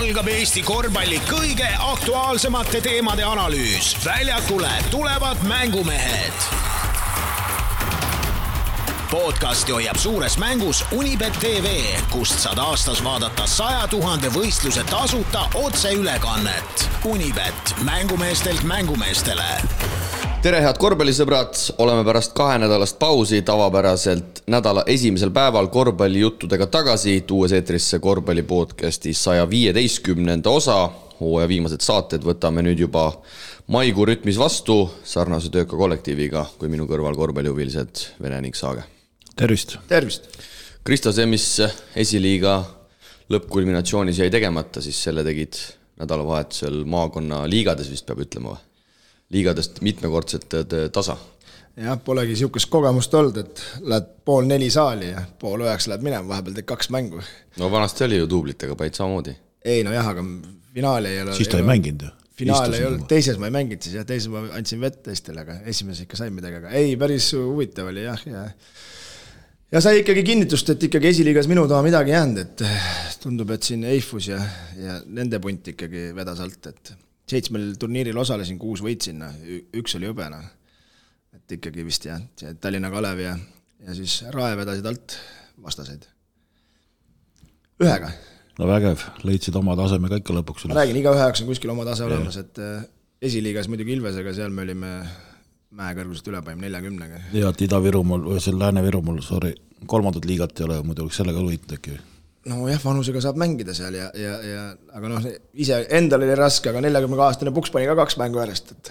algab Eesti korvpalli kõige aktuaalsemate teemade analüüs. Väljakule tulevad mängumehed. Podcasti hoiab suures mängus Unibet TV, kust saad aastas vaadata 100 000 võistluse tasuta otseülekannet. Unibet, mängumeestelt mängumeestele. Tere, head korvpallisõbrad! Oleme pärast 2 nädalast pausi tavapäraselt nädala esimesel päeval korvpallijuttudega tagasi, tuues eetrisse korvpallipodcasti 115. osa. Hooaja viimased saated võtame nüüd juba maikuu rütmis vastu sarnase tööka kollektiiviga kui minu kõrval korvpallihuvilised Vene ning Saage. Tervist! Tervist! Kristo, see, mis esiliiga lõppkulminatsioonis jäi tegemata, siis selle tegid nädalavahetusel maakonna liigades, vist peab ütlema või? Liigadest mitmekordset tasa. Jah, polegi siukest kogemust olnud, et lähed 8:30 saali ja 8:30 lähed minema, vahepeal teed 2 mängu. No vanasti oli ju duublitega päid samamoodi. Ei, no jah, aga finaali ei ole. Siis ta ei mänginud ju. Finaal ei olnud, teises ma ei mänginud siis ja teises ma andsin vett teistele, aga esimeses ikka sain midagi, aga ei, päris huvitav oli jah. Ja sai ikkagi kinnitust, et ikkagi esiliigas minu taha midagi jäänud, et tundub, et siin Eifus ja nende punt ikkagi vedas alt, et 7 turniiril osalesin, 6 võitsin, 1 oli õbena. Et ikkagi vist jah, Tallinna Kalev ja siis Rae vedasid alt vastaseid. 1. No vägev, leidsid oma taseme ka ikka lõpuks. Ma räägin, iga 9 on kuskil oma tase olemas, et esiliigas muidugi Ilvesega, seal me olime mäekõrgusest ülepaim 40-ga. Ja, et Ida-Virumaal või seal Lääne-Virumaal, 3. liigat ei ole, muidu oleks sellega võitnud äkki. No jah, vanusega saab mängida seal aga noh, ise endal oli raske, aga 40-aastane Puks pani ka 2 mängu järjest, et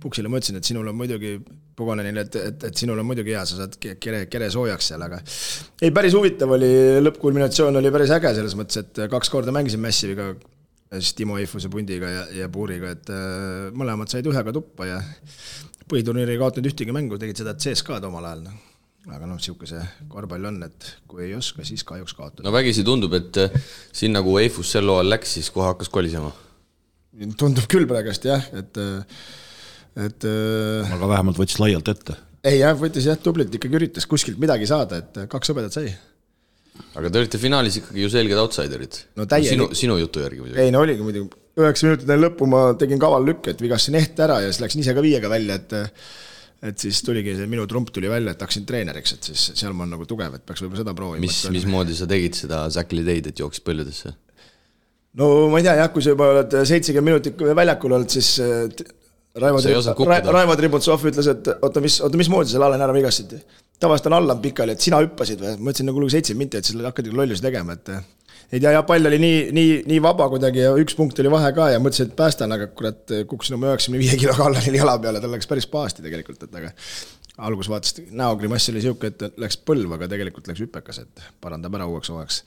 Puksile ma ütlesin, et sinul on muidugi Pogonenile, et sinul on muidugi hea, sa saad kere soojaks seal, aga ei, päris huvitav oli, lõppkulminatsioon oli päris äge selles mõttes, et 2 korda mängisin Massiviga, siis Timo Eifuse pundiga ja Puuriga, et mõlemad said 1 tuppa ja põhiturniiri ei kaotanud ühtegi mängu, tegid seda CSK'd omal ajal. Aga noh, siuke see korvpall on, et kui ei oska, siis kahjuks kaotada. No vägisi tundub, et siin nagu Eifus sel loal läks, siis kohe hakkas kolisema. Tundub küll praegust jah, et aga vähemalt võttis laialt ette. Ei jah, võttis jah, tublit ikkagi üritas kuskilt midagi saada, et 2 õbedat sai. Aga te olite finaalis ikkagi ju selged outsiderid. No sinu jutu järgi muidugi. Ei, no oligi muidugi. 9 minutit lõppu ma tegin kaval lükke, et vigasin ehte ära ja siis läksin ise ka 5-ga välja, et siis tuligi see minu trump tuli välja, et hakkasin treeneriks, et siis seal ma on nagu tugev, et peaks võib-olla seda proovima. Mis moodi sa tegid seda Säkli teid, et jooksid põlludesse? No ma ei tea, jah, kui sa juba oled 70 minutit väljakul olnud, siis Raivo Tributsov ütles, et oota, mis moodi selle Allen ära vigasid? Tavaliselt on Allan pikali, et sina hüppasid või? Ma ütlesin nagu 7 minutit, et selle hakkadi lollusi tegema, et ei tea, ja pall oli nii vaba kuidagi ja 1 punkt oli vahe ka ja mõtlesin, et päästan, aga kurat kukkusin oma 95 kiloga Allanil jala peale, tal läks päris pahasti tegelikult, et aga algus vaatas, näogrimass oli siuke, et läks põlv, aga tegelikult läks hüpekas, et parandab ära uueks hooajaks.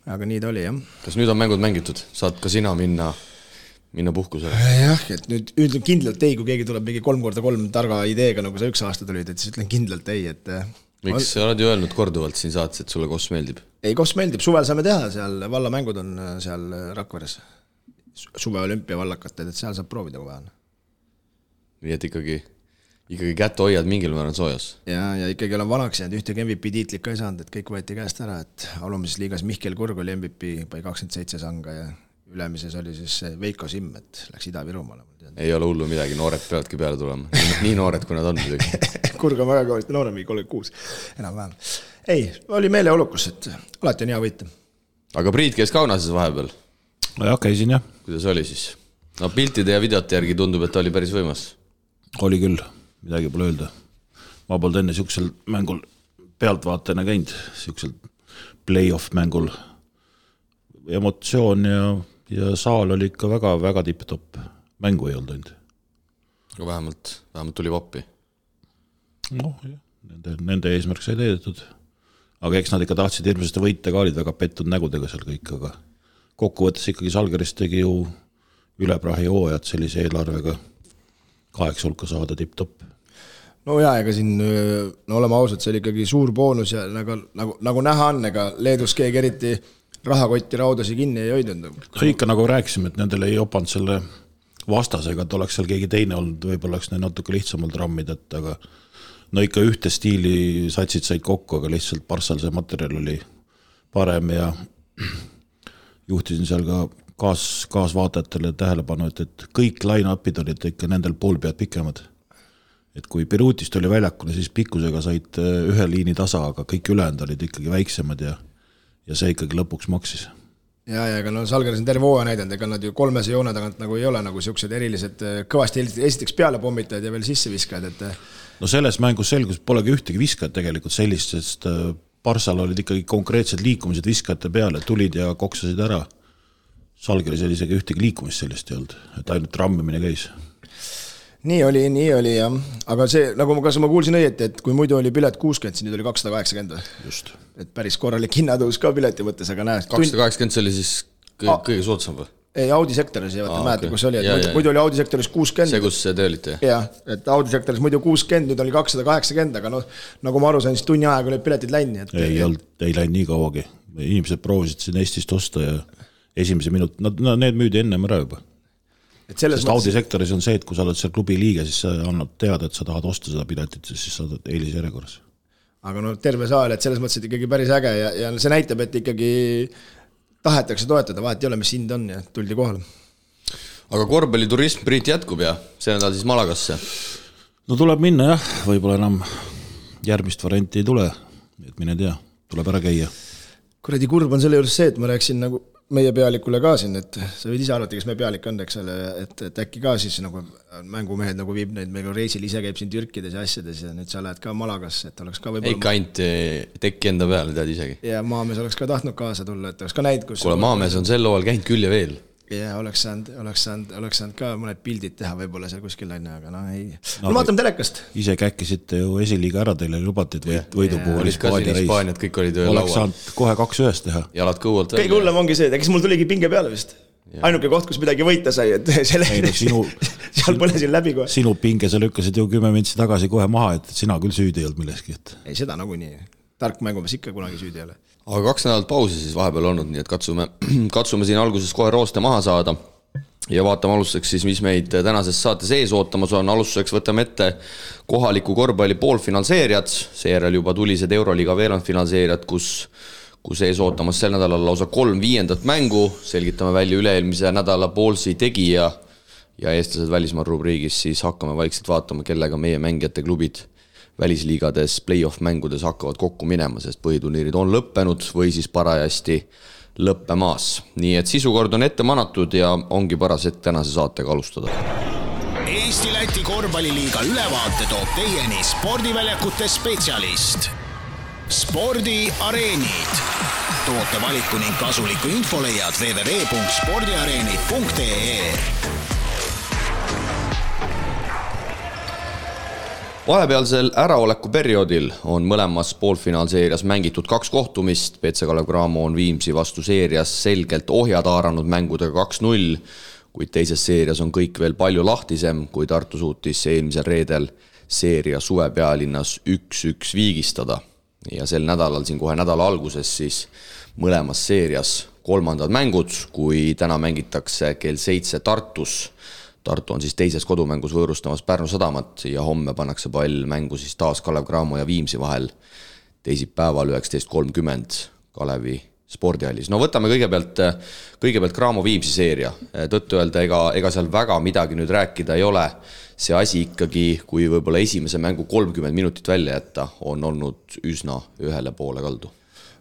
Aga nii ta oli, jah. Kas nüüd on mängud mängitud? Saad ka sina minna puhkusele? Jah, et nüüd ütlen kindlalt ei, kui keegi tuleb mingi 3x3 targa ideega, nagu sa 1 aasta tulid, et siis ütlen kindlalt ei, et miks sa oled ju öelnud korduvalt siin saates, et sulle Koss meeldib? Ei, Koss meeldib, suvel saame teha, seal vallamängud on seal Rakveres. Suve olümpia vallakated, et seal saab proovida kui vaja. Nii et ikkagi kätte hoiad mingil määral soojas. Ja ikkagi olen vanaks jäänud, ühtegi MVP tiitlit ka ei saanud, et kõik võeti käest ära, et alumises liigas Mihkel Kurg oli MVP, pai 27 sanga ja ülemises oli siis Veiko Simm, et läks Ida-Virumaale. Ei ole hullu midagi, noored peavadki peale tulema. Nii noored, kui nad on muidugi. Kurg on väga kõvasti noorem, 36, enam vähem. Ei, oli meeleolukus, et alati on hea võita. Aga Priit käis Kaunases vahepeal? No jah, käisin jah. Kuidas oli siis? No piltide ja videote järgi tundub, et oli päris võimas. Oli küll, midagi pole öelda. Ma polnud enne siuksel mängul pealtvaatajana käinud, siuksel play-off mängul. Emotsioon ja saal oli ikka väga tipp-topp. Mängu ei olnud ainult. Aga vähemalt tuli vappi. Noh, jah, nende eesmärk sai teedetud. Aga eks nad ikka tahtsid hirmsasti võita ka, olid väga pettud nägudega seal kõik, aga kokkuvõttes ikkagi Salgerist tegi ju üleprahi hooajad sellise eelarvega 8 hulka saada tipp-topp. No jaa, ega siin, oleme ausad, see oli ikkagi suur boonus ja nagu näha on, ega Leedus keegi eriti rahakotti raudasi kinni ei hoidnud. Ikka nagu rääkisime, et nendel ei opanud selle vastasega, et oleks seal keegi teine olnud, võib-olla oleks neil natuke lihtsamalt rammid, et aga no ikka ühte stiili satsid said kokku, aga lihtsalt Parssal see materjal oli parem ja juhtisin seal ka kaasvaatajatele tähelepanu, et kõik line-upid olid ikka nendel pool pead pikemad. Et kui Birutist oli väljakule, siis pikkusega said ühe liini tasa, aga kõik ülejäänud olid ikkagi väiksemad ja see ikkagi lõpuks maksis. Ja, aga no Salgeris on terve hooaja näidanud, ega nad ju 300 joone tagant nagu ei ole nagu siuksed erilised kõvasti esiteks peale pommitajad ja veel sisse viskajad, et no selles mängus selgus, polegi ühtegi viskajat tegelikult sellist, sest Parsal olid ikkagi konkreetsed liikumised viskajate peale, tulid ja koksasid ära. Salgeris oli isegi ühtegi liikumist sellist ei olnud, et ainult rammimine käis. Nii oli jah, aga see, nagu ma kuulsin õieti, et kui muidu oli pilet 60, siis nüüd oli 280. Just. Et päris korralik hinnatõus ka pileti mõttes, aga näe. 280 see oli siis kõige soodsam või? Ei, Audi sektoris ei mäeta, kus oli, et muidu oli Audi sektoris 60. See, kus te olite? Jah, et Audi sektoris muidu 60, nüüd oli 280, aga nagu ma aru sain, siis tunni aega olid piletid länni. Ei läinud nii kauagi. Inimesed proovisid siin Eestist osta ja esimese minut, need müüdi ennem ära juba. Sest Audi sektoris on see, et kui sa oled seal klubi liige, siis sa annad teada, et sa tahad osta seda piletit, siis sa oled eelisjärjekorras. Aga terve saal, et selles mõttes, et ikkagi päris äge ja see näitab, et ikkagi tahetakse toetada, vahet ei ole, mis hind on ja tuldi kohale. Aga korvpalliturism Priit jätkub ja see nädal siis Malagasse? No tuleb minna jah, võib-olla enam järgmist varianti ei tule, et mine tea, tuleb ära käia. Kuradi kurb on selle juures see, et ma rääksin nagu meie pealikule ka siin, et sa võid ise arvata, kes meie pealik on, eks ole, et äkki ka siis nagu mängumehed nagu viib neid, meil reisil ise käib siin Türkides ja asjades ja nüüd sa lähed ka Malagasse, et oleks ka võib-olla... Ikka ainult tekki enda peale, tead isegi. Ja maamees oleks ka tahtnud kaasa tulla, et oleks ka näid, kus... Kuule, maamees on sel loal käinud küll ja veel. Ja oleks saanud ka mõned pildid teha võib-olla seal kuskil aine, aga ei. No vaatame telekast. Ise käkkisite ju esiliiga ära teile lubatid võidu puhul Hispaaniat, kõik olid laual. Oleks saanud kohe 2-1 teha. Jalad kõualt välja. Kõige hullem ongi see, kes mul tuligi pinge peale vist. Ainuke koht, kus midagi võita sai, et seal põlesin läbi kohe. Sinu pinge sa lükkasid ju 10 mintsi tagasi kohe maha, et sina küll süüdi ei olnud milleski. Ei, seda nagu nii. Tark mängumees ikka kunagi süüdi ei ole. Aga 2 nädalat pausi siis vahepeal olnud, nii et katsume siin alguses kohe rooste maha saada ja vaatame alustuseks siis, mis meid tänases saates ees ootamas on. Alustuseks võtame ette kohaliku korvpalli poolfinaalseeriad, seejärel juba tulised Euroliiga veerandfinaalseeriad, kus ees ootamas sel nädalal lausa 3 viiendat mängu, selgitame välja üle-eelmise nädala poolsi tegija ja eestlased välismaal rubriigis, siis hakkame vaikselt vaatama, kellega meie mängijate klubid välisliigades play-off mängudes hakkavad kokku minema, sest põhiturniirid on lõppenud või siis parajasti lõppemaas. Nii et sisukord on ette manatud ja ongi paras hetk tänase saatega alustada. Eesti-Läti korvpalliliiga ülevaate toob teieni spordiväljakute spetsialist. Spordiareenid. Toote valiku ning kasuliku info leiad www.spordiareenid.ee. Vahepealsel äraoleku perioodil on mõlemas poolfinaalseerias mängitud 2 kohtumist. PC Kalev Cramo on Viimsi vastu seerias selgelt ohjad haaranud mängudega 2-0, kuid teises seerias on kõik veel palju lahtisem, kui Tartu suutis eelmisel reedel seeria Suvepealinnas 1-1 viigistada. Ja sel nädalal, siin kohe nädala alguses, siis mõlemas seerias 3. mängud, kui täna mängitakse kell 7 Tartus. Tartu on siis teises kodumängus võõrustamas Pärnu Sadamat ja homme pannakse pall mängu siis taas Kalev Cramo ja Viimsi vahel teisipäeval 19.30 Kalevi spordihallis. No võtame kõigepealt Cramo Viimsi seeria. Tõttu öelda, ega seal väga midagi nüüd rääkida ei ole. See asi ikkagi, kui võib-olla esimese mängu 30 minutit välja jätta, on olnud üsna ühele poole kaldu.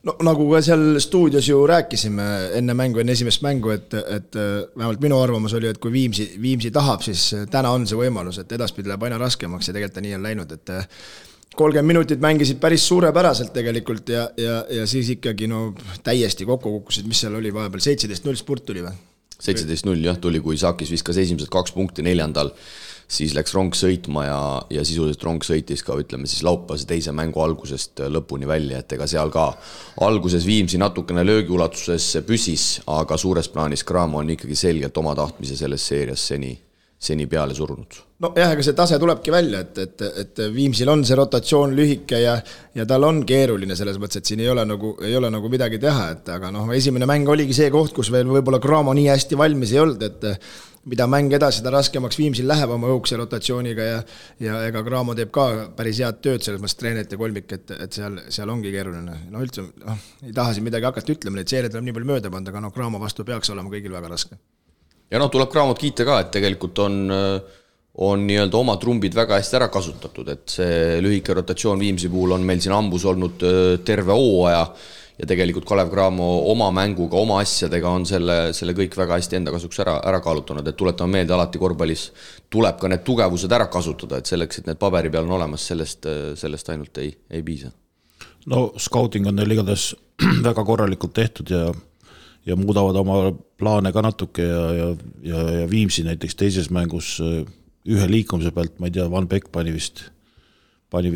No nagu ka seal stuudios ju rääkisime enne esimest mängu, et vähemalt minu arvamus oli, et kui Viimsi tahab, siis täna on see võimalus, et edaspidi läheb aina raskemaks ja tegelikult nii on läinud, et 30 minutit mängisid päris suurepäraselt tegelikult ja siis ikkagi täiesti kokku kukkusid, mis seal oli vahepeal, 17-0 spurt tuli või? 17-0 jah, tuli, kui Sakis viskas esimesed 2 punkti 4. Siis läks rong sõitma ja sisuliselt rong sõitis ka, ütleme siis laupäevase teise mängu algusest lõpuni välja, et ega seal ka alguses Viimsi natukene löögiulatuses püsis, aga suures plaanis Cramo on ikkagi selgelt oma tahtmise selles seerias seni peale surunud. No jah, ega see tase tulebki välja, et Viimsil on see rotatsioon lühike ja tal on keeruline selles mõttes, et siin ei ole nagu midagi teha, et aga esimene mäng oligi see koht, kus veel võib-olla Cramo nii hästi valmis ei olnud, mida mäng edasi, seda raskemaks Viimsil läheb oma õhukese rotatsiooniga ja ega Graamo teeb ka päris head tööd selles mõttes treenerite kolmik, et seal ongi keeruline. No üldse, ei taha siin midagi hakata ütlema, neid seeriad tuleb nii palju mööda panda, aga Graamo vastu peaks olema kõigil väga raske. Ja tuleb Graamot kiita ka, et tegelikult on nii-öelda oma trumbid väga hästi ära kasutatud, et see lühike rotatsioon Viimsi puhul on meil siin ambus olnud terve hooaja ja tegelikult Kalev Cramo oma mänguga, oma asjadega on selle kõik väga hästi enda kasuks ära kaalutanud, et tuletame meelde, alati korvpallis tuleb ka need tugevused ära kasutada, et selleks, et need paberi peal on olemas, sellest ainult ei piisa. No scouting on neil igatahes väga korralikult tehtud ja muudavad oma plaane ka natuke ja Viimsi näiteks teises mängus ühe liikumise pealt, ma ei tea, Van Beck pani vist 3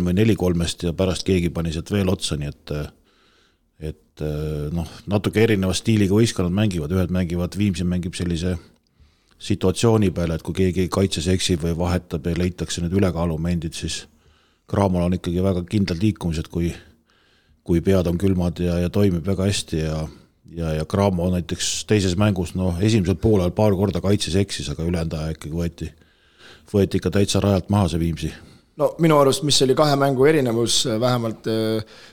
või 4 kolmest ja pärast keegi pani sealt veel otsa, nii et natuke erineva stiiliga võistkonnad mängivad, ühed mängivad, Viimsi mängib sellise situatsiooni peale, et kui keegi kaitses eksib või vahetab ja leitakse need ülekaalumendid, siis Cramol on ikkagi väga kindlad liikumised, kui pead on külmad ja toimib väga hästi ja Cramo näiteks teises mängus, esimesel poolel paar korda kaitses eksis, aga ülejäänud aja ikkagi võeti ikka täitsa rajalt maha see Viimsi. No minu arust, mis oli 2 mängu erinevus vähemalt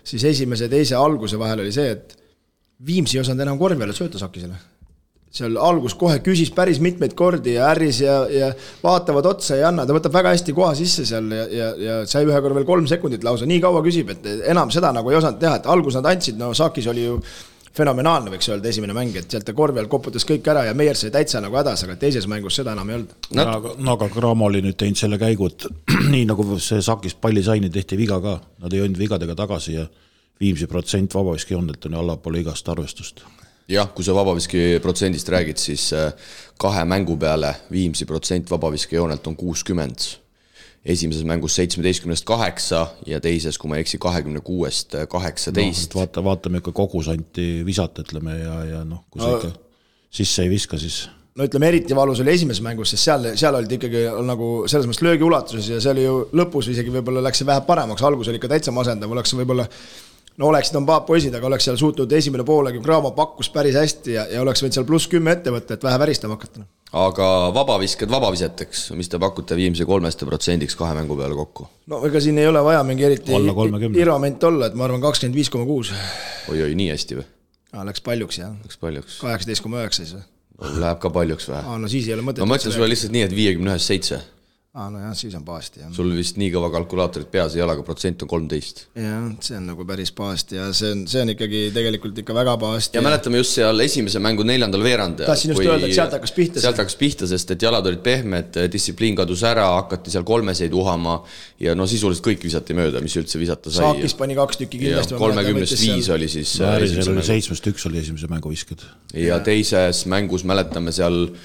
siis esimese ja teise alguse vahel oli see, et Viimsi ei osanud enam korvi alla sööta Sakisele. Seal algus kohe küsis päris mitmeid kordi ja ärris ja vaatavad otsa ja anna, ta võtab väga hästi koha sisse seal ja sai ühe korra veel 3 sekundit lausa, nii kaua küsib, et enam seda nagu ei osanud teha, et algus nad andsid, Sakis oli ju fenomenaalne, võiks öelda, esimene mäng, et sealt korvi all koputas kõik ära ja Meier sai täitsa nagu hädas, aga teises mängus seda enam ei olnud. Aga Cramo oli nüüd teinud selle käigu, et nii nagu see Sakis palli saini tehti viga ka, nad ei olnud vigadega tagasi ja Viimsi protsent vabaviski joonelt on allapoole igast arvestust. Jah, kui sa vabaviski protsendist räägid, siis 2 mängu peale Viimsi protsent vabaviski joonelt on 60. Esimeses mängus 17-8 ja teises, kui ma eksi, 26-18. Vaatame ikka kogusanti visata, ütleme, ja kui sa ikka sisse ei viska, siis... No ütleme, eriti valus oli esimeses mängus, sest seal olid ikkagi nagu selles mõttes löögi ulatuses ja see oli ju lõpus isegi võib-olla läks see vähe paremaks, algus oli ikka täitsa masendav, oleks võib-olla oleksid on poisid, aga oleks seal suutnud esimene poolegi, Cramo pakkus päris hästi ja oleks võinud seal +10 ette võtta, et vähe väristama hakata. Aga vabavisked vabaviseteks, mis te pakute Viimsi 3% 2 mängu peale kokku? No ega siin ei ole vaja mingi eriti irvament olla, et ma arvan 25,6. Oi, nii hästi või? Läks paljuks, jah. Läks paljuks. 18,9 siis või? Läheb ka paljuks vähe. No siis ei ole mõtet. Ma mõtlen sulle lihtsalt nii, et 51-7. No jah, siis on paasti. Jah. Sul vist nii kõva kalkulaatorid peas ei ole, aga protsent on 13. Jah, see on nagu päris paasti ja see on ikkagi tegelikult ikka väga paasti. Ja mäletame just seal esimese mängu 4. veerand. Tahtsin just öelda, et sealt hakkas pihta. Sest et jalad olid pehmed, distsipliin kadus ära, hakati seal kolmeseid uhama ja sisuliselt kõik visati mööda, mis üldse visata sai. Saakis pani 2 tükki kindlasti. 30-5 oli siis... 7-1 oli esimese mängu visked. Ja teises mängus mäletame seal...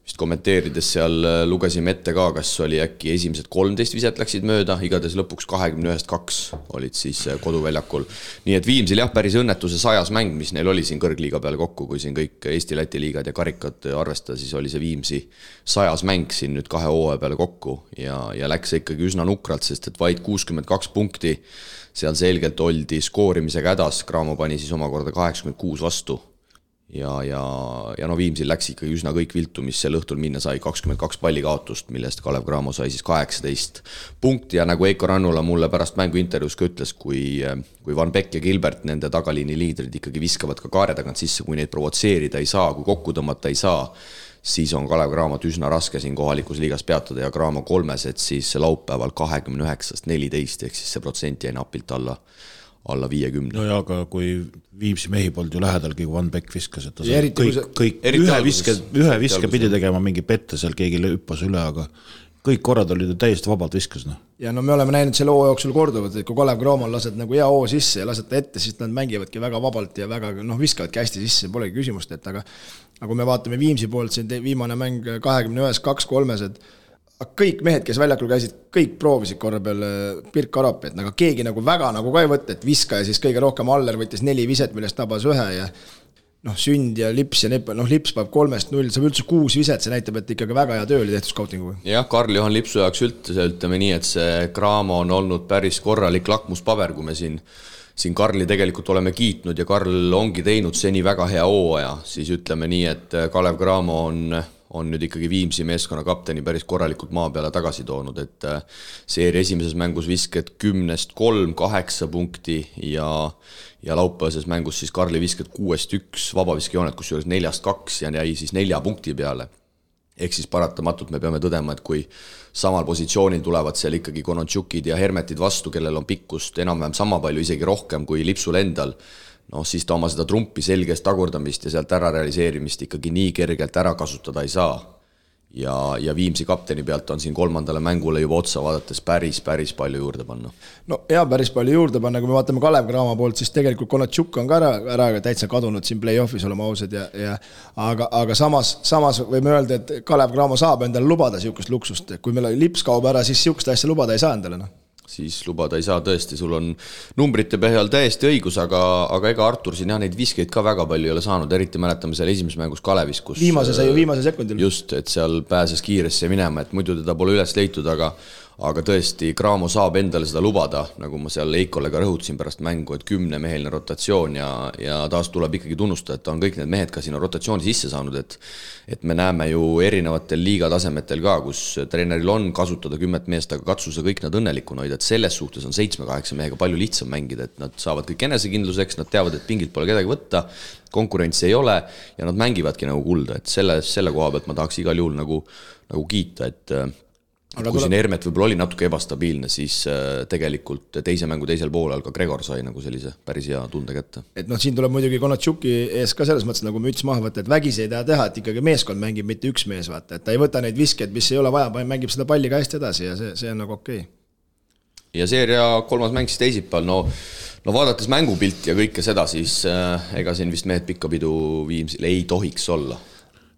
Vist kommenteerides seal lugesime ette ka, kas oli äkki esimesed 13 viset läksid mööda, igades lõpuks 21-2 olid siis koduväljakul. Nii et Viimsil jah, päris õnnetuse 100 mäng, mis neil oli siin kõrgliiga peal kokku, kui siin kõik Eesti-Läti liigad ja karikad arvestada, siis oli see Viimsi 100 mäng siin nüüd 2 hooaja peale kokku ja läks ikkagi üsna nukralt, sest et vaid 62 punkti seal selgelt oldi skoorimisega hädas, Cramo pani siis omakorda 86 vastu. Ja Viimsil läks ikkagi üsna kõik viltu, mis sel õhtul minna sai 22 palli kaotust, millest Kalev Cramo sai siis 18 punkti ja nagu Eiko Rannula mulle pärast mängu intervjuus ka ütles, kui Van Beck ja Gilbert, nende tagaliini liidrid ikkagi viskavad ka kaare tagant sisse, kui neid provotseerida ei saa, kui kokku tõmmata ei saa, siis on Kalev Cramot üsna raske siin kohalikus liigas peatada ja Cramo 3, et siis laupäeval 29-14, ehk siis see protsent jäi napilt alla 50. No ja, aga kui Viimsi mehi polnud ju lähedalgi, kui Van Beck viskas, et kõik ühe viske pidi tegema mingi pette, seal keegi hüppas üle, aga kõik korrad olid täiesti vabalt viskas. Ja me oleme näinud selle hoo jooksul korduvad, et kui Kalev Cramol lased nagu hea hoo sisse ja lased ta ette, siis nad mängivadki väga vabalt ja väga viskavadki hästi sisse, polegi küsimust, et aga kui me vaatame Viimsi poolt, siin viimane mäng 21-2-3, kõik mehed, kes väljakul käisid, kõik proovisid korra peal Pirk Arapi, et keegi väga ka ei võtta, et viska ja siis kõige rohkem Aller võttis 4 viset, millest tabas 1 ja Sünd ja Lips ja Lips paneb 3-0, saab üldse 6 viset, see näitab, et ikkagi väga hea töö oli tehtud scoutingu. Jah, Karl-Johan Lipsu jaoks ütleme nii, et see Cramo on olnud päris korralik lakmuspaber, kui me siin Karli tegelikult oleme kiitnud ja Karl ongi teinud seni väga hea hooaja, siis ütleme nii, et Kalev Cramo on nüüd ikkagi Viimsi meeskonna kapteni päris korralikult maa peale tagasi toonud, et seeria esimeses mängus visked 10-3, 8 punkti ja laupäevases mängus siis Karli visked 6-1, vabaviskejoonet kusjuures 4-2 ja jäi siis 4 punkti peale. Ehk siis paratamatult me peame tõdema, et kui samal positsioonil tulevad seal ikkagi Konontšukid ja Hermetid vastu, kellel on pikkust enam-vähem sama palju, isegi rohkem kui Lipsul endal, siis ta oma seda trumpi selgest tagurdamist ja sealt ära realiseerimist ikkagi nii kergelt ära kasutada ei saa. Ja Viimsi kapteni pealt on siin 3. mängule juba otsa vaadates päris palju juurde panna. No ja päris palju juurde panna, kui me vaatame Kalev Cramo poolt, siis tegelikult Konontšuk on ka ära täitsa kadunud siin play-offis olema ausad aga samas võime öelda, et Kalev Cramo saab endale lubada siukest luksust, kui meil Lips kaob ära, siis siukest asja lubada ei saa endale, siis lubada ei saa tõesti, sul on numbrite põhjal täiesti õigus, aga ega Artur siin neid viskeid ka väga palju ei ole saanud, eriti mäletame seal esimeses mängus Kalevis, kus viimase sekundil. Just, et seal pääses kiiresti minema, et muidu teda pole üles leitud, aga tõesti Cramo saab endale seda lubada, nagu ma seal Eikole ka rõhutasin pärast mängu, et 10-meheline rotatsioon ja taas tuleb ikkagi tunnustada, et ta on kõik need mehed ka siin rotatsiooni sisse saanud, et me näeme ju erinevatel liigatasemetel ka, kus treeneril on kasutada 10 meest, aga katsuse kõik nad õnnelikuna hoida, et selles suhtes on 7-8 mehega palju lihtsam mängida, et nad saavad kõik enesekindluseks, nad teavad, et pingilt pole kedagi võtta, konkurentsi ei ole ja nad mängivadki nagu kulda, et selle koha pealt ma tahaks igal juhul nagu kiita, et kui siin Hermet võib-olla oli natuke ebastabiilne, siis tegelikult teise mängu teisel poolel ka Gregor sai nagu sellise päris hea tunde kätte. Et siin tuleb muidugi Konontšuki ees ka selles mõttes nagu müts maha võtta, et vägisi ei taha teha, et ikkagi meeskond mängib mitte üks mees, vaata, et ta ei võta neid viskeid, mis ei ole vaja, mängib seda palli ka hästi edasi ja see on nagu okei. Ja seeria 3. mäng siis teisipäeval, no vaadates mängupilti ja kõike seda, siis ega siin vist mehed pikkapidu Viimsil ei tohiks olla.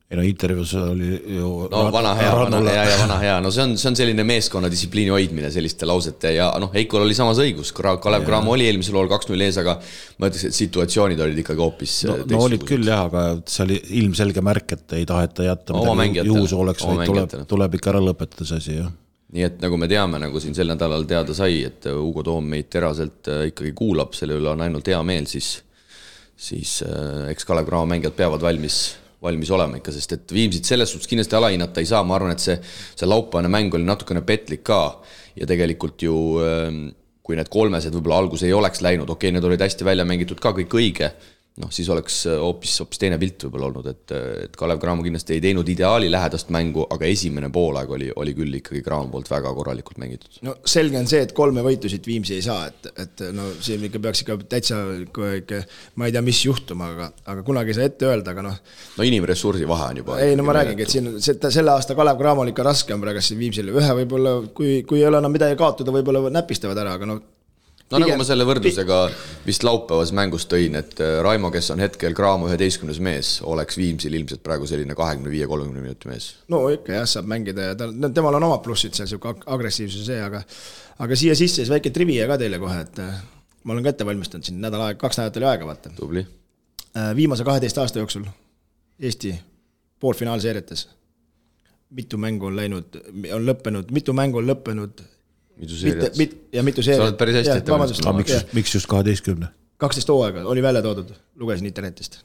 Ei intervjuus oli ju vana hea, no see on selline meeskonna distsipliini hoidmine selliste lausete ja Eikol oli samas õigus, Kalev Cramo oli eelmisel lool 2-0 ees, aga ma ütleks, et situatsioonid olid ikkagi hoopis no olid küll jah, aga see oli ilmselge märk, et ei taheta jätta midagi juhus oleks, vaid tuleb ikka ära lõpetada see asi, jah. Nii et nagu me teame, nagu siin sel nädalal teada sai, et Ugo Toom meid teraselt ikkagi kuulab, selle üle on ainult hea meel, siis eks Kalev Cramo mängijad peavad valmis olema ikka, sest et Viimsit selles suhtes kindlasti alahinnata ei saa, ma arvan, et see laupäevane mäng oli natukene petlik ka ja tegelikult ju kui need kolmesed võib-olla algus ei oleks läinud, okei, need olid hästi välja mängitud ka kõik õige, siis oleks hoopis teine pilt võib-olla olnud, et Kalev Cramo kindlasti ei teinud ideaali lähedast mängu, aga esimene poolaeg oli küll ikkagi Cramo poolt väga korralikult mängitud. No selge on see, et 3 võitu siit Viimsi ei saa, et siin ikka peaks ikka täitsa, ma ei tea, mis juhtuma, aga kunagi ei saa ette öelda, aga No inimressursi vahe on juba. Ei, ma räägingi, et siin selle aasta Kalev Cramo oli ikka raske on praegu siin Viimsile. Ühe võib-olla, kui ei ole enam midagi kaotada, võib-olla näpistavad ära, aga nagu ma selle võrdlusega vist laupäevas mängus tõin, et Raimo, kes on hetkel Cramo 11. mees, oleks Viimsil ilmselt praegu selline 25-30 minuti mees. No ikka jah, saab mängida ja temal on oma plussid seal, siuke agressiivsus see, aga siia sisse siis väike trivia ka teile kohe, et ma olen ka ette valmistanud siin 2 nädalat oli aega, vaata. Tubli. Viimase 12 aasta jooksul Eesti poolfinaalseeriates mitu mängu on lõppenud mitu seeriat. Ja mitu seeriat. Sa oled päris hästi ette valmistanud. Miks just 12? 12 hooaega oli välja toodud, lugesin internetist.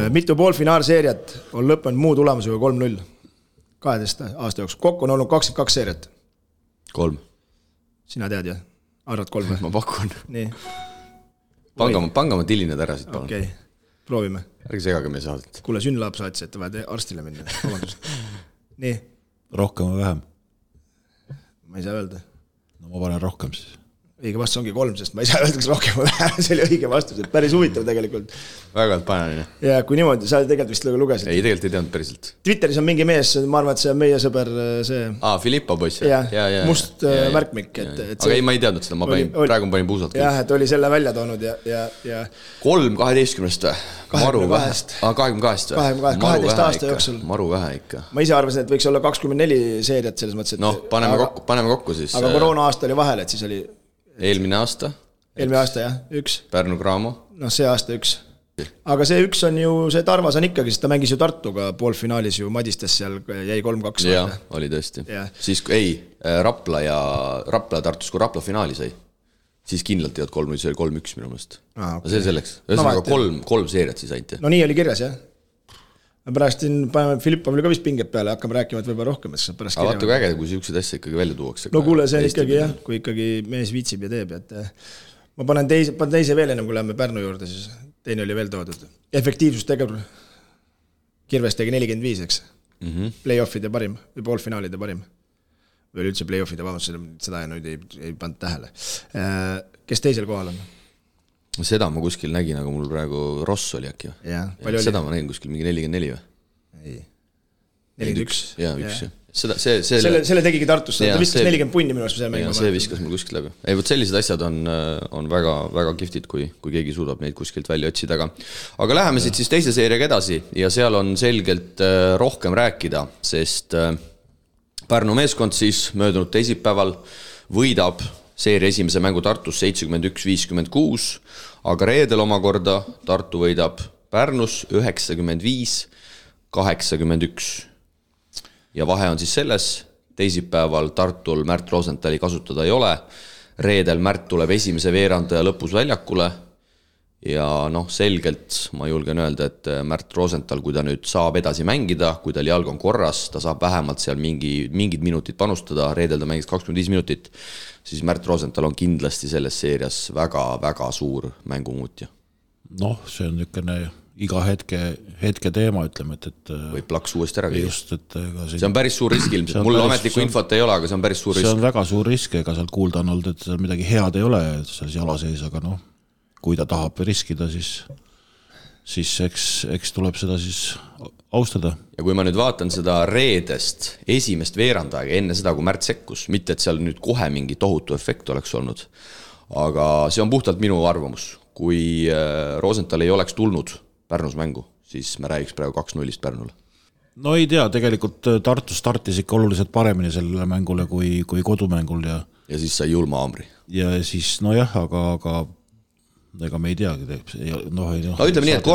Mitu poolfinaalseeriat on lõppenud muu tulemusega 3-0 12 aasta jooksul. Kokku on olnud 22 seeriat. 3. Sina tead jah? Arvad 3 või? Ma pakun. Nii. Panga ma tillined ära siit palun. Okei, proovime. Ärge segage meie saadet. Kuule, Sünnlaab saatis, et vaja arstile minna. Nii. Rohkem või vähem? Ma ei saa öelda. No ma panen rohkem siis. Õige vastus ongi 3, sest ma ei saa öelda, kas rohkem või vähem, see oli õige vastus, et päris huvitav tegelikult. Väga panen. Ja kui niimoodi, sa tegelikult vist lugesid. Ei, tegelikult ei teadnud päriselt. Twitteris on mingi mees, ma arvan, et see on meie sõber see... Filippo poiss. Must märkmik. Aga ei, ma ei teadnud seda, ma praegu panin puusalt. Jah, et oli selle välja toonud ja 3-12 maru vähe. 22 või? 12 aasta jooksul. Maru vähe ikka. Ma ise arvasin, et võiks olla 24 seeriat selles mõttes, et... paneme kokku siis. Aga koroona aasta oli vahel, et siis oli... Eelmine aasta, jah, 1. Pärnu Cramo. See aasta 1. Aga see 1 on ju, see Tarvas on ikkagi, sest ta mängis ju Tartuga poolfinaalis ju Madistes seal jäi 3-2. Jah, oli tõesti. Siis Rapla ja Tartus, kui Rapla finaali sai, siis kindlalt jääd 3-0, see oli 3-1 minu meelest. See selleks. Ühesõnaga 3 seeriat siis ainult. No nii oli kirjas, jah. Pärast paneme Filippovile ka vist pinget peale, hakkame rääkima, et võib-olla rohkem, et pärast aga vaata kui äge, kui siuksed asja ikkagi välja tuuakse. No kuule, see on ikkagi jah, kui ikkagi mees viitsib ja teeb, et ma panen teise veel ennem, kui läheme Pärnu juurde, siis teine oli veel toodud. Efektiivsus tegevul. Kirves tegi 45, eks. Playoffide parim või poolfinaalide parim. Või üldse playoffide, seda nüüd ei pannud tähele. Kes teisel kohal on? Seda ma kuskil nägin, aga mul praegu Ross oli äkki. Seda ma nägin kuskil mingi 44 või? Ei. 41. Jaa, üks. Selle tegigi Tartusse, ta viskas 40 punni minu arust. See viskas mul kuskilt läbi. Ei, võt sellised asjad on väga, väga kiftid, kui keegi suudab neid kuskilt välja otsida. Aga läheme siit siis teise seeriaga edasi ja seal on selgelt rohkem rääkida, sest Pärnu meeskond siis möödunud teisipäeval võidab seeria esimese mängu Tartus 71-56, aga reedel omakorda Tartu võidab Pärnus 95-81. Ja vahe on siis selles, teisipäeval Tartul Märt Rosenthali kasutada ei ole, reedel Märt tuleb esimese veerandaja lõpus väljakule ja selgelt ma julgen öelda, et Märt Rosenthal, kui ta nüüd saab edasi mängida, kui tal jalg on korras, ta saab vähemalt seal mingid minutid panustada, reedel ta mängis 25 minutit, siis Märt Rosenthal on kindlasti selles seerias väga-väga suur mängumuutja. See on niisugune iga hetke teema, ütleme, et või plaks uuesti ära. Just, et see on päris suur risk ilmselt, mul ametlikku infot ei ole, aga see on päris suur risk. See on väga suur risk, ega seal kuulda on olnud, et seal midagi head ei ole seal jala sees, aga kui ta tahab riskida, siis eks tuleb seda siis austada. Ja kui ma nüüd vaatan seda reedest esimest veerandaega enne seda, kui Märt sekkus, mitte et seal nüüd kohe mingi tohutu efekt oleks olnud, aga see on puhtalt minu arvamus. Kui Rosenthal ei oleks tulnud Pärnus mängu, siis me räägiks praegu 2-0 Pärnule. No ei tea, tegelikult Tartu startis ikka oluliselt paremini sellele mängule kui kodumängul. Ja siis sai julma haamri. Ja siis, aga ega me ei teagi. Ütleme nii, et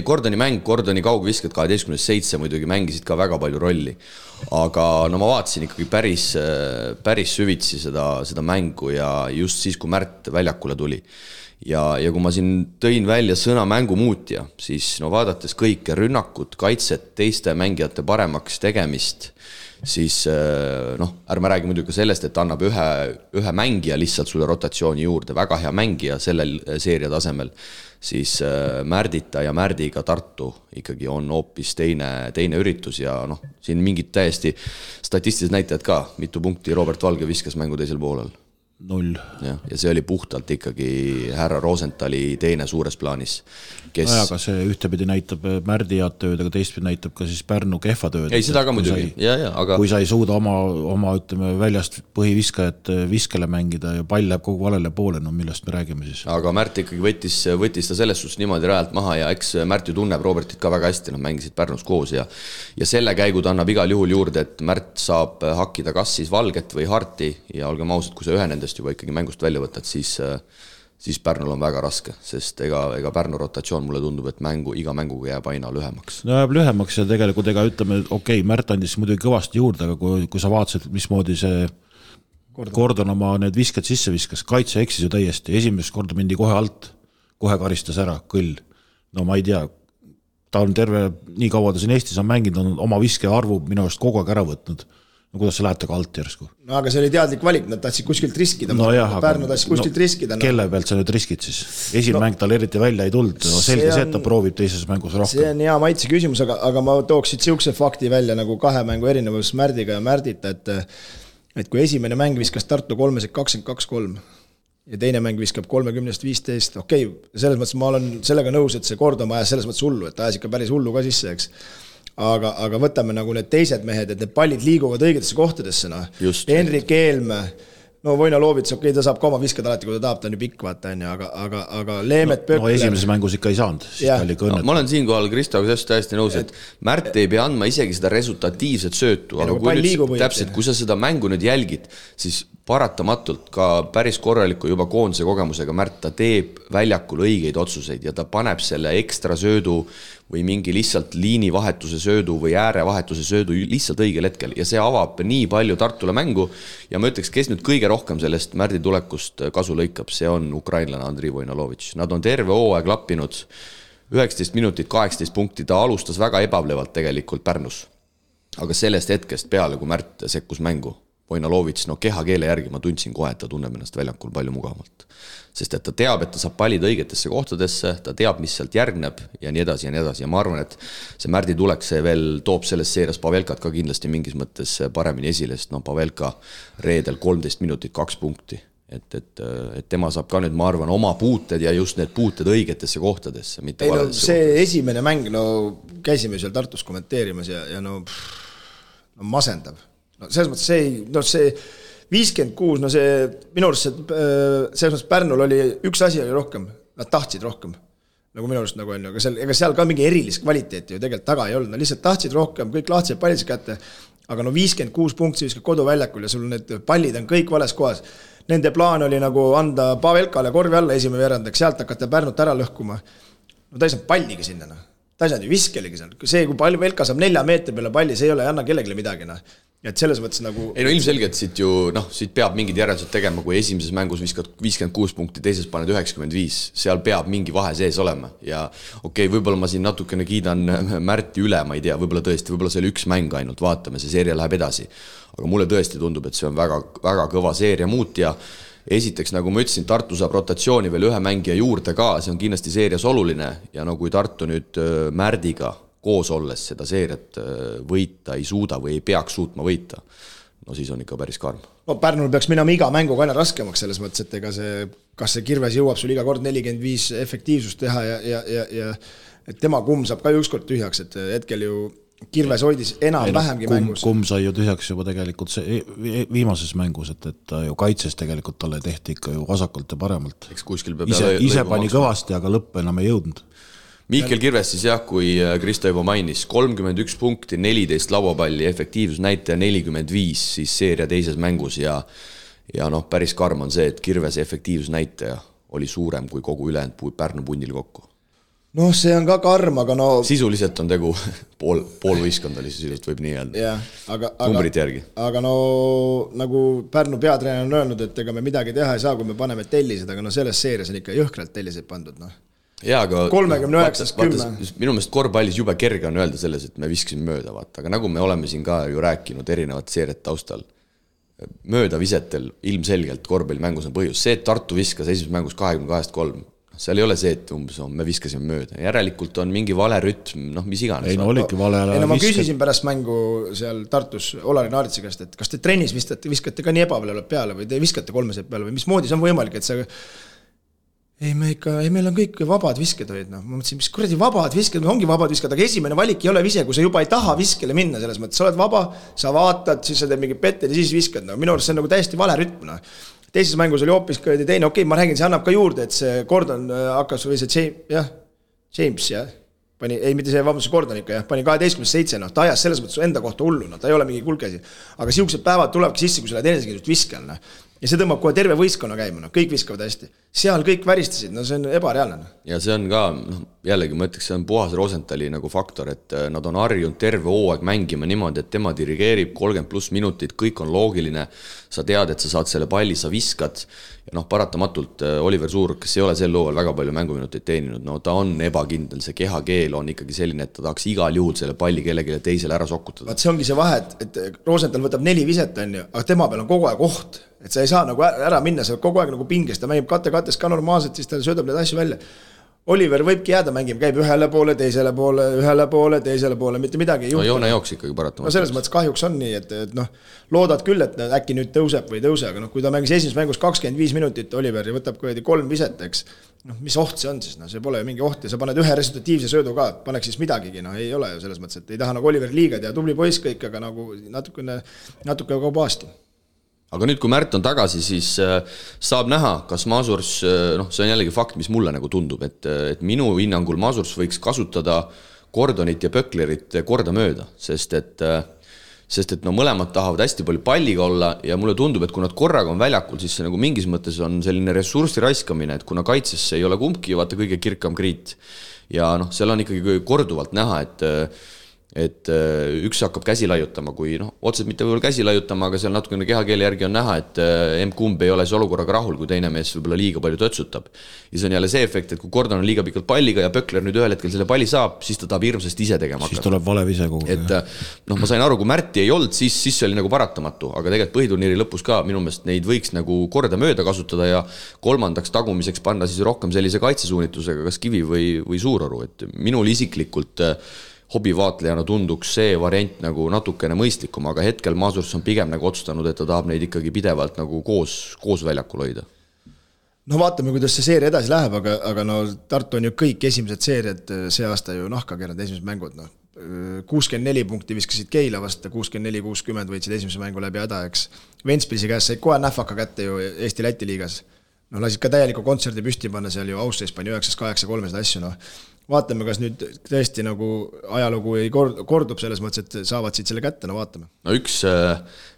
Gordoni mäng, Gordoni kaugvisked 12-7 muidugi mängisid ka väga palju rolli. Aga ma vaatasin ikkagi päris süvitsi seda mängu ja just siis, kui Märt väljakule tuli. Ja kui ma siin tõin välja sõna mängumuutja, siis vaadates kõike rünnakut, kaitset, teiste mängijate paremaks tegemist, siis ärme räägi muidugi sellest, et annab ühe mängija lihtsalt sulle rotatsiooni juurde, väga hea mängija sellel seeria tasemel, siis Märdita ja Märdiga Tartu ikkagi on hoopis teine üritus ja siin mingid täiesti statistilised näitajad ka, mitu punkti Robert Valge viskas mängu teisel poolel. 0. Ja see oli puhtalt ikkagi härra Rosenthali teine suures plaanis. Aga see ühtepidi näitab Märdi head tööd, aga teistpidi näitab ka siis Pärnu kehva tööd. Ei, seda ka muidugi. Kui sa ei suuda oma ütleme, väljast põhiviskajat viskele mängida ja pall läheb kogu valele poole, millest me räägime siis. Aga Märt ikkagi võttis ta selles suhtes niimoodi rajalt maha ja eks Märt ju tunneb Robertit ka väga hästi, mängisid Pärnus koos ja selle käigud annab igal juhul juurde, et Märt saab hakkida kas siis Valget või Harti ja olgem ausad, kui sa ühe nendest juba ikkagi mängust välja võtad, siis Pärnul on väga raske, sest ega Pärnu rotatsioon mulle tundub, et iga mänguga jääb aina lühemaks. Jääb lühemaks ja tegelikult ütleme, Märt andis muidugi kõvasti juurde, aga kui sa vaatasid, mismoodi see Gordon oma need visked sisse viskas, kaitse eksis ju täiesti, esimest korda mindi kohe alt, kohe karistas ära, kõll. Ma ei tea, ta on nii kaua ta siin Eestis on mänginud, on oma viske arvu minu arust kogu aeg ära võtnud. Kuidas sa lähed taga alt järsku? Aga see oli teadlik valik, nad tahtsid kuskilt riskida. Pärnu tahtsid kuskilt riskida. Kelle pealt sa nüüd riskid siis? Esimene mäng tal eriti välja ei tulnud. Selge see, et ta proovib teises mängus rohkem. See on hea maitse küsimus, aga ma tooksid siukse fakti välja nagu 2 mängu erinevus Märdiga ja Märdita, et kui esimene mäng viskas Tartu 22-3 ja teine mäng viskab 30-15, selles mõttes ma olen sellega nõus, et see Gordon ajas selles mõttes hullu, et ajas ikka päris hullu ka sisse, eks. Aga võtame nagu need teised mehed, et need pallid liiguvad õigetesse kohtadesse. Henrik Eelme, Voina Loovits, ta saab ka oma viskad alati, kui ta tahab, ta on ju pikk, vaata, aga Leemet Pökler... esimeses mängus ikka ei saanud. Ma olen siinkohal Kristoga täiesti nõus, et Märt ei pea andma isegi seda resultatiivset söötu, aga kui sa seda mängu nüüd jälgid, siis paratamatult ka päris korraliku juba koondise kogemusega Märt, ta teeb väljakul õigeid otsuseid ja ta paneb selle ekstra söödu või mingi lihtsalt liinivahetuse söödu või äärevahetuse söödu lihtsalt õigel hetkel ja see avab nii palju Tartule mängu ja ma ütleks, kes nüüd kõige rohkem sellest Märdi tulekust kasu lõikab, see on ukrainlane Andrei Voinalovitš. Nad on terve hooaeg lappinud, 19 minutit, 18 punkti, ta alustas väga ebablevalt tegelikult Pärnus. Aga sellest hetkest peale, kui Märt sekkus mängu, Vojnalovitš, no kehakeele järgi ma tundsin kohe, et ta tunneb ennast väljakul palju mugavamalt. Sest et ta teab, et ta saab pallid õigetesse kohtadesse, ta teab, mis sealt järgneb ja nii edasi ja nii edasi. Ja ma arvan, et see Märdi tulek, see veel toob selles seerias Pavelkat ka kindlasti mingis mõttes paremini esile, sest no Pavelka reedel 13 minutit 2 punkti. Et tema saab ka nüüd, ma arvan, oma puuted ja just need puuted õigetesse kohtadesse. Ei, no, see esimene mäng, no käisime seal Tartus kommenteerimas ja no masendav. No selles mõttes see 56, no see minu arust selles mõttes Pärnul oli üks asi oli rohkem, nad tahtsid rohkem, nagu minu arust nagu on, aga seal ka mingi erilist kvaliteeti ju tegelikult taga ei olnud, nad lihtsalt tahtsid rohkem, kõik lahtsid pallid kätte, aga no 56 punkti viskad koduväljakul ja sul need pallid on kõik vales kohas. Nende plaan oli nagu anda Pavelkale korvi alla esimene veerandaks, sealt hakata Pärnut ära lõhkuma. No ta ei saanud palligi sinna, ta ei saanud ju viskeligi seal. See, kui Pavelka saab 4 meetri peale palli, see ei ole anna kellelegi midagi. Ja et selles mõttes nagu... Ei no ilmselgelt siit ju, siit peab mingid järeldused tegema, kui esimeses mängus viskad 56 punkti, teises paned 95, seal peab mingi vahe sees olema. Ja okei, võib-olla ma siin natukene kiidan Märti üle, ma ei tea, võib-olla tõesti, võib-olla see oli üks mäng ainult, vaatame, see seeria läheb edasi. Aga mulle tõesti tundub, et see on väga, väga kõva seeria muut ja esiteks, nagu ma ütlesin, Tartu saab rotatsiooni veel ühe mängija juurde ka, see on kindlasti seerias oluline ja no kui Tartu nüüd Märdiga koos olles seda seeriat võita ei suuda või ei peaks suutma võita, no siis on ikka päris karm. No Pärnul peaks minema iga mänguga aina raskemaks selles mõttes, et ega see, kas see Kirves jõuab sul iga kord 45 efektiivsust teha ja et tema kumm saab ka ükskord tühjaks, et hetkel ju Kirves hoidis vähemgi mängus. Kumm sai ju tühjaks juba tegelikult see viimases mängus, et ta ju kaitses tegelikult talle tehti ikka ju vasakult ja paremalt. Ise pani kõvasti, aga lõpp enam ei jõudnud. Mihkel Kirves siis jah, kui Kristo juba mainis, 31 punkti, 14 lauapalli, efektiivsus näitaja 45 siis seeria teises mängus ja päris karm on see, et Kirvese efektiivsus näitaja oli suurem kui kogu ülejäänud Pärnu pundil kokku. No see on ka karm, aga no... Sisuliselt on tegu pool võistkond oli sisuliselt, võib nii öelda. Numbrit järgi. Aga no nagu Pärnu peatreener on öelnud, et ega me midagi teha ei saa, kui me paneme tellised, aga no selles seerias on ikka jõhkralt telliseid pandud, Jaa, aga 39-10. Minu meelest korvpallis jube kerge on öelda selles, et me viskasime mööda, vaata. Aga nagu me oleme siin ka ju rääkinud erinevat seeriat taustal, mööda visetel ilmselgelt korvpallimängus on põhjus. See, et Tartu viskas esimeses mängus 22-3, seal ei ole see, et me viskasime mööda. Järelikult on mingi vale rütm, mis iganes. Ei no oligi vale ära ma küsisin pärast mängu seal Tartus Olari Naaritsi käest, et kas te trennis viskate ka nii ebavalevalt peale või te viskate 3 peale või mismoodi see on võimalik, et see meil on kõik vabad visked hoid, Ma mõtlesin, mis kuradi vabad visked, ongi vabad visked, aga esimene valik ei ole vise, kui sa juba ei taha viskele minna selles mõttes, sa oled vaba, sa vaatad, siis sa teed mingi petted ja siis viskad, minu arust see on nagu täiesti vale rütm, Teises mängus oli hoopis teine, okei, ma räägin, see annab ka juurde, et see Gordon hakkas, või see James, mitte see, vabandus, Gordon ikka, pani 12-7, ta ajas selles mõttes enda kohta hullu, ta ei ole mingi kulkesi, aga siuksed päevad tulevadki sisse, kui sa lähed enesekindlust viskel, ja see tõmbab kohe terve võistkonna käima, kõik viskavad hästi. Seal kõik väristasid, see on ebareaalne. Ja see on ka, jällegi ma ütleks, see on puhas Rosenthali nagu faktor, et nad on harjunud terve hooaeg mängima niimoodi, et tema dirigeerib 30+ minutit, kõik on loogiline, sa tead, et sa saad selle palli, sa viskad, ja paratamatult Oliver Suur, kes ei ole sel looval väga palju mänguminuteid teeninud, ta on ebakindel, see kehakeel on ikkagi selline, et ta tahaks igal juhul selle palli kellelegi teisele ära sokutada. Vaat see ongi see vahe, et Rosenthal võtab 4 viset, aga tema peal on kogu aeg oht, et sa ei saa nagu ära minna, sa kogu aeg nagu pingest, ta mängib kattes ka normaalselt, siis ta söödab need asju välja. Oliver võibki jääda mängima, käib ühele poole, teisele poole, mitte midagi ei juhtu. No joone jooks ikkagi paratamata. No selles mõttes kahjuks on nii, et loodad küll, et äkki nüüd tõuseb või tõuse, aga kui ta mängis esimeses mängus 25 minutit Oliver ja võtab 3 viset, eks, mis oht see on siis, see pole ju mingi oht ja sa paned ühe resultatiivse söödu ka, paneks siis midagigi, ei ole ju selles mõttes, et ei taha nagu Oliver liiga ja tubli poiss kõik, aga nagu natuke kaubaasti. Aga nüüd, kui Märt on tagasi, siis saab näha, kas Masurs, see on jällegi fakt, mis mulle nagu tundub, et minu hinnangul Masurs võiks kasutada Gordonit ja Pöklerit korda mööda, sest et mõlemad tahavad hästi palju palliga olla ja mulle tundub, et kui nad korraga on väljakul, siis see nagu mingis mõttes on selline ressurssi raiskamine, et kuna kaitsesse ei ole kumbki, vaata kõige kirkam kriit ja seal on ikkagi korduvalt näha, et üks hakkab käsi laiutama, kui otseselt mitte võib-olla käsi laiutama, aga seal natukene kehakeele järgi on näha, et kumb ei ole see olukorraga rahul, kui teine mees võib-olla liiga palju tötsutab. Ja see on jälle see efekt, et kui Gordon on liiga pikalt palliga ja Pökler nüüd ühel hetkel selle palli saab, siis ta tahab hirmsasti ise tegema hakata. Siis tuleb valev ise kogu. Et ma sain aru, kui Märti ei olnud, siis see oli nagu paratamatu, aga tegelikult põhiturniiri lõpus ka minu meelest neid võiks nagu korda mööda kasutada ja kolmandaks tagumiseks panna siis rohkem sellise kaitsesuunitusega, kas Kivi või Suuroru, et minul isiklikult hobivaatlejana tunduks see variant nagu natukene mõistlikum, aga hetkel Masurs on pigem nagu otsustanud, et ta tahab neid ikkagi pidevalt nagu koos väljakul hoida. No vaatame, kuidas see seeria edasi läheb, aga Tartu on ju kõik esimesed seeriad see aasta ju nahka keeranud, esimesed mängud. 64 punkti viskasid Keila vastu, 64-60 võitsid esimese mängu läbi häda, eks. Ventspilsi käest said kohe nähvaka kätte ju Eesti-Läti liigas. Lasid ka täieliku kontserdi püsti panna seal ju Austria pani 9-8-3 asju, Vaatame, kas nüüd tõesti nagu ajalugu ei kordub selles mõttes, et saavad siit selle kätte, vaatame. Üks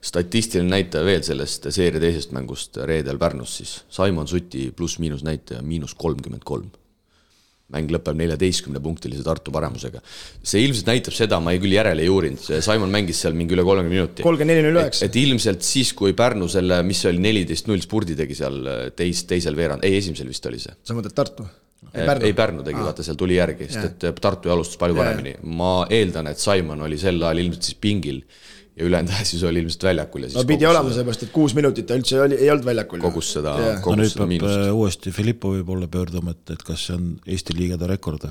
statistiline näitaja veel sellest seeria teisest mängust reedel Pärnus siis. Simon Suti pluss-miinus näitaja -33. Mäng lõpeb 14-punktilise Tartu paremusega. See ilmselt näitab seda, ma ei küll järele ei uurinud. Simon mängis seal mingi üle 30 minuti. 34-09. Et ilmselt siis, kui Pärnu selle, mis oli 14-0 spurdi tegi seal teisel veerand, esimesel vist oli see. Sa mõtled Tartu? Ei Pärnu tegi, vaata seal tuli järgi, sest et Tartu alustas palju paremini. Ma eeldan, et Simon oli sel ajal ilmselt siis pingil ja ülejäänud siis oli ilmselt väljakul. No pidi olema seepärast, et 6 minutit ta üldse ei olnud väljakul. Kogus seda miinust. Nüüd peab uuesti Filippovi poole pöörduma, et kas see on Eesti liigade rekord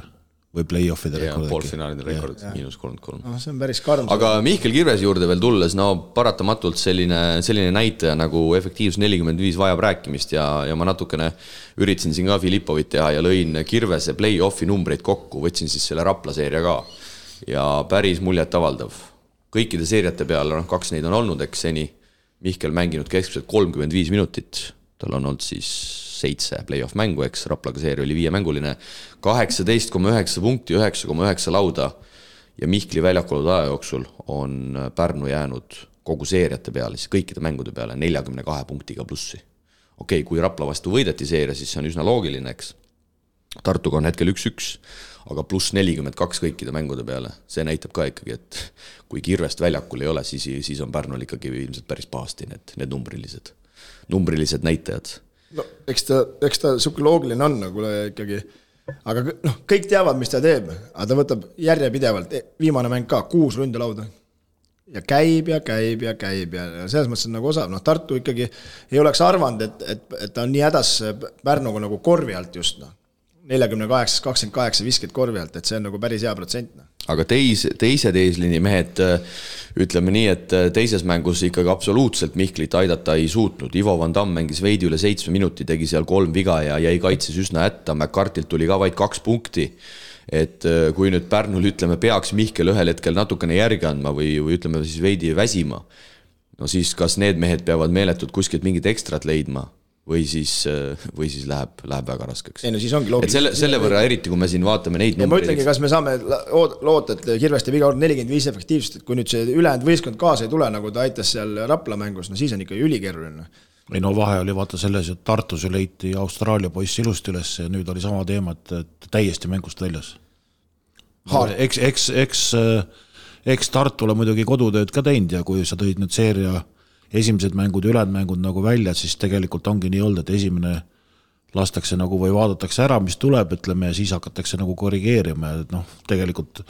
või play-offide rekord. Poolfinaalide rekord, -33. See on päris karm. Aga Mihkel Kirvese juurde veel tulles, paratamatult selline näitaja nagu efektiivsus 45 vajab rääkimist ja ma natukene üritasin siin ka Filippovit teha ja lõin Kirvese play-offi numbreid kokku, võtsin siis selle Rapla seeria ka ja päris muljet avaldav. Kõikide seeriate peale, 2 neid on olnud, eks seni Mihkel mänginud keskmiselt 35 minutit, tal on olnud siis 7 play-off mängu, eks Raplaga seeria oli 5-mänguline, 18,9 punkti, 9,9 lauda ja Mihkli väljakul aja jooksul on Pärnu jäänud kogu seeriate peale, siis kõikide mängude peale 42 punktiga plussi. Okei, kui Rapla vastu võideti seeria, siis see on üsna loogiline, eks. Tartuga on hetkel 1-1, aga pluss 42 kõikide mängude peale. See näitab ka ikkagi, et kui Kirvest väljakul ei ole, siis on Pärnul ikkagi ilmselt päris pahasti need numbrilised näitajad. No, eks ta suke loogiline on nagu ikkagi, aga kõik teavad, mis ta teeb, aga ta võtab järjepidevalt, viimane mäng ka 6 ründelauda ja käib ja selles mõttes on nagu osav, Tartu ikkagi ei oleks arvanud, et ta on nii hädas Pärnuga nagu korvi alt just, 48-28 visked korvi alt, et see on nagu päris hea protsent. Aga teised eesliini mehed, ütleme nii, et teises mängus ikkagi absoluutselt Mihklit aidata ei suutnud. Ivo Van Damm mängis veidi üle 7 minuti, tegi seal 3 viga ja jäi kaitses üsna hätta. McCartilt tuli ka vaid 2 punkti. Et kui nüüd Pärnul, ütleme, peaks Mihkel ühel hetkel natukene järgi andma või ütleme siis veidi väsima, no siis kas need mehed peavad meeletult kuskilt mingit ekstrat leidma või siis läheb väga raskeks. Ei, no siis ongi loogiline. Selle võrra eriti, kui me siin vaatame neid numbreid. Ma ütlengi, kas me saame loota, et Kirveste viga on 45 efektiivsust, et kui nüüd see ülejäänud võistkond kaasa ei tule, nagu ta aitas seal Rapla mängus, no siis on ikka ülikeeruline. Ei no vahe oli vaata selles, et Tartus leiti Austraalia poiss ilusti üles ja nüüd oli sama teema, et täiesti mängust väljas. Eks Tartule muidugi kodutööd ka teinud ja kui sa tõid nüüd seeria esimesed mängud ja ülejäänud mängud nagu välja, siis tegelikult ongi nii olnud, et esimene lastakse nagu või vaadatakse ära, mis tuleb, ütleme, ja siis hakatakse nagu korrigeerima ja tegelikult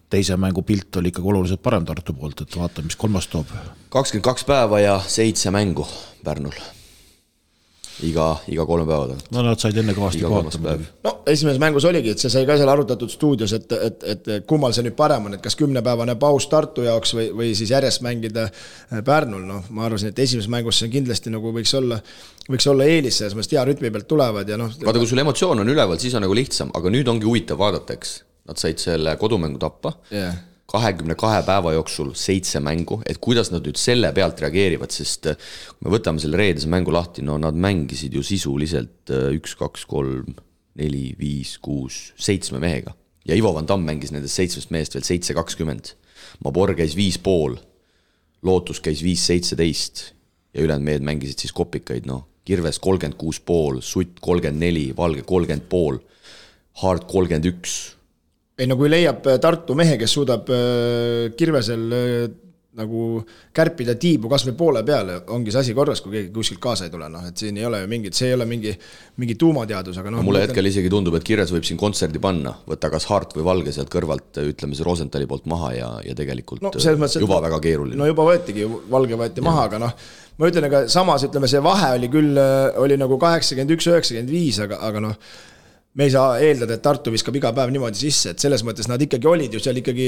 teise mängu pilt oli ikkagi oluliselt parem Tartu poolt, et vaata, mis kolmas toob. 22 päeva ja 7 mängu Pärnul. Iga 3 päeva. No nad said enne kõvasti kohata. No esimeses mängus oligi, et see sai ka seal arutatud stuudios, et kummal see nüüd parem on, et kas 10-päevane paus Tartu jaoks või siis järjest mängida Pärnul. No, ma arvasin, et esimeses mängus see kindlasti nagu võiks olla eelis, selles mõttes hea rütmi pealt tulevad. Ja vaata, kui sul emotsioon on üleval, siis on nagu lihtsam, aga nüüd ongi huvitav vaadata, eks. Nad said selle kodumängu tappa. 22 päeva jooksul 7 mängu, et kuidas nad nüüd selle pealt reageerivad, sest kui me võtame selle reedese mängu lahti, no nad mängisid ju sisuliselt 1, 2, 3, 4, 5, 6, 7 mehega. Ja Ivo Van Damm mängis nendest 7 mehest veel 7-20. Mabor käis 5,5, Lootus käis 5-17 ja ülejäänud mehed mängisid siis kopikaid, Kirves 36,5, Sutt 34, Valge 30,5, Hard 31. ei no kui leiab Tartu mehe, kes suudab Kirvesel nagu kärpida tiibu kas või poole peale, ongi see asi korras, kui keegi kuskilt kaasa ei tule, noh, et siin ei ole ju mingit, see ei ole mingi tuumateadus, aga noh. Mulle hetkel isegi tundub, et Kirves võib siin kontserdi panna, võtta kas Hart või Valge sealt kõrvalt, ütleme see Rosenthali poolt maha ja tegelikult juba väga keeruline. No juba võetigi, Valge võeti maha, aga noh, ma ütlen, aga samas ütleme, see vahe oli küll, oli nagu 81-95, aga noh, me ei saa eeldada, et Tartu viskab iga päev niimoodi sisse, et selles mõttes nad ikkagi olid ju seal ikkagi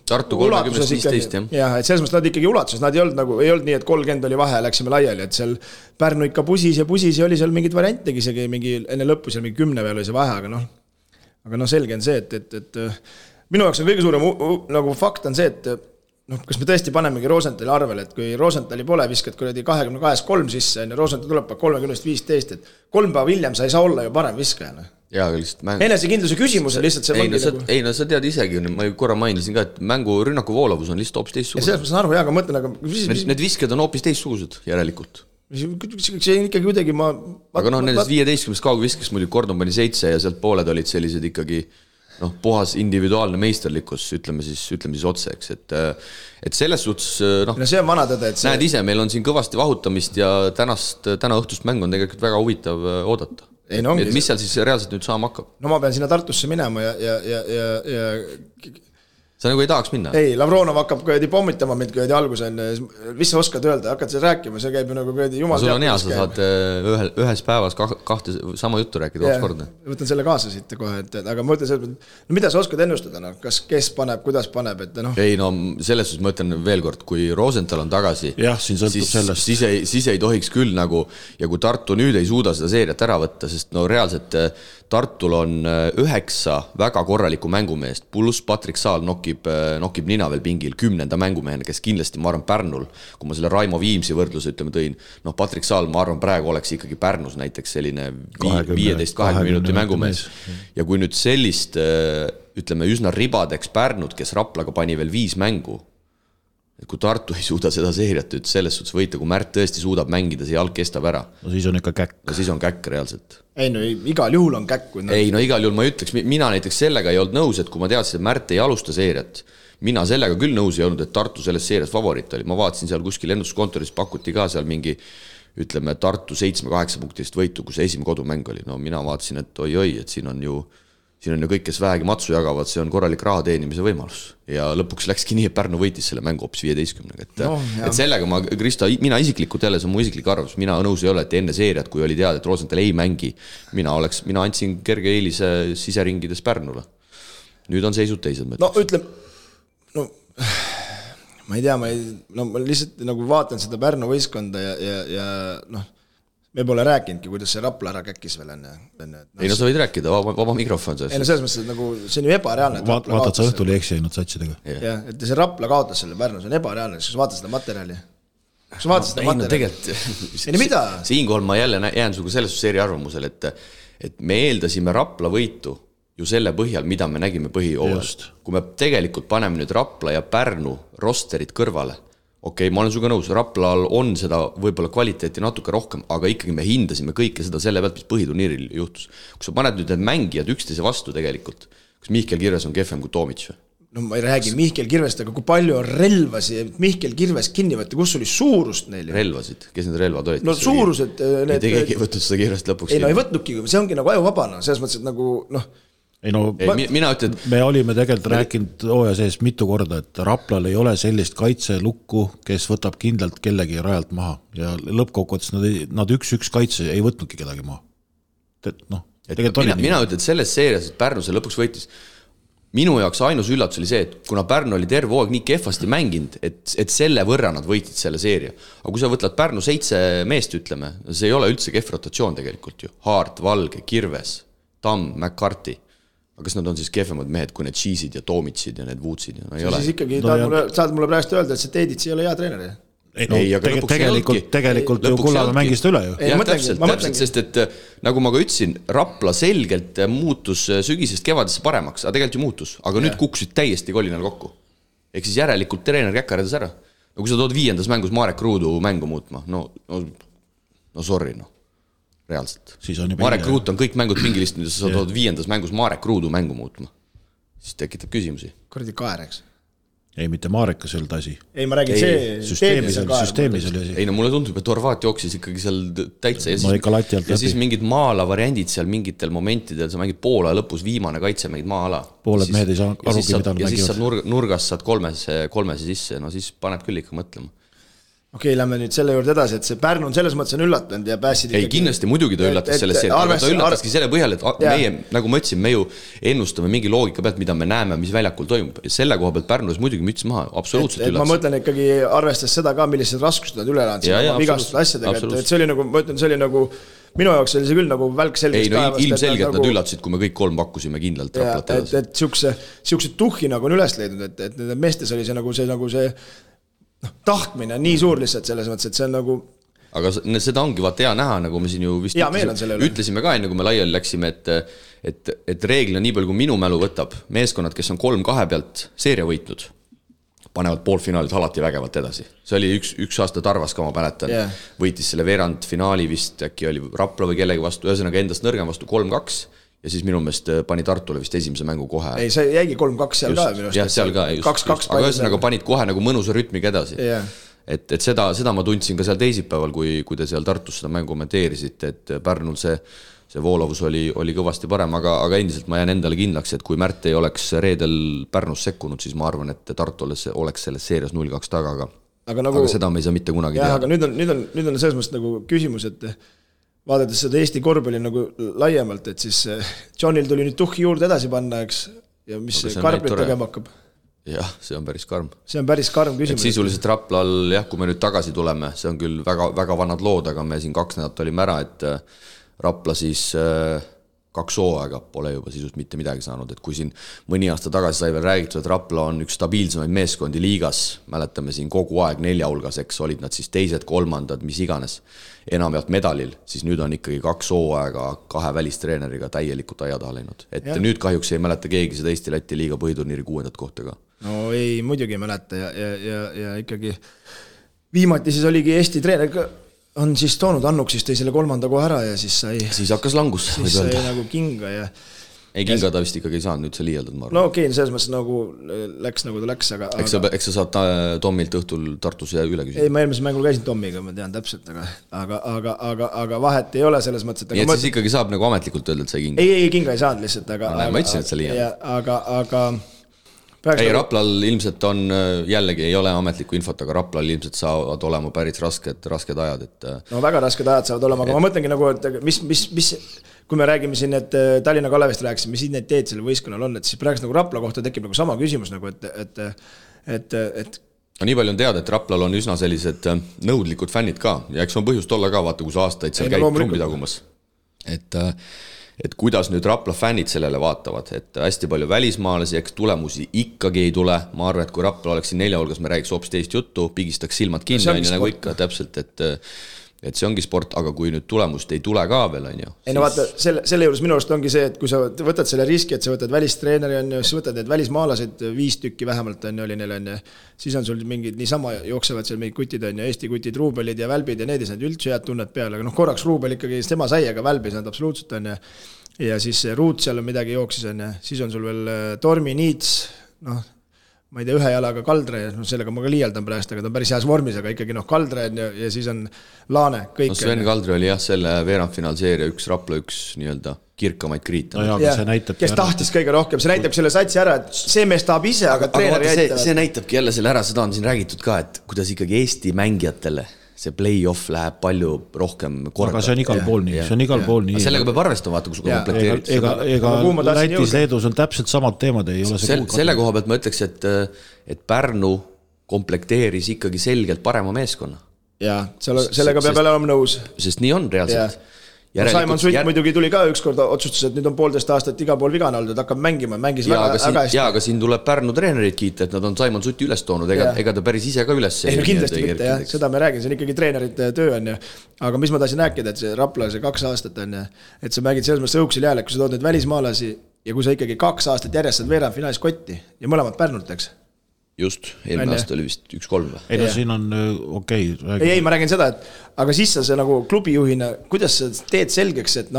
Tartu 30-15, jah, et selles mõttes nad ikkagi ulatuses, nad ei olnud nii, et 30 oli vahe ja läksime laiali, et seal Pärnu ikka pusis ja oli seal mingid variantegi, isegi mingi enne lõppu seal mingi 10 peal oli see vahe, aga selge on see, et minu jaoks on kõige suurem nagu fakt on see, et kas me tõesti panemegi Rosenthali arvele, et kui Rosenthali pole, viskad kuradi 22-3 sisse, Rosenthal tuleb 30-15, et 3 päeva hiljem sa ei saa olla ju parem viskaja. Enesekindluse küsimus on lihtsalt see sa tead isegi, ma korra mainisin ka, et mängu rünnaku voolavus on lihtsalt hoopis teistsugused. Selles ma saan aru, aga mõtlen, aga need visked on hoopis teistsugused järelikult. See on ikkagi kuidagi aga nendest 15 kaugviskest muidugi Gordon pani 7 ja sealt pooled olid sellised ikkagi puhas individuaalne meisterlikkus, ütleme siis otse, eks, et selles suhtes see on vana tõde, et näed ise, meil on siin kõvasti vahutamist ja täna õhtust mäng on tegelikult väga huvitav oodata. Mis seal siis reaalselt nüüd saama hakkab? No ma pean sinna Tartusse minema ja sa nagu ei tahaks minna? Ei, Lavronov hakkab pommitama mind alguse, mis sa oskad öelda, hakkad seal rääkima, see käib ju nagu jumal sul on hea, sa saad ühes päevas kahte sama juttu rääkida kord. Võtan selle kaasa siit kohe, aga ma ütlen, mida sa oskad ennustada, kas kes paneb, kuidas paneb, et Ei selles suhtes ma ütlen veel kord, kui Rosenthal on tagasi, siis ei tohiks küll nagu, ja kui Tartu nüüd ei suuda seda seeriat ära võtta, sest reaalselt Tartul on 9 väga korralikku mängumeest, pluss Patrik Saal nokib nina veel pingil 10. mängumehena, kes kindlasti, ma arvan, Pärnul, kui ma selle Raimo Viimsi võrdluse tõin, Patrik Saal, ma arvan, praegu oleks ikkagi Pärnus näiteks selline 15-20 minuti mängumees. Ja kui nüüd sellist, ütleme, üsna ribadeks Pärnud, kes Raplaga pani veel 5 mängu, et kui Tartu ei suuda seda seeriat selles suhtes võita, kui Märt tõesti suudab mängida, see jalg kestab ära. No siis on ikka käkk. No siis on käkk reaalselt. Ei, igal juhul on käkk. Igal juhul ma ütleks, mina näiteks sellega ei olnud nõus, et kui ma teadsin, et Märt ei alusta seeriat, mina sellega küll nõus ei olnud, et Tartu selles seerias favoriit oli. Ma vaatasin seal kuskil ennustuskontoris, pakuti ka seal mingi, ütleme, Tartu 7-8 punktist võitu, kus esimene kodumäng oli. No mina vaatasin, et oi, et siin on ju kõik, kes vähegi matsu jagavad, see on korralik raha teenimise võimalus. Ja lõpuks läkski nii, et Pärnu võitis selle mängu hoopis 15. Et sellega ma, Krista, mina isiklikult jälle, see on mu isiklik arvus, mina nõus ei ole, et enne seeriat, kui oli teada, et Rosenthal ei mängi, mina andsin kerge eelise siseringides Pärnule. Nüüd on seisud teised mõttes. Ma ei tea, ma lihtsalt nagu vaatan seda Pärnu võistkonda ja me pole rääkinudki, kuidas see Rapla ära käkkis veel enne. Ei, sa võid rääkida, vaba mikrofon. Ei, selles mõttes, et nagu see on ju ebareaalne. Vaatad sa õhtul eksi ainult satsidega. Jah, et see Rapla kaotas selle Pärnu, see on ebareaalne, kas vaatad seda materjali? Siinkohal ma jälle jään suga selles seeri arvamusel, et me eeldasime Rapla võitu ju selle põhjal, mida me nägime põhijoovel. Kui me tegelikult paneme nüüd Rapla ja Pärnu rosterid kõrvale, okei, ma olen suga nõus, Raplal on seda võib-olla kvaliteeti natuke rohkem, aga ikkagi me hindasime kõike seda selle pealt, mis põhiturniiril juhtus. Kui sa paned nüüd need mängijad üksteise vastu tegelikult, kas Mihkel Kirves on kehvem kui Tomic? No ma ei räägi Mihkel Kirvest, aga kui palju on relvasi, Mihkel Kirves kinni võtta, kus oli suurust neil? Relvasid, kes need relvad olid? No suurused... Keegi ei võtnud seda Kirvest lõpuks. Ei, ei võtnudki, see ongi nagu ajuvabana, selles mõttes, et nagu mina ütlen, me olime tegelikult rääkinud hooaja sees mitu korda, et Raplal ei ole sellist kaitselukku, kes võtab kindlalt kellegi rajalt maha ja lõppkokkuvõttes nad 1-1 kaitse ei võtnudki kedagi maha. Mina ütlen, et selles seerias, et Pärnu see lõpuks võitis, minu jaoks ainus üllatus oli see, et kuna Pärnu oli terve hooaeg nii kehvasti mänginud, et selle võrra nad võitsid selle seeria. Aga kui sa võtlad Pärnu 7 meest, ütleme, see ei ole üldse kehv rotatsioon tegelikult ju. Haart, Valge, Kirves, Tamm, McCarthy. Aga kas nad on siis kehvemad mehed, kui need Cheese'id ja Tomitsid ja need Woodsid? Siis ikkagi saad mulle praegu öelda, et see Teedits ei ole hea treener. Tegelikult ju Kullamäe mängis üle ju. Täpselt, sest et nagu ma ka ütlesin, Rapla selgelt muutus sügisest kevadesse paremaks, aga tegelikult ju muutus, aga nüüd kukkusid täiesti kolinal kokku. Ehk siis järelikult treener käkkardas ära. No kui sa tood 5. mängus Marek Ruudu mängu muutma, no sorry, reaalselt. Marek Ruut on kõik mängud pingilistunud ja sa tood 5. mängus Marek Ruudu mängu muutma. siis tekitab küsimusi. Kuradi kaer, eks? Ei, mitte Maarekas ei olnud asi. Ei, ma räägin süsteemis oli asi. Ei, no mulle tundub, et Horvaat jooksis ikkagi seal täitsa ja siis mingid maala variandid seal mingitel momentidel, sa mängid poole lõpus viimane kaitse, mängid maa-ala. Pooled mehed ei saa arugi, mida mängivad. Ja siis saad nurgast saad kolmese sisse, no siis paneb küll ikka mõtlema. Okei, lähme nüüd selle juurde edasi, et see Pärnu on selles mõttes on üllatanud ja pääsid ei, kindlasti muidugi ta üllatas selles seerias, aga ta üllataski selle põhjal, et meie, nagu ma ütlesin, me ju ennustame mingi loogika pealt, mida me näeme, mis väljakul toimub. Selle koha pealt Pärnus muidugi müts maha, absoluutselt üllatas. Ma mõtlen ikkagi arvestas seda ka, millised raskused nad üle elanud vigastud asjadega, et see oli nagu, ma ütlen, see oli nagu minu jaoks oli see küll nagu välk selgest päevast. Ei, no ilmselgelt nad üllatasid, kui me kõik 3 pakkusime kindlalt Raplat edasi. Et siukse tuhhi nagu on üles leidnud, et nende meestes oli see tahtmine on nii suur lihtsalt selles mõttes, et see on nagu aga seda ongi vaata hea näha, nagu me siin ju vist ütlesime ka enne, kui me laiali läksime, et reeglina nii palju, kui minu mälu võtab, meeskonnad, kes on 3-2 pealt seeria võitnud, panevad poolfinaalid alati vägevalt edasi. See oli üks aasta Tarvas ka, ma mäletan, võitis selle veerandfinaali vist, äkki oli Rapla või kellegi vastu, ühesõnaga endast nõrgem vastu 3-2, ja siis minu meelest pani Tartule vist esimese mängu kohe. Ei, see jäigi 3-2 seal just, ka minu. Jah, seal ka, just. Aga ühesõnaga panid kohe nagu mõnusa rütmiga edasi. Et seda ma tundsin ka seal teisipäeval, kui te seal Tartus seda mängu kommenteerisite, et Pärnul see voolavus oli kõvasti parem, aga endiselt ma jään endale kindlaks, et kui Märt ei oleks reedel Pärnus sekkunud, siis ma arvan, et Tartu oleks selles seerias 0-2 taga, aga seda me ei saa mitte kunagi teha. Aga nüüd on selles mõttes nagu küsimus, et vaadates seda Eesti korvpalli nagu laiemalt, et siis Johnil tuli nüüd tuhhi juurde edasi panna, eks, ja mis Karblit tegema hakkab? Jah, see on päris karm. See on päris karm küsimus. Et sisuliselt Raplal, jah, kui me nüüd tagasi tuleme, see on küll väga, väga vanad lood, aga me siin 2 nädalat olime ära, et Rapla siis 2 hooaega pole juba sisust mitte midagi saanud, et kui siin mõni aasta tagasi sai veel räägitud, et Rapla on üks stabiilsemaid meeskondi liigas, mäletame siin kogu aeg 4 hulgas, eks olid nad siis 2, 3, mis iganes, enamjaolt medalil, siis nüüd on ikkagi 2 hooaega 2 välistreeneriga täielikult aia taha läinud. Et nüüd kahjuks ei mäleta keegi seda Eesti-Läti liiga põhiturniiri 6. kohta ka. No ei, muidugi ei mäleta ja ikkagi viimati siis oligi Eesti treener on siis toonud Annuk siis tõi selle 3. koha ära ja siis sai siis hakkas langus siis sai nagu kinga ja ei kinga ta vist ikkagi ei saanud, nüüd see liialdad ma arvan. No okei, selles mõttes nagu läks nagu ta läks, aga eks sa saad Tommilt õhtul Tartus ja üle küsida. Ei, ma eelmisel mängul käisin Tommiga, ma tean täpselt, aga vahet ei ole selles mõttes, et nii et siis ikkagi saab nagu ametlikult öelda, et sai kinga. Ei, kinga ei saanud lihtsalt, aga ma ütlesin, et see liialdad. Aga ei, Raplal ilmselt on, jällegi ei ole ametlikku infot, aga Raplal ilmselt saavad olema päris rasked ajad. No väga rasked ajad saavad olema, aga ma mõtlengi nagu, et mis kui me räägime siin, et Tallinna Kalevist rääkisime, mis identiteet selle võistkonnal on, et siis praegu nagu Rapla kohta tekib nagu sama küsimus, nagu, et no nii palju on teada, et Raplal on üsna sellised nõudlikud fännid ka ja eks on põhjust olla ka, vaata, kus aastaid seal käib trumbi tagumas. Et kuidas nüüd Rapla fännid sellele vaatavad, et hästi palju välismaalasi, eks tulemusi ikkagi ei tule. Ma arvan, et kui Rapla oleks siin 4 hulgas, me räägiks hoopis teist juttu, pigistaks silmad kinni, nagu ikka täpselt, et see ongi sport, aga kui nüüd tulemust ei tule ka veel, on ju. Ei no vaata, selle juures minu arust ongi see, et kui sa võtad selle riski, et sa võtad välistreeneri, on ju, siis võtad need välismaalased 5 tükki vähemalt, on ju, oli neil, on ju, siis on sul mingid niisama jooksevad seal mingid kutid, on ju, Eesti kutid, Ruubelid ja Välbid ja need ei saanud üldse head tunnet peale, aga korraks Ruubel ikkagi tema sai, aga Välb ei saanud absoluutselt, on ju, ja siis Ruut seal on midagi jooksis, on ju, siis on sul veel Tormi, Niits, ma ei tea, 1 jalaga Kaldre, sellega ma ka liialdan praegu, aga ta on päris heas vormis, aga ikkagi Kaldre ja siis on Laane, kõik. No Sven Kaldre oli jah, selle veerandfinaalseeria Rapla üks nii-öelda kirkamaid kriite. No jah, kes tahtis kõige rohkem, see näitab selle satsi ära, et see mees tahab ise, aga treener jäitavad. See näitabki jälle selle ära, seda on siin räägitud ka, et kuidas ikkagi Eesti mängijatele see play-off läheb palju rohkem korda. Aga see on igal pool nii, see on igal pool nii. Sellega peab arvestama, vaata, kui sul komplekteerid. Ega Lätis, Leedus on täpselt samad teemad, ei ole see kuulkata. Selle koha pealt ma ütleks, et Pärnu komplekteeris ikkagi selgelt parema meeskonna. Jaa, sellega peab olema nõus. Sest nii on reaalselt. Simon Sutt muidugi tuli ka ükskord otsustas, et nüüd on 1,5 aastat iga pool vigane olnud, et hakkab mängima, mängis väga hästi. Jaa, aga siin tuleb Pärnu treenerid kiita, et nad on Simon Sutti üles toonud, ega ta päris ise ka üles. Ei, kindlasti mitte, jah, seda me räägin, see on ikkagi treenerite töö, on ju. Aga mis ma tahtsin rääkida, et see Rapla, see 2 aastat on ju, et sa mängid selles mõttes õuksel jääle, kui sa tood need välismaalasi ja kui sa ikkagi 2 aastat järjest saad veerandfinaalis kotti ja mõlemad Pärnult, eks? Just, eelmine aasta oli vist 1-3 või? Ei, no siin on okei. Ei, ma räägin seda, et aga siis sa nagu klubijuhina, kuidas sa teed selgeks, et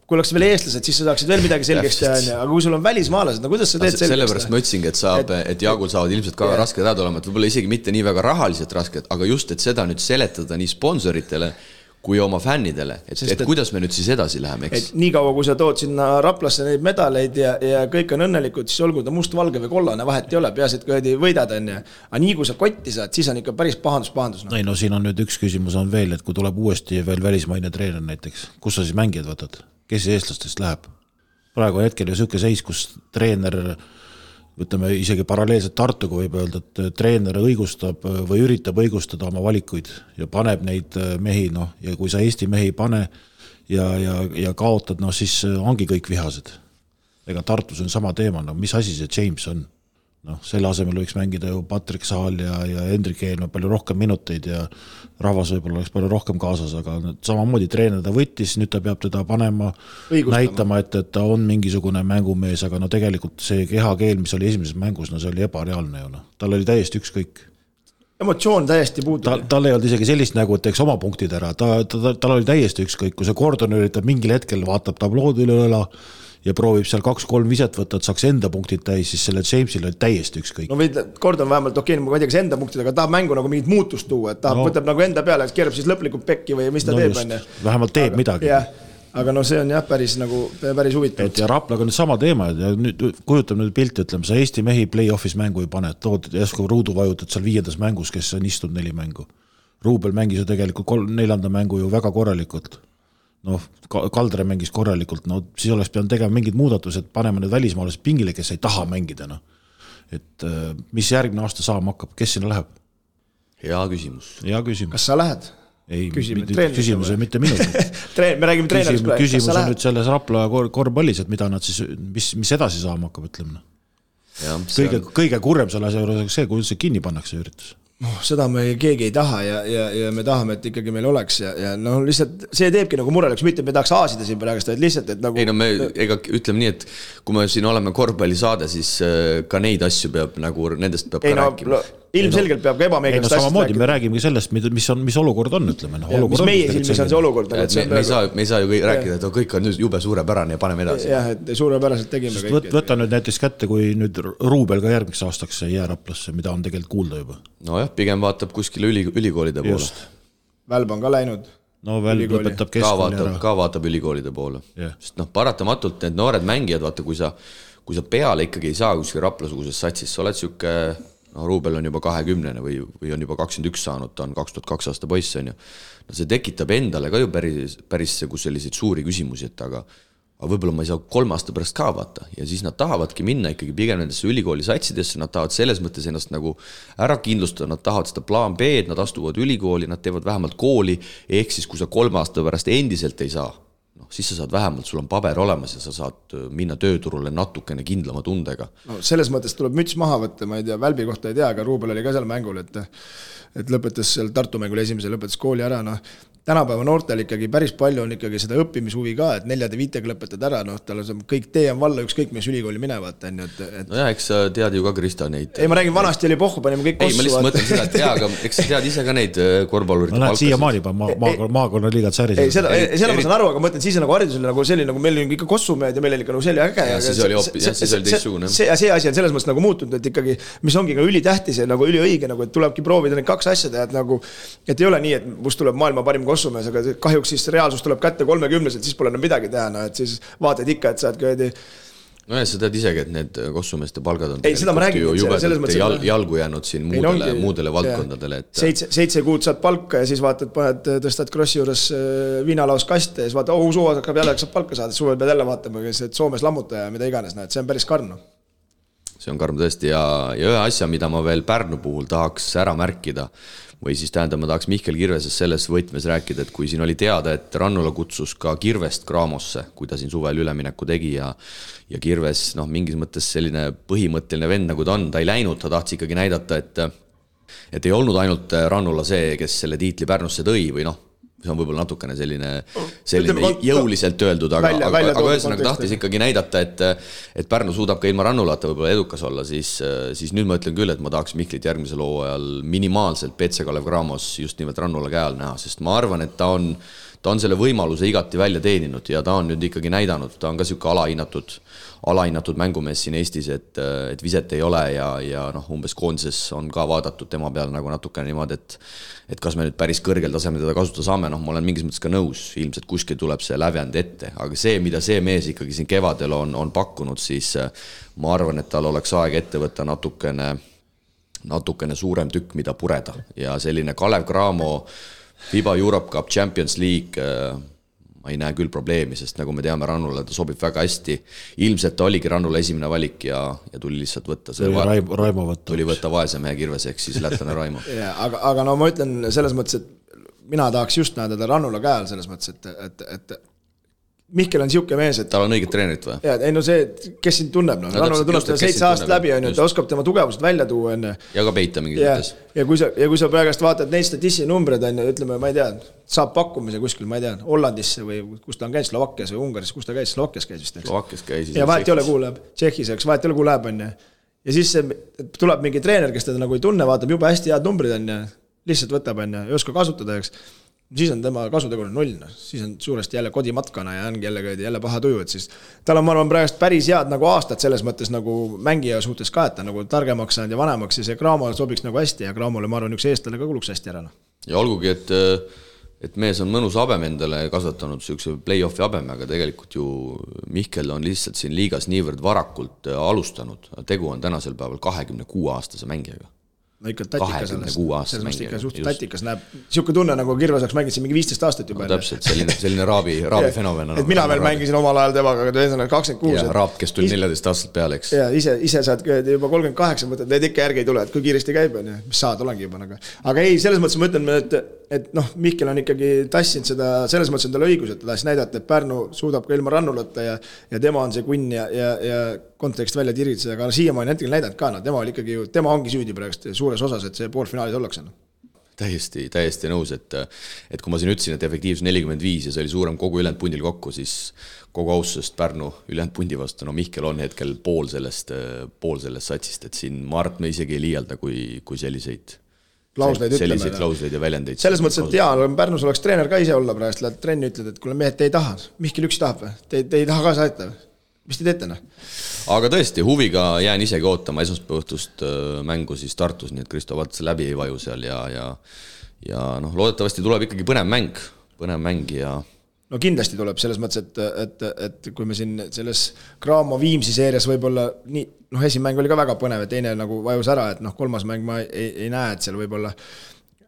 kui oleks veel eestlased, siis sa saaksid veel midagi selgeks teha, aga kui sul on välismaalased, no kuidas sa teed selgeks? Sellepärast ma ütlesingi, et Jaagul saavad ilmselt ka rasked ajad olema, et võib-olla isegi mitte nii väga rahaliselt rasked, aga just, et seda nüüd seletada nii sponsoritele kui oma fännidele, et kuidas me nüüd siis edasi läheme, eks? Et nii kaua, kui sa tood sinna Raplasse neid medaleid ja kõik on õnnelikud, siis olgu ta must, valge või kollane, vahet ei ole, peaasi, et kui võidad on ja. Aga nii kui sa kotti saad, siis on ikka päris pahandus. Ei, no siin on nüüd üks küsimus on veel, et kui tuleb uuesti veel välismaine treener näiteks, kus sa siis mängijad võtad? Kes eestlastest läheb? Praegu hetkel ju selline seis, kus treener võtame isegi paralleelselt Tartuga võib öelda, et treener õigustab või üritab õigustada oma valikuid ja paneb neid mehi, ja kui sa Eesti mehi pane ja kaotad, siis ongi kõik vihased. Ega Tartus on sama teema, mis asi see James on? Selle asemel võiks mängida ju Patrick Saal ja Hendrik Eelma palju rohkem minuteid ja rahvas võib-olla oleks palju rohkem kaasas, aga samamoodi treener ta võttis, nüüd ta peab teda panema, näitama, et ta on mingisugune mängumees, aga tegelikult see kehakeel, mis oli esimeses mängus, see oli ebareaalne ju. Tal oli täiesti ükskõik. Emotsioon täiesti puudub. Tal ei olnud isegi sellist nägu, et teeks oma punktid ära. Tal oli täiesti ükskõik, kui see Gordon üritab mingil hetkel vaatab tablood üle õla ja proovib seal 2-3 viset võtta, et saaks enda punktid täis, siis selle Jamesil oli täiesti ükskõik. No Gordon vähemalt, ma ei tea, kas enda punktid, aga tahab mängu nagu mingit muutust tuua, et tahab võtab nagu enda peale, et keerab siis lõplikult pekki või mis ta teeb. Vähemalt teeb midagi. Aga see on päris huvitav. Ja Raplaga nüüd sama teema, ja nüüd kujutab nüüd pilti, ütleme, sa Eesti mehi play-offis mängu ei pane, tood jäsku ruudu vajutad seal 5. mängus, kes on istunud 4 mängu. Ruubel mängis ju tegelikult 4. mängu ju väga korralikult. Kaldre mängis korralikult, siis oleks pidanud tegema mingid muudatused, panema need välismaalased pingile, kes ei taha mängida. Et mis järgmine aasta saama hakkab, kes sinna läheb? Hea küsimus. Kas sa lähed? Ei, küsimus ei mitte minu. Me räägime treenerist praegu. Küsimus on nüüd selles Rapla korvpallis, et mida nad siis, mis edasi saama hakkab, ütleme. Kõige kurrem selle asja juures see, kui see kinni pannakse üritus. Seda me keegi ei taha ja me tahame, et ikkagi meil oleks ja lihtsalt see teebki nagu mureleks, mitte me tahaks aasida siin praegust, et lihtsalt, et nagu... Ei, me ütleme nii, et kui me siin oleme korvpallisaade, siis ka neid asju peab nagu, nendest peab ka rääkima. Ilmselgelt peab ka ebameeldivast asjast samamoodi me räägime sellest, mis olukord on, ütleme. Mis meie silmis on see olukord. Me ei saa ju rääkida, et kõik on jube suurepärane ja paneme edasi. Jah, et suurepäraselt tegime kõik. Võta nüüd näiteks kätte, kui nüüd Ruubel ka järgmiseks aastaks jää Raplasse, mida on tegelikult kuulda juba. Nojah, pigem vaatab kuskile ülikoolide poole. Välb on ka läinud. Välb lõpetab keskkooli ära. Ka vaatab ülikoolide poole. Sest paratamatult need noored mängijad, vaata, kui sa peale ikkagi ei saa kuskil Rapla-suguses satsis, sa oled siuke... Ruubel on juba 20 või on juba 21 saanud, ta on 2002 aasta poiss on ju. See tekitab endale ka ju päris selliseid suuri küsimusi, et aga võib-olla ma ei saa 3 aasta pärast ka vaata ja siis nad tahavadki minna ikkagi pigem nendesse ülikooli satsidesse, nad tahavad selles mõttes ennast nagu ära kindlustada, nad tahavad seda plaan B, nad astuvad ülikooli, nad teevad vähemalt kooli, ehk siis kui sa 3 aasta pärast endiselt ei saa, siis sa saad vähemalt, sul on paber olemas ja sa saad minna tööturule natukene kindlama tundega. Selles mõttes tuleb müts maha võtta, ma ei tea, Välbi kohta ei tea, aga Ruubel oli ka seal mängul, et lõpetas seal Tartu mängul esimese, lõpetas kooli ära, tänapäeva noortel ikkagi päris palju on ikkagi seda õppimishuvi ka, et 4-5 lõpetad ära, tal on kõik tee on valla, ükskõik mis ülikooli minevad. Nojah, eks sa tead ju ka Krista neid. Ei, ma räägin, vanasti oli pohhu, panime kõik kossu. Ei, ma lihtsalt mõtlen seda, et aga eks sa tead ise ka neid korvpallurite palkasid. Siia maali maakonna liigad säris. Ei, seda ma saan aru, aga mõtlen, siis on nagu haridus oli nagu selline, nagu meil oli ikka kossumehed ja meil oli ikka nagu selline äge. Siis oli teistsugune. See asi on selles mõttes nagu muutunud, et ikkagi, mis ongi ka ülitähtis ja nagu üliõige, et tulebki proovida neid 2 asja teha, et ei ole nii, et must tuleb maailma parim kossumees, aga kahjuks siis reaalsus tuleb kätte 30-selt, siis pole enam midagi teha, et siis vaatad ikka, et saad köödi. No ja sa tead isegi, et need kossumeeste palgad on jalgu jäänud siin muudele valdkondadele. 7 kuud saad palka ja siis vaatad, tõstad krossi juures viinalaus kaste ja siis vaatad, suva hakkab jälle saab palka saada, suvel pead jälle vaatama, et Soomes lammuta ja mida iganes, see on päris karm. See on karm tõesti ja ühe asja, mida ma veel Pärnu puhul tahaks ära märkida, või siis tähendab, ma tahaks Mihkel Kirvesest selles võtmes rääkida, et kui siin oli teada, et Rannula kutsus ka Kirvest Kraamosse, kui ta siin suvel ülemineku tegi ja Kirves mingis mõttes selline põhimõtteline vend, nagu ta on, ta ei läinud, ta tahtis ikkagi näidata, et ei olnud ainult Rannula see, kes selle tiitli Pärnusse tõi või see on võib-olla natukene selline jõuliselt öeldud, aga ühesõnaga tahtis ikkagi näidata, et Pärnu suudab ka ilma Rannulata võib-olla edukas olla, siis nüüd ma ütlen küll, et ma tahaks Mihklit järgmisel hooajal minimaalselt PC Kalev Cramos just nimelt Rannula käe all näha, sest ma arvan, et ta ta on selle võimaluse igati välja teeninud ja ta on nüüd ikkagi näidanud, ta on ka siuke alahinnatud mängumees siin Eestis, et viset ei ole ja noh, umbes koondises on ka vaadatud tema peale nagu natukene niimoodi, et kas me nüüd päris kõrgel tasemel teda kasutada saame, noh, ma olen mingis mõttes ka nõus, ilmselt kuskil tuleb see lävend ette, aga see, mida see mees ikkagi siin kevadel on pakkunud, siis ma arvan, et tal oleks aeg ette võtta natukene suurem tükk, mida pureda ja selline Kalev Cramo FIBA Europe Cup Champions League ma ei näe küll probleemi, sest nagu me teame, Rannule ta sobib väga hästi. Ilmselt ta oligi Rannule esimene valik ja tuli lihtsalt võtta. Raimo võtta. Tuli võtta vaese mehe kirves, ehk siis lätlane Raimo. aga no ma ütlen selles mõttes, et mina tahaks just näeda ta Rannula käel selles mõttes, et Mihkel on siuke mees, et tal on õiget treenerit või? Ja, ei no see, kes sind tunneb, Rannula tunneb seda 7 aastat läbi, ta oskab tema tugevused välja tuua. Ja ka peita mingis mõttes. Ja kui sa praegast vaatad neid statissi numbreid, ütleme, ma ei tea, saab pakkumise kuskil, ma ei tea, Hollandisse või kus ta on käinud, Slovakkias või Ungaris, kus ta käis, Slovakkias käis vist. Slovakkias käis. Ja vahet ei ole, kuhu läheb, Tšehhis, eks, vahet ei ole, kuhu läheb, ja siis tuleb mingi treener, kes teda nagu ei tunne, vaatab juba hästi head numbrid, lihtsalt võtab, ei oska kasutada, eks. Siis on tema kasutegur 0, siis on suuresti jälle kodimatkana ja ongi jälle paha tuju, et siis tal on, ma arvan, praegust päris head nagu aastad selles mõttes nagu mängija suhtes ka, et ta nagu targemaks saanud ja vanemaks ja see Cramo sobiks nagu hästi ja Cramole, ma arvan, üks eestlane ka kuluks hästi ära. Ja olgugi, et mees on mõnus habem endale kasvatanud sükse play-offi habeme, aga tegelikult ju Mihkel on lihtsalt siin liigas niivõrd varakult alustanud. Tegu on tänasel päeval 26-aastase mängijaga. No ikka tatikas selles mõttes ikka suht tatikas näeb, siuke tunne nagu Kirves oleks mänginud siin mingi 15 aastat juba. No, täpselt, selline raabi fenomen. Et mina veel mängisin omal ajal temaga, aga 26. Ja raab, kes tuli 14 aastat peale, eks. Ja ise saad juba 38 mõtled, need ikka järgi ei tule, et kui kiiresti käib, mis saad, olengi juba. Aga ei, selles mõttes ma ütlen, et noh, Mihkel on ikkagi tassinud seda, selles mõttes on tal õigus, et ta tassi näidata, et Pärnu suudab ka ilma Rannulata ja tema on see kunn ja kontekst välja tiritseda, aga siiamaani hetkel näidanud ka, tema ongi süüdi praegust suures osas, et see poolfinaalis ollakse. Täiesti nõus, et kui ma siin ütlesin, et efektiivsus 45 ja see oli suurem kogu ülejäänud pundil kokku, siis kogu austusest Pärnu ülejäänud pundi vastu, no Mihkel on hetkel pool sellest satsist, et siin ma arvan, me isegi ei liialda, kui selliseid klausleid ja väljendeid. Selles mõttes, et Pärnus oleks treener ka ise olla praegust, lähed trenni ütled, et kuule mehed, te ei taha, Mihkel üks tahab või? Te ei taha ka saata või? Mis te teete? Aga tõesti, huviga jään isegi ootama esmaspäevõhtust mängu siis Tartus, nii et Kristo Vats läbi ei vaju seal ja noh, loodetavasti tuleb ikkagi põnev mäng ja no kindlasti tuleb selles mõttes, et kui me siin selles Cramo Viimsi seerias võib-olla nii, noh, esimmäng oli ka väga põnev ja teine nagu vajus ära, et noh, kolmas mäng ma ei näe, et seal võib-olla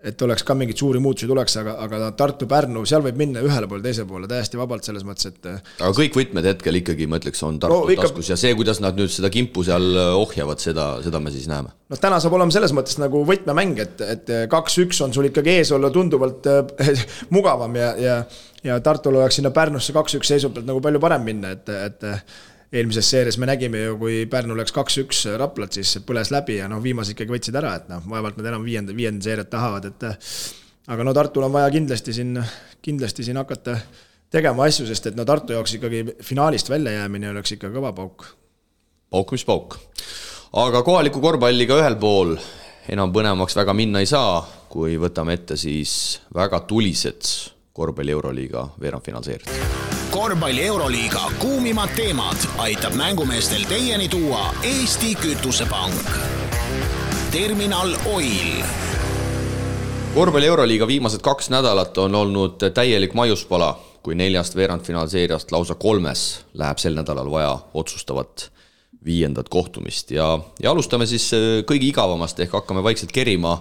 et oleks ka mingid suuri muutusi tuleks, aga Tartu-Pärnu, seal võib minna ühele poole, teise poole, täiesti vabalt selles mõttes, et aga kõik võtmed hetkel ikkagi, ma ütleks, on Tartu taskus ja see, kuidas nad nüüd seda kimpu seal ohjavad, seda me siis näeme. No täna saab olema selles mõttes nagu võtmemäng, et 2-1 on sul ikkagi ees olla tunduvalt mugavam ja Tartul oleks sinna Pärnusse 2-1 seisupelt nagu palju parem minna, et eelmises seeres me nägime ju, kui Pärnu läks 2-1 Raplat, siis põles läbi ja viimase ikkagi võtsid ära, et vaevalt nad enam viienda seeriat tahavad, aga Tartul on vaja kindlasti siin hakata tegema asju, sest et Tartu jaoks ikkagi finaalist välja jäämine oleks ikka kõva pauk. Pauk mis pauk. Aga kohaliku korvpalliga ühel pool enam põnevamaks väga minna ei saa, kui võtame ette siis väga tulised korvpalli Euroliiga veerandfinaalseeriad. Korvpalli Euroliiga kuumimad teemad aitab mängumeestel teieni tuua Eesti Kütusepank. Terminal Oil. Korvpalli Euroliiga viimased 2 nädalat on olnud täielik maiuspala, kui 4 veerandfinaalseeriast lausa 3 läheb sel nädalal vaja otsustavat 5. kohtumist ja alustame siis kõigi igavamast ehk hakkame vaikselt kerima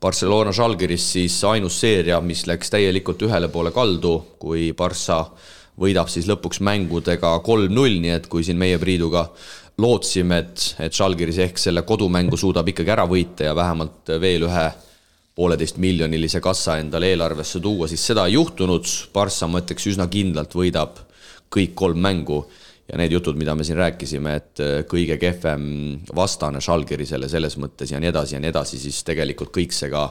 Barcelona Žalgiris siis ainus seeria, mis läks täielikult ühele poole kaldu, kui Barça võidab siis lõpuks mängudega 3-0, nii et kui siin meie Priiduga lootsime, et Žalgiris ehk selle kodumängu suudab ikkagi ära võita ja vähemalt veel 1,5 miljonilise kassa endale eelarvesse tuua, siis seda ei juhtunud. Barça, ma ütleks, üsna kindlalt võidab kõik 3 mängu ja need jutud, mida me siin rääkisime, et kõige kehvem vastane Žalgirisele selles mõttes ja nii edasi, siis tegelikult kõik see ka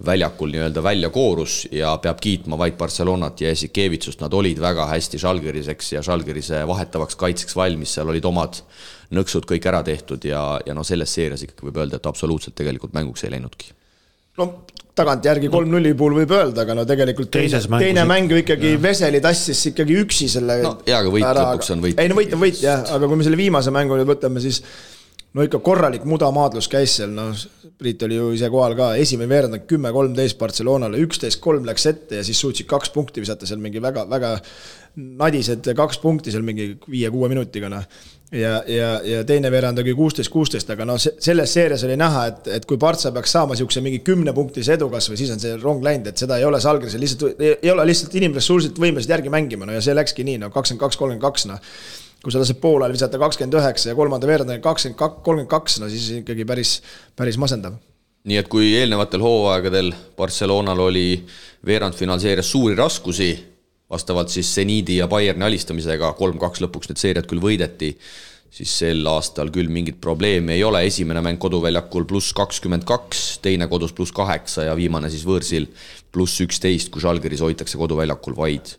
väljakul nii-öelda välja koorus ja peab kiitma vaid Barcelonat ja Jasikevitsust. Nad olid väga hästi Žalgiriseks ja Žalgirise vahetavaks kaitseks valmis, seal olid omad nõksud kõik ära tehtud ja selles seerias ikkagi võib öelda, et absoluutselt tegelikult mänguks ei läinudki. No tagantjärgi 3-0 puhul võib öelda, aga no tegelikult teine mäng ju ikkagi Veseli tassis ikkagi üksi selle ja aga võit lõpuks on võit. Ei no võit on võit jah, aga kui me selle viimase mängu nüüd võtame, siis no ikka korralik mudamaadlus käis seal, no Priit oli ju ise kohal ka, esimene veerand 10-13 Barcelonale, 11-3 läks ette ja siis suutsid 2 punkti visata seal mingi väga nadised 2 punkti seal mingi 5-6 minutiga, noh. Ja teine veerand oli 16-16, aga no selles seerias oli näha, et kui Partsa peaks saama siukse mingi 10-punktise edukas või siis on see rong läinud, et seda ei ole Žalgirisel, ei ole lihtsalt inimressursid võimelised järgi mängima, no ja see läkski nii, no 22-32, no kui sa lased poolel visata 29 ja kolmanda veerandani 22-32, no siis ikkagi päris masendav. Nii et kui eelnevatel hooaegadel Barcelonal oli veerandfinaalseerias suuri raskusi, vastavalt siis Zenidi ja Bayerni alistamisega 3-2 lõpuks need seeriad küll võideti, siis sel aastal küll mingit probleemi ei ole. Esimene mäng koduväljakul +22, teine kodus +8 ja viimane siis võõrsil +11, kui Žalgiris hoitakse koduväljakul vaid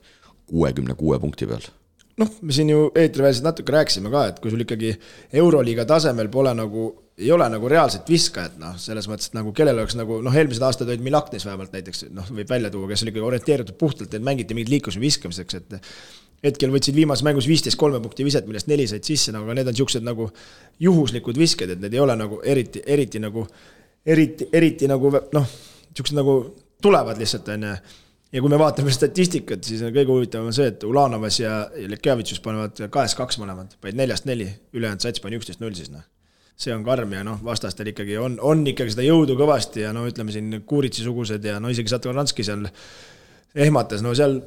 66 punkti peal. Noh, me siin ju eetriväliselt natuke rääkisime ka, et kui sul ikkagi Euroliiga tasemel ei ole nagu reaalselt viskajat, noh, selles mõttes, et nagu kellel oleks nagu, noh, eelmised aastad olid Milaknis vähemalt näiteks, noh, võib välja tuua, kes oli ikkagi orienteeritud puhtalt, et mängiti mingid liikluse viskamiseks, et hetkel võtsid viimases mängus 15-3 punkti viset, millest 4 said sisse, aga need on siuksed nagu juhuslikud visked, et need ei ole nagu eriti nagu, noh, siuksed nagu tulevad lihtsalt, on. Ja kui me vaatame statistikat, siis kõige huvitavam on see, et Ulanovas ja Lekjavitsus panevad 2-2 mõlemad, vaid 4-4, ülejäänud sats pani 11-0 siis, noh. See on karm ja noh, vastastel ikkagi on ikkagi seda jõudu kõvasti ja no ütleme siin Kuuritsi-sugused ja no isegi Satoranski seal ehmatas, no seal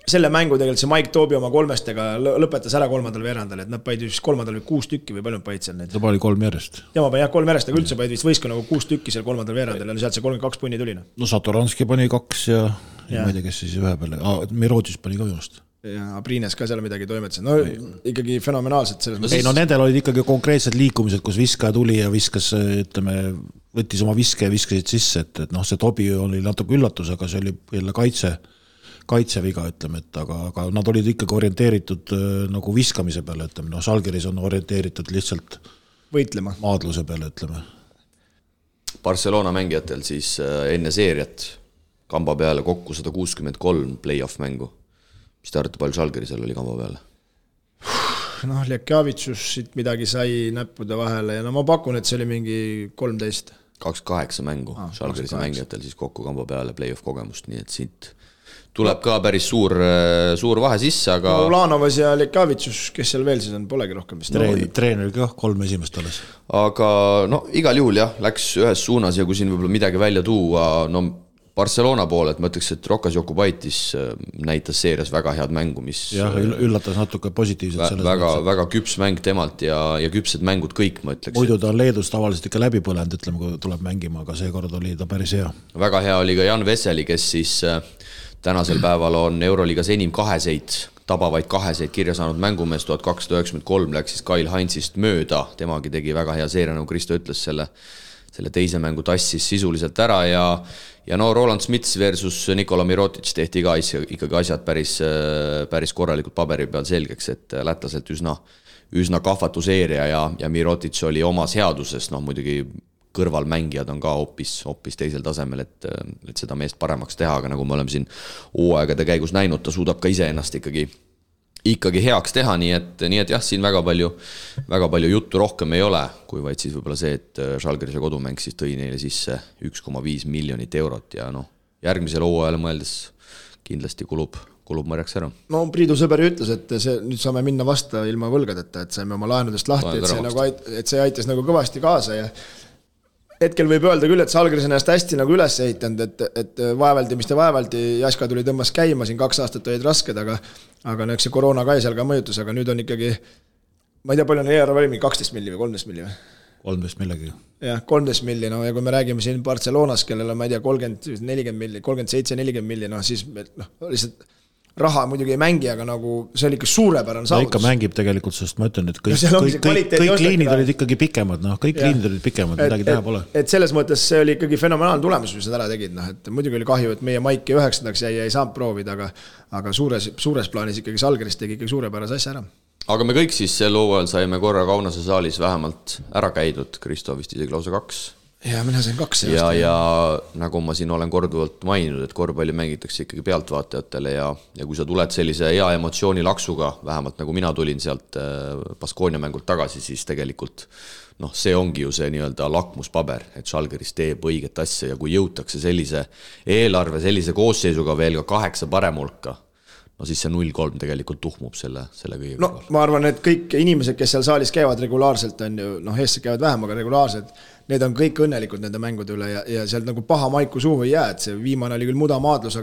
selle mängu tegelikult see Mike Toobi oma 3-stega lõpetas ära 3. veerandal, et nad paid vist 3. või 6 tükki või palju paid seal neid. Ta pani 3 järjest. Ja ma panin 3 järjest, aga üldse paid vist võiska nagu 6 tükki seal 3. veerandal ja sealt see 32 punni tuli. No Satoranski pani 2 ja ma ei tea, kes siis ühe peale. Mirotis pani ka minust. Ja Abrines ka seal midagi toimetas. No ikkagi fenomenaalselt selles mõttes. Ei, no nendel olid ikkagi konkreetsed liikumised, kus viskaja tuli ja viskas, ütleme, võttis oma viske ja viskasid sisse, et noh, see Tobi oli natuke üllatus, aga see oli jälle kaitseviga, ütleme, et aga nad olid ikkagi orienteeritud nagu viskamise peale, ütleme, no Žalgiris on orienteeritud lihtsalt võitlema maadluse peale, ütleme. Barcelona mängijatel siis enne seeriat kamba peale kokku 163 play-off mängu. Mis te arvate, palju Žalgirisel oli kamba peale? Noh, Lekjavitsus siit midagi sai näppude vahele ja no ma pakun, et see oli mingi 13. 28 mängu Žalgirise mängijatel siis kokku kamba peale play-off kogemust, nii et siit tuleb ka päris suur vahe sisse, aga no, Ulanovas ja Lekjavitsus, kes seal veel siis on, polegi rohkem vist. Treener ka 3 esimest alles. Aga no igal juhul jah, läks ühes suunas ja kui siin võib-olla midagi välja tuua, no Barcelona poole, et ma ütleks, et Rokas Jokubaitis näitas seerias väga head mängu, mis jah, üllatas natuke positiivselt väga küps mäng temalt ja küpsed mängud kõik, ma ütleks. Muidu ta on Leedus tavaliselt ikka läbi põlenud, ütleme, kui tuleb mängima, aga seekord oli ta päris hea. Väga hea oli ka Jan Veseli, kes siis tänasel päeval on Euroliigas enim tabavaid kaheseid kirja saanud mängumees, 1293 läks siis Kyle Heinzist mööda, temagi tegi väga hea seeria, nagu Kristo ütles, selle teise mängu tassis sisuliselt ära ja no Roland Smits versus Nikola Mirotic tehti ka ikkagi asjad päris korralikult paberi peal selgeks, et lätlaselt üsna kahvatu seeria ja Mirotic oli omas headuses, noh muidugi kõrvalmängijad on ka hoopis teisel tasemel, et seda meest paremaks teha, aga nagu me oleme siin hooaegade käigus näinud, ta suudab ka ise ennast ikkagi heaks teha, nii et jah, siin väga palju juttu rohkem ei ole, kui vaid siis võib-olla see, et Žalgirise kodumäng siis tõi neile sisse 1,5 miljonit eurot ja noh, järgmisel hooajal mõeldes kindlasti kulub mõrjaks ära. No Priidu sõber ütles, et nüüd saame minna vasta ilma võlgadeta, et saime oma laenudest lahti, et see aitas nagu kõvasti kaasa ja hetkel võib öelda küll, et Žalgiris ennast hästi nagu üles ehitanud, et vaevaldi, Jaska tuli tõmbas käima, siin 2 aastat olid rasked, aga eks see koroona ka seal ka mõjutus, aga nüüd on ikkagi, ma ei tea, palju on ERV 12 milli või 13 milli või? 13 millegi. Jah, 13 milli, no ja kui me räägime siin Barcelonas, kellel on, ma ei tea, 30-40 milli, 37-40 milli, no siis lihtsalt raha muidugi ei mängi, aga nagu see oli ikka suurepärane saavutus. Ikka mängib tegelikult, sest ma ütlen, et kõik liinid olid ikkagi pikemad, midagi teha pole. Et selles mõttes see oli ikkagi fenomenaalne tulemus, mis nad ära tegid, et muidugi oli kahju, et meie Maiki 9. jäi ei saanud proovida, aga suures plaanis ikkagi Žalgiris tegi ikkagi suurepärase asja ära. Aga me kõik siis sel hooajal saime korra Kaunase saalis vähemalt ära käidud, Kristo vist isegi lausa 2. ja mina sain 2 ja nagu ma siin olen korduvalt maininud, et korvpalli mängitakse ikkagi pealtvaatajatele ja kui sa tuled sellise hea emotsiooni laksuga, vähemalt nagu mina tulin sealt Baskonia mängult tagasi, siis tegelikult see ongi ju see nii-öelda lakmuspaber, et Žalgiris teeb õiget asja ja kui jõutakse sellise eelarve, sellise koosseisuga veel ka 8 paremulka, siis see 0-3 tegelikult tuhmub selle kõigega. Ma arvan, et kõik inimesed, kes seal saalis käivad regulaarselt, on ju, eestlased käivad vähem, aga regulaarselt, need on kõik õnnelikud nende mängude üle ja sealt nagu paha maiku suhu ei jää, et see viimane oli küll mudamaadlus,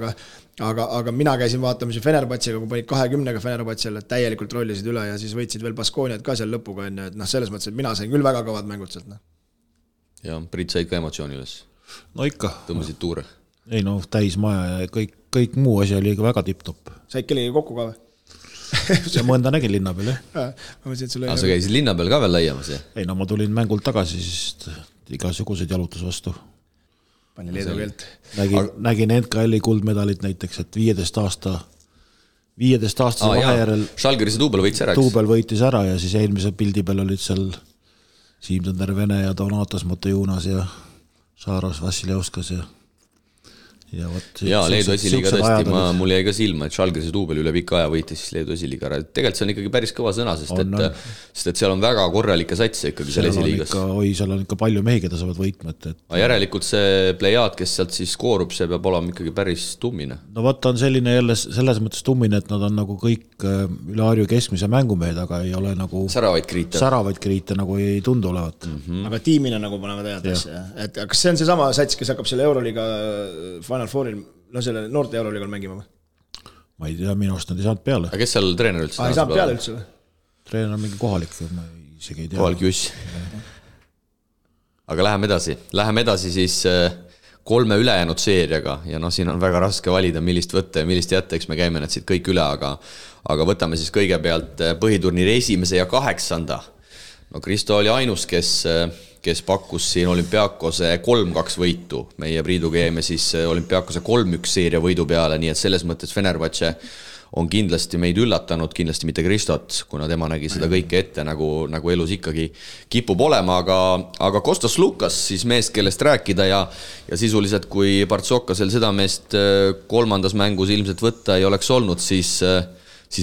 aga mina käisin vaatamas Fenerbahcega, kui panid 20-ga Fenerbahcele, täielikult rollisid üle ja siis võitsid veel Baskoniat ka seal lõpuga, et selles mõttes, et mina sain küll väga kõvad mängud sealt. Ja Priit said ka emotsiooni üles? No ikka. Tõmbasid tuure? Ei täis maja ja kõik muu asi oli väga tipp-topp. Said kellegi kokku ka või? Ja mõnda nägin linna peal, jah. Sa käisid linna peal ka veel laiamas, jah? Ei, ma tulin mängult tagasi, siis igasuguseid jalutus vastu. Pani leedu keelt. Nägin NKL-i kuldmedalit näiteks, et 15 aastase vahejärel Žalgirise Tuubel võitis ära, Tuubel võitis ära ja siis eelmise pildi peal olid seal Siim-Tõnder Vene ja Donatas Motojunas ja Saaros Vassiljevskas ja Leedu esiliiga tõesti, mul jäi ka silma, et Žalgirise Tuubel üle pika aja võitis siis Leedu esiliiga ära. Tegelikult see on ikkagi päris kõva sõna, sest et seal on väga korralikke satse ikkagi seal esiliigas. Seal on ikka palju mehi, keda saavad võitma. Järelikult see plejaad, kes sealt siis koorub, see peab olema ikkagi päris tummine. No vaata on selline jälle selles mõttes tummine, et nad on nagu kõik üle harju keskmise mängumehed, aga ei ole nagu säravaid kriite nagu ei tundu olevat. Aga tiimina nagu panevad head asja. Kas see on see sama sats, kes hakkab selle Euroliiga Final Fouril, selle noorte Euroliigal mängima või? Ma ei tea, minu arust nad ei saanud peale. Aga kes seal treener üldse? Ei saanud peale üldse või? Treener on mingi kohalik, ma isegi ei tea. Kohalik juss. Aga läheme edasi siis 3 ülejäänud seeriaga ja siin on väga raske valida, millist võtta ja millist jätta, eks me käime need siit kõik üle, aga võtame siis kõigepealt põhiturniiri 1. ja 8. Kristo oli ainus, kes pakkus siin Olümpiakose 3-2 võitu. Meie Priiduga jäime siis Olümpiakose 3-1 seeria võidu peale, nii et selles mõttes Fenerbahce on kindlasti meid üllatanud, kindlasti mitte Kristot, kuna tema nägi seda kõike ette, nagu elus ikkagi kipub olema, aga Kostas Lukas, siis meest, kellest rääkida ja sisuliselt, kui Partsokasel seda meest 3. mängus ilmselt võtta ei oleks olnud, siis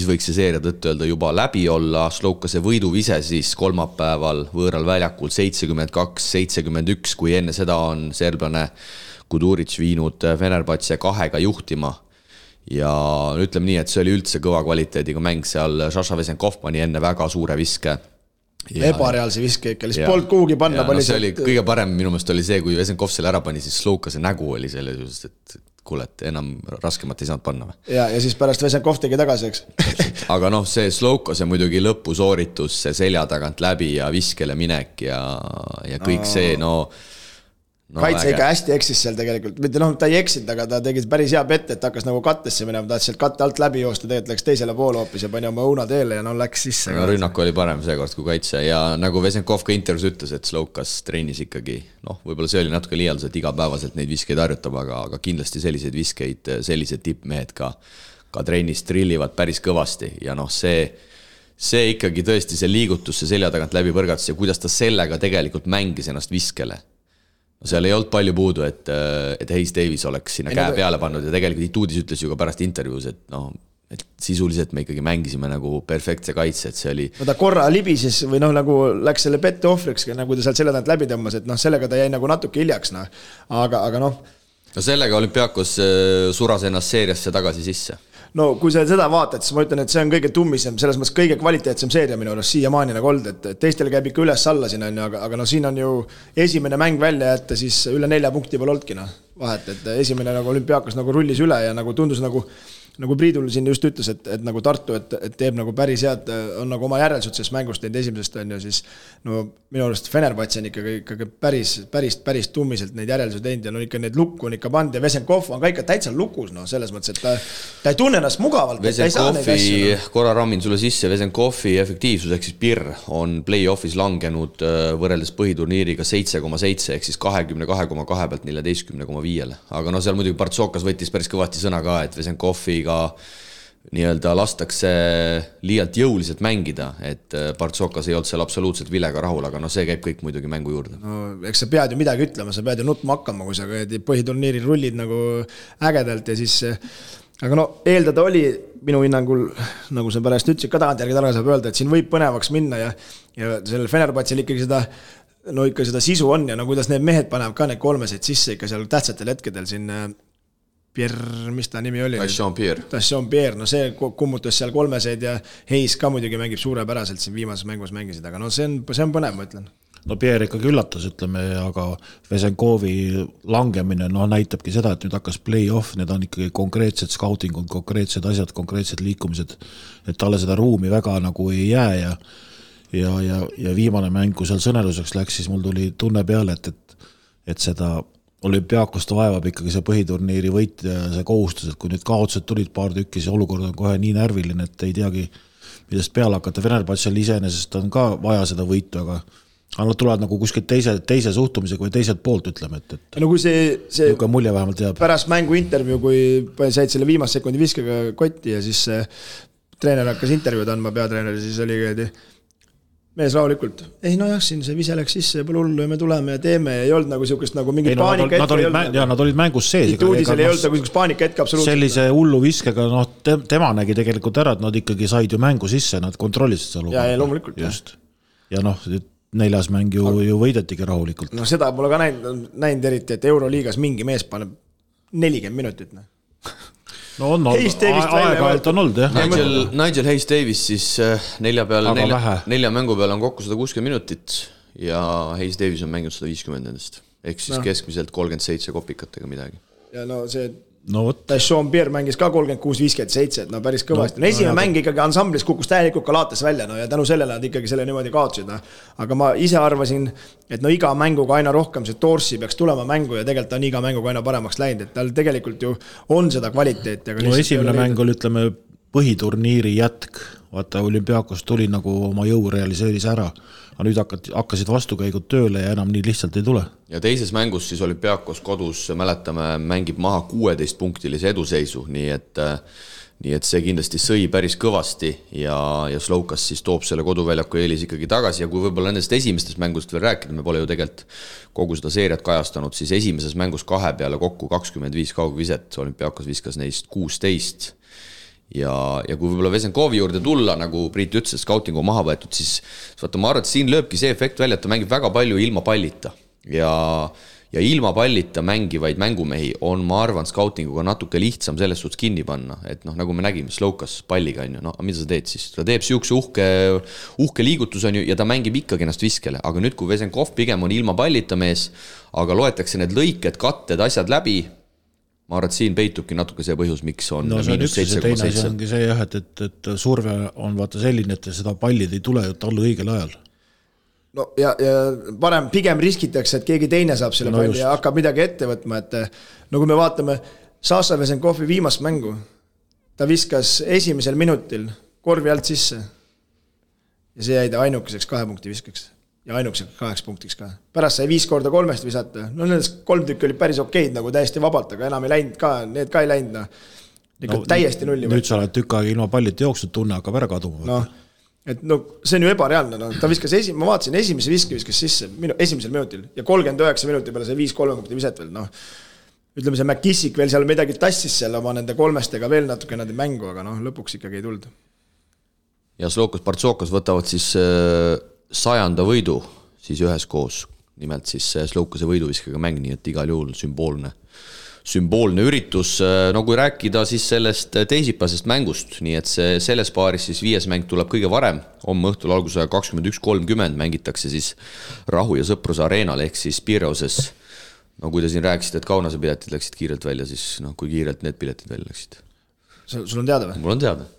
võiks see seeria tõttu öelda juba läbi olla. Slokase võiduvise siis kolmapäeval võõral väljakul 72-71, kui enne seda on serblane Kuduric viinud Fenerbahce 2-ga juhtima. Ja ütleme nii, et see oli üldse kõva kvaliteediga mäng seal. Šaša Vesenkov pani enne väga suure viske. Ebareaalse viske ikka, lihtsalt polnud kuhugi panna. See oli kõige parem minu meelest oli see, kui Vesenkov selle ära pani, siis Slokase nägu oli selle, et kuule, et enam raskemat ei saanud panna. Ja siis pärast Vesenkov tegi tagasi, eks. Aga see Slokase muidugi lõpusooritus, see selja tagant läbi ja viskele minek ja kõik see, kaitse ikka hästi eksis seal tegelikult, mitte ta ei eksinud, aga ta tegi päris hea pette, et hakkas nagu kattesse minema, ta sealt katte alt läbi joosta, tegelikult läks teisele poole hoopis ja pani oma õuna teele ja läks sisse. Rünnak oli parem seekord kui kaitse ja nagu Vesenkov ka intervjuus ütles, et Slokas treenis ikkagi, võib-olla see oli natuke liialdus, et igapäevaselt neid viskeid harjutab, aga kindlasti selliseid viskeid, sellised tippmehed ka treenis trillivad päris kõvasti ja see ikkagi tõesti see liigutus, see selja tagant läbi põrgatus ja kuidas ta sellega tegelikult mängis ennast viskele. Seal ei olnud palju puudu, et Hayes Davis oleks sinna käe peale pannud ja tegelikult Ituudis ütles ju ka pärast intervjuus, et sisuliselt me ikkagi mängisime nagu perfektse kaitse, et see oli... ta korra libises või nagu läks selle pette ohvriks, nagu ta sealt selle tagant läbi tõmmas, et sellega ta jäi nagu natuke hiljaks, aga sellega Olümpiakos suras ennast seeriasse tagasi sisse. Kui sa seda vaatad, siis ma ütlen, et see on kõige tummisem, selles mõttes kõige kvaliteetsem seeria minu arust siiamaani nagu olnud, et teistel käib ikka üles-alla siin, aga siin on ju esimene mäng välja jätta, siis üle 4 punkti pole olnudki vahet, et esimene nagu Olümpiakos nagu rullis üle ja nagu tundus nagu Priidul siin just ütles, et nagu Tartu, et teeb nagu päris head, on nagu oma järelsud sellest mängust teinud esimesest on ju, siis minu arust Fenerbahce on ikkagi päris tummiselt neid järeldusi teinud ja ikka neid lukku on ikka pand ja Vesenkov on ka ikka täitsa lukus, selles mõttes, et ta ei tunne ennast mugavalt. Vesenkovi, korra rammin sulle sisse, Vesenkovi efektiivsus ehk siis PIR on play-offis langenud võrreldes põhiturniiriga 7,7 ehk siis 22,2 pealt 14,5. Aga seal muidugi Partsokas võttis päris kõvasti sõna ka, et Vesenkovi nii-öelda lastakse liialt jõuliselt mängida, et Partsokas ei olnud seal absoluutselt vilega rahul, aga see käib kõik muidugi mängu juurde. No eks sa pead ju midagi ütlema, sa pead ju nutma hakkama, kui sa põhiturniiril rullid nagu ägedalt ja siis aga eeldada oli minu hinnangul, nagu sa pärast ütlesid ka tagantjärgi targa saab öelda, et siin võib põnevaks minna ja sellel Fenerbahce'l ikkagi seda sisu on ja kuidas need mehed panevad ka need kolmeseid sisse ikka seal tähtsatel hetkedel siin Pierre, mis ta nimi oli? Tassion Pierre, see kummutas seal kolmeseid ja Heis ka muidugi mängib suurepäraselt siin viimases mängus mängisid, aga see on põnev, ma ütlen. Pierre ikkagi üllatas, ütleme, aga Vesenkovi langemine näitabki seda, et nüüd hakkas play-off, need on ikkagi konkreetsed scoutingud, konkreetsed asjad, konkreetsed liikumised, et talle seda ruumi väga nagu ei jää ja viimane mäng, kui seal sõneluseks läks, siis mul tuli tunne peale, et seda Olümpiaakost vaevab ikkagi see põhiturniiri võit ja see kohustus, et kui nüüd kaotused tulid paar tükki, see olukord on kohe nii närviline, et ei teagi, millest peale hakata. Fenerbahce'l iseenesest on ka vaja seda võitu, aga nad tulevad nagu kuskilt teise suhtumisega või teiselt poolt, ütleme, et kui see mulje vähemalt jääb. Pärast mängu intervjuu, kui said selle viimase sekundi viskega kotti ja siis treener hakkas intervjuud andma, peatreener, siis oli mees rahulikult. Siin see vise läks sisse ja pole hullu ja me tuleme ja teeme ja ei olnud nagu siukest nagu mingi paanika hetke. Nad olid mängus sees. Uudisel ei olnud nagu siukest paanika hetke absoluutselt. Sellise hullu viskega, tema nägi tegelikult ära, et nad ikkagi said ju mängu sisse, nad kontrollisid seal. Ja loomulikult. Just. Ja 4. mäng ju võidetigi rahulikult. Seda pole ka näinud eriti, et Euroliigas mingi mees paneb 40 minutit. On aeg-ajalt on olnud, jah. Nigel Hayes Davis siis 4 mängu peal on kokku 160 minutit ja Hayes Davis on mänginud 150 endast. Ehk siis keskmiselt 37 kopikatega midagi. Ja Tassion Pierre mängis ka 36-57, päris kõvasti. Esimene mäng ikkagi ansamblis kukkus täielikult Kalaates välja ja tänu sellele nad ikkagi selle niimoodi kaotsid. Aga ma ise arvasin, et iga mänguga aina rohkem see Torsi peaks tulema mängu ja tegelikult on iga mänguga aina paremaks läinud, et tal tegelikult ju on seda kvaliteeti. Esimene mäng oli, ütleme, põhiturniiri jätk. Vaata, Olümpiakos tuli nagu oma jõu realiseeris ära. Aga nüüd hakkasid vastukäigud tööle ja enam nii lihtsalt ei tule. Ja teises mängus siis Olümpiakos kodus, mäletame, mängib maha 16-punktilise eduseisu, nii et see kindlasti sõi päris kõvasti ja Slovkas siis toob selle koduväljaku eelis ikkagi tagasi ja kui võib-olla nendest esimestest mängust veel rääkida, me pole ju tegelikult kogu seda seeriat kajastanud, siis esimeses mängus 2 peale kokku 25 kaugviset, Olümpiakos viskas neist 16 ja kui võib-olla Vesenkovi juurde tulla, nagu Priit ütles, et scoutingu maha võetud, siis vaata, ma arvan, et siin lööbki see efekt välja, et ta mängib väga palju ilma pallita ja ilma pallita mängivaid mängumehi on, ma arvan, scoutinguga natuke lihtsam selles suhtes kinni panna, et nagu me nägime Slovkas palliga, mida sa teed siis? Ta teeb siukse uhke liigutus ja ta mängib ikkagi ennast viskele, aga nüüd kui Vesenkov pigem on ilma pallita mees, aga loetakse need lõiked, katted, asjad läbi, ma arvan, et siin peitubki natuke see põhjus, miks on -7,7. Teine see ongi see, et surve on vaata selline, et seda pallid ei tule talle õigel ajal. Ja parem pigem riskitakse, et keegi teine saab selle palli ja hakkab midagi ette võtma, et kui me vaatame Sasha Vesenkovi viimast mängu, ta viskas esimesel minutil korvi alt sisse ja see jäi ta ainukeseks 2 punkti viskaks. Ja ainukeseks 8 punktiks ka. Pärast sai 5 korda 3 visata. Nendest 3 tükki olid päris okeid, nagu täiesti vabalt, aga enam ei läinud ka, need ka ei läinud. Täiesti nulli. Nüüd sa oled tükk aega ilma pallita jooksnud, tunne hakkab ära kaduma. See on ju ebareaalne. Ta viskas ma vaatasin, esimese viskas sisse esimesel minutil ja 39 minuti peale sai 5-3 punkti viset veel. Ütleme, see McKissick veel seal midagi tassis seal oma nende 3-stega veel natuke nende mängu, aga lõpuks ikkagi ei tulnud. Ja Slovkas Partsokas võtavad siis 100. võidu siis üheskoos, nimelt siis Slovkase võiduviskega mäng, nii et igal juhul sümboolne üritus. Kui rääkida siis sellest teisipäevasest mängust, nii et selles paaris siis 5. mäng tuleb kõige varem, homme õhtul alguse 21.30 mängitakse siis Rahu ja Sõpruse areenal ehk siis Pireuses. Kui te siin rääkisid, et Kaunase piletid läksid kiirelt välja, siis kui kiirelt need piletid välja läksid? Sul on teada või? Mul on teada.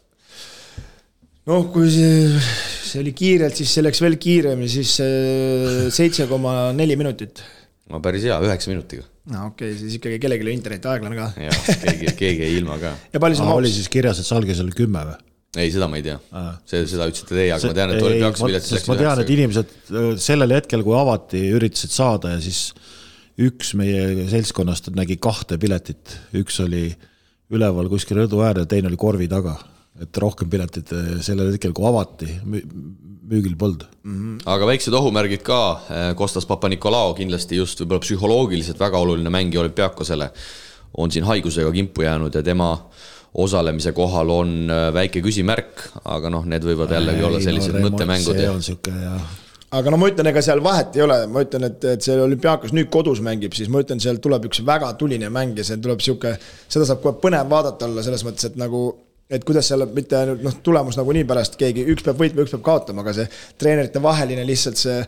Kui see oli kiirelt, siis see läks veel kiiremini, siis 7,4 minutit. Päris hea, 9 minutiga. Okei, siis ikkagi kellelegi interneti aeglane ka. Ja, keegi ei ilma ka. Ja palju see oli siis kirjas, et Salges oli 10 või? Ei, seda ma ei tea. Seda ütlesite teie, aga ma tean, et oli peaks piletid läks. Ma tean, et inimesed sellel hetkel, kui avati, üritasid saada ja siis üks meie seltskonnast nägi 2 piletit. Üks oli üleval kuskil rõdu äär ja teine oli korvi taga. et rohkem piletit sellel hetkel, kui avati, müügil polnud. Aga väiksed ohumärgid ka, Kostas Papa-Nikolao kindlasti just võib-olla psühholoogiliselt väga oluline mängi Olümpiakosele on siin haigusega kimpu jäänud ja tema osalemise kohal on väike küsimärk, aga need võivad jällegi olla sellised mõttemängud. See on siuke ja... Aga ma ütlen, ega seal vahet ei ole, ma ütlen, et see Olümpiakos nüüd kodus mängib, siis ma ütlen, seal tuleb üks väga tuline mäng ja see tuleb siuke, seda saab kohe põnev vaadata olla selles mõttes, et nagu et kuidas seal mitte ainult tulemus nagu nii pärast keegi, üks peab võitma, üks peab kaotama, aga see treenerite vaheline lihtsalt see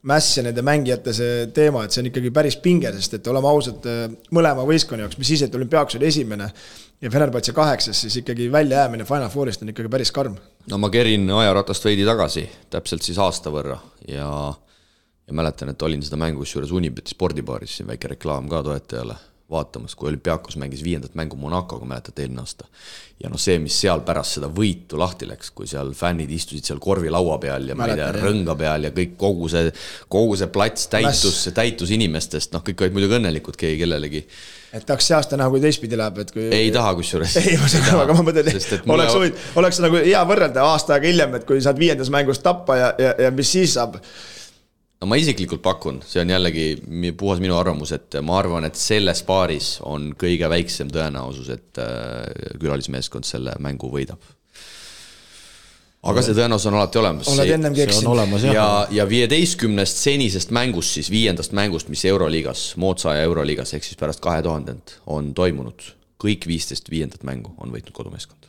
mäss ja nende mängijate see teema, et see on ikkagi päris pinge, sest et oleme ausad mõlema võistkonna jaoks, mis siis, et Olümpiakos oli esimene ja Fenerbahce 8, siis ikkagi välja jäämine Final Fourist on ikkagi päris karm. No ma kerin ajaratast veidi tagasi, täpselt siis aasta võrra ja mäletan, et olin seda mängus juures Unibeti spordibaaris, siin väike reklaam ka toetajale vaatamas, kui Olümpiakos mängis 5. mängu Monacoga, mäletad eelmine aasta. Ja see, mis seal pärast seda võitu lahti läks, kui seal fännid istusid seal korvilaua peal ja rõnga peal ja kõik kogu see plats täitus inimestest, kõik olid muidugi õnnelikud keegi kellelegi. Et tahaks see aasta näha, kui teistpidi läheb, et kui... Ei taha kusjuures. Ei, aga ma mõtlen, oleks nagu hea võrrelda aasta aega hiljem, et kui saad 5. mängust tappa ja mis siis saab? No ma isiklikult pakun, see on jällegi puhas minu arvamus, et ma arvan, et selles paaris on kõige väiksem tõenäosus, et külalismeeskond selle mängu võidab. Aga see tõenäosus on alati olemas. Oled ennem keksinud. Ja 15 senisest mängust, siis 5. mängust, mis Euroliigas, Mootsa ja Euroliigas, ehk siis pärast 2000 on toimunud. Kõik 15 5. mängu on võitnud kodumeeskond.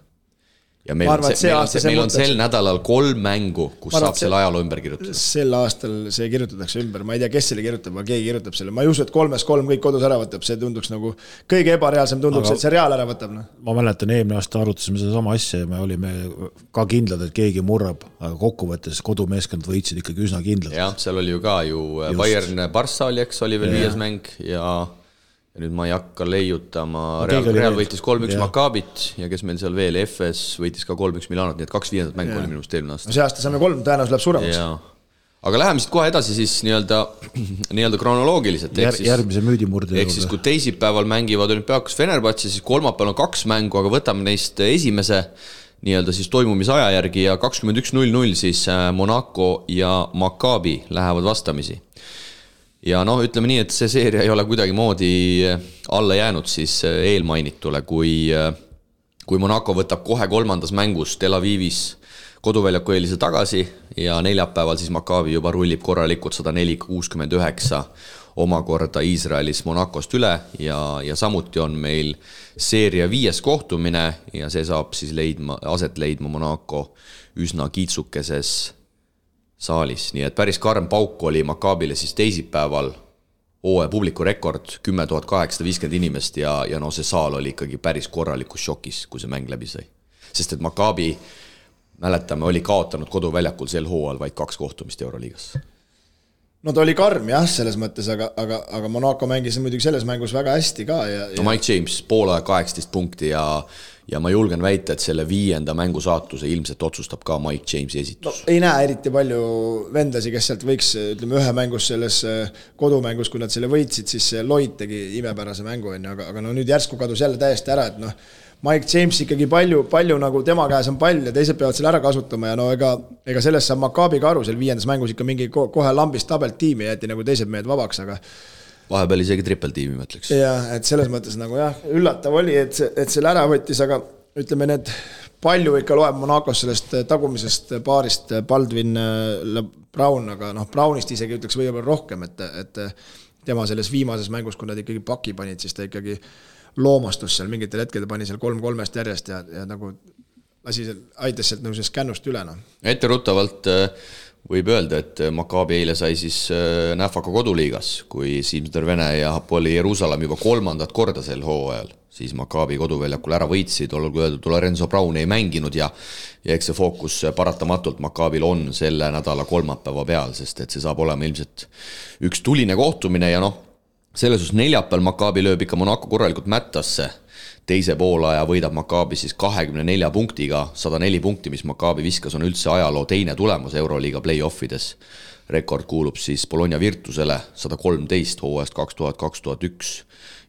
Ja meil on sel nädalal 3 mängu, kus saab selle ajaloo ümber kirjutada. Sel aastal see kirjutatakse ümber. Ma ei tea, kes selle kirjutab, aga keegi kirjutab selle. Ma ei usu, et 3-3 kõik kodus ära võtab. See tunduks nagu kõige ebareaalsem tunduks, et see reaal ära võtab. Ma mäletan, eelmine aasta arutasime seda sama asja ja me olime ka kindlad, et keegi murrab, aga kokkuvõttes kodumeeskond võitsid ikkagi üsna kindlad. Jah, seal oli ju ka Bayern Barça oli, eks, oli veel 5. mäng ja nüüd ma ei hakka leiutama, Real võitis 3-1 Maccaabit ja kes meil seal veel, FS võitis ka 3-1 Milanot, nii et 2 5. mängu oli minust eelmine aasta. See aasta saame 3, tõenäoliselt läheb suuremaks. Aga läheme siit kohe edasi siis nii-öelda kronoloogiliselt. Järgmise müüdimurde. Ehk siis kui teisipäeval mängivad Olümpiakos Fenerbahce, siis kolmapäeval on 2 mängu, aga võtame neist esimese nii-öelda siis toimumise aja järgi ja 21.00 siis Monaco ja Maccaabi lähevad vastamisi. Ja ütleme nii, et see seeria ei ole kuidagi moodi alla jäänud siis eelmainitule, kui Monaco võtab kohe 3. mängus Tel Avivis koduväljaku eelise tagasi ja neljapäeval siis Maccaabi juba rullib korralikult 104-69 omakorda Iisraelis Monacost üle ja samuti on meil seeria 5. kohtumine ja see saab siis aset leidma Monaco üsna kiitsukeses saalis, nii et päris karm pauk oli Maccaabile siis teisipäeval publiku rekord 10 850 inimest ja see saal oli ikkagi päris korralikus šokis, kui see mäng läbi sai. Sest et Maccaabi, mäletame, oli kaotanud koduväljakul sel hooajal vaid 2 kohtumist Euroliigas. No ta oli karm jah, selles mõttes, aga Monaco mängis muidugi selles mängus väga hästi ka. No Mike James, poole 18 punkti ja ma julgen väita, et selle 5. mängu saatuse ilmselt otsustab ka Mike Jamesi esitus. Ei näe eriti palju vendasi, kes sealt võiks, ütleme, ühe mängus selles kodumängus, kui nad selle võitsid, siis Lloyd tegi imepärase mängu, aga nüüd järsku kadus jälle täiesti ära, et Mike James ikkagi palju nagu tema käes on pall ja teised peavad selle ära kasutama ja ega sellest saab Maccaabi ka aru, seal 5. mängus ikka mingi kohe lambist tabelt tiimi jäeti nagu teised mehed vabaks, aga vahepeal isegi trippeltiimi, ma ütleks. Jah, et selles mõttes nagu üllatav oli, et selle ära võttis, aga ütleme, need palju ikka loeb Monacos sellest tagumisest paarist Baldwin Brown, aga Brownist isegi ütleks võib-olla rohkem, et tema selles viimases mängus, kui nad ikkagi paki panid, siis ta ikkagi loomastus seal mingitel hetkel, ta pani seal 3-3 järjest ja nagu aitas sealt nagu kännust üle. Etteruttavalt võib öelda, et Maccaabi eile sai siis Näfaka koduliigas, kui Simsner Vene ja Hapoel Jeruusalemm juba 3. korda sel hooajal, siis Maccaabi koduväljakul ära võitsid, olgu öeldud, Lorenzo Brown ei mänginud ja eks see fookus paratamatult Maccaabil on selle nädala kolmapäeva peal, sest et see saab olema ilmselt üks tuline kohtumine ja selles neljapäeval Maccaabi lööb ikka Monaco korralikult mättasse. Teise poolaja võidab Maccaabi siis 24 punktiga, 104 punkti, mis Maccaabi viskas, on üldse ajaloo teine tulemus Euroliiga play-offides. Rekord kuulub siis Bologna Virtusele 113 hooajast 2000-2001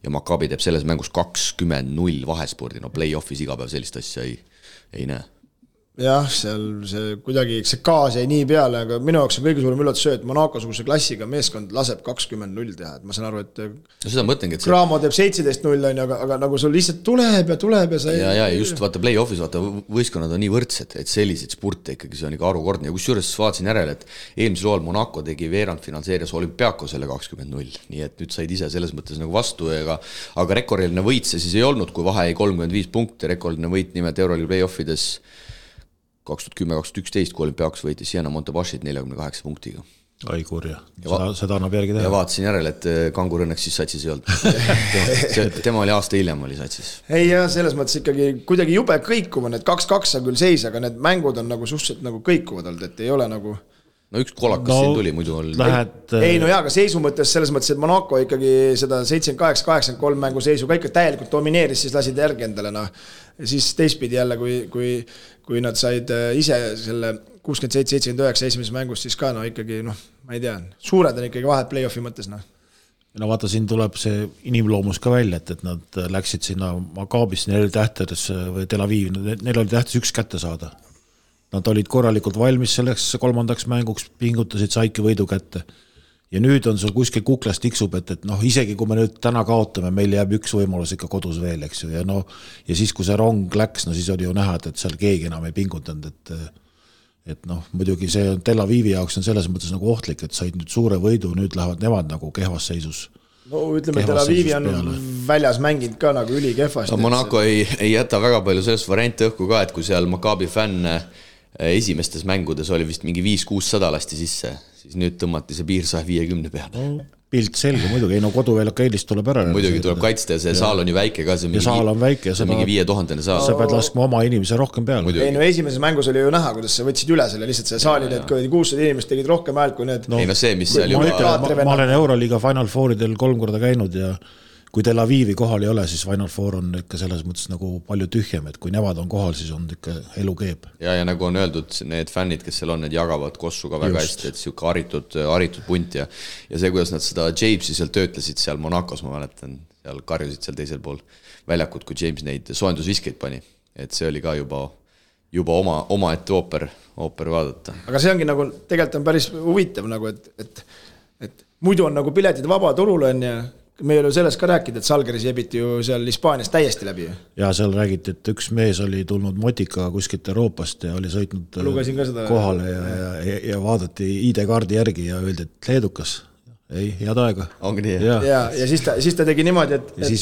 ja Maccaabi teeb selles mängus 20-0 vahespordi. Play-offis iga päev sellist asja ei näe. jah, seal see kuidagi, see gaas jäi nii peale, aga minu jaoks on kõige suurem üllatus see, et Monaco-suguse klassiga meeskond laseb 20-0 teha, et ma saan aru, et no seda mõtlengi, et Cramo teeb 17-0, aga nagu sul lihtsalt tuleb ja sa ja just vaata play-off'is, vaata võistkonnad on nii võrdsed, et selliseid spurte ikkagi see on ikka arukordne ja kusjuures vaatasin järele, et eelmisel hooajal Monaco tegi veerandfinaalseerias Olympiakosele 20-0, nii et nüüd said ise selles mõttes nagu vastu, aga rekordiline võit see siis ei olnud, kui vahe ei 35 punkti, rekordiline võit nimelt Euroliiga play-offides 2010-2011, kui Olympiakos võitis Siena Montebashit 48 punktiga. Ai kurja, seda annab järgi teha. Ja vaatasin järele, et Kangur õnneks siis satsis ei olnud. Tema oli aasta hiljem oli satsis. Ei ja selles mõttes ikkagi kuidagi jube kõikuva, need 2-2 on küll seis, aga need mängud on nagu suhteliselt nagu kõikuvad olnud, et ei ole nagu... No üks kolakas siin tuli, muidu oli... Ei no jaa, aga seisu mõttes selles mõttes, et Monaco ikkagi seda 78-83 mängu seisu ka ikka täielikult domineeris, siis lasid järgi endale, noh. Ja siis teistpidi jälle, kui nad said ise selle 67-79 esimeses mängus, siis ka no ikkagi, noh, ma ei tea, suured on ikkagi vahed play-offi mõttes, noh. No vaata, siin tuleb see inimloomus ka välja, et nad läksid sinna Maccaabisse, neil oli tähtes või Tel Aviv, neil oli tähtes üks kätte saada. Nad olid korralikult valmis selleks kolmandaks mänguks, pingutasid, saidki võidu kätte. Ja nüüd on sul kuskil kuklas tiksub, et noh, isegi kui me nüüd täna kaotame, meil jääb üks võimalus ikka kodus veel, eks ju. Ja siis, kui see rong läks, no siis oli ju näha, et seal keegi enam ei pingutanud, et noh, muidugi see Tel Avivi jaoks on selles mõttes nagu ohtlik, et said nüüd suure võidu, nüüd lähevad nemad nagu kehvas seisus. No ütleme, Tel Avivi on väljas mänginud ka nagu üli kehvast. No, Monaco ei jäta väga palju sellest varianti õhku ka, et kui seal Maccabi fänn esimestes mängudes oli vist mingi 5-600 lasti sisse, siis nüüd tõmmati see piir 150 peale. No, pilt selge muidugi, ei no koduväljak eelist tuleb ära. Muidugi tuleb kaitsta ja see saal on ju väike ka. Ja saal on väike. See on mingi 5000 saal. Sa pead laskma oma inimese rohkem peale. Ei no esimeses mängus oli ju näha, kuidas sa võtsid üle selle, lihtsalt see saali need 600 inimest tegid rohkem häält kui need. Ei no see, mis seal juba... Ma olen Euroliiga Final Fouridel 3 korda käinud ja kui Tel Avivi kohal ei ole, siis Final Four on ikka selles mõttes nagu palju tühjem, et kui nemad on kohal, siis on ikka elu keeb. Ja nagu on öeldud, need fännid, kes seal on, need jagavad kossu ka väga hästi, et siuke haritud punt ja see, kuidas nad seda Jamesi seal töötlesid seal Monacos, ma mäletan, seal karjusid seal teisel pool väljakut, kui James neid soojendusviskeid pani, et see oli ka juba oma ette ooper vaadata. Aga see ongi nagu, tegelikult on päris huvitav nagu, et muidu on nagu piletid vaba turul on ja me ei ole sellest ka rääkida, et Salgeris jebiti ju seal Hispaanias täiesti läbi. Ja seal räägiti, et üks mees oli tulnud motika kuskilt Euroopast ja oli sõitnud kohale ja vaadati ID-kaardi järgi ja öeldi, et leedukas. Ei, head aega. Ongi nii. Ja siis ta tegi niimoodi, et... Ja siis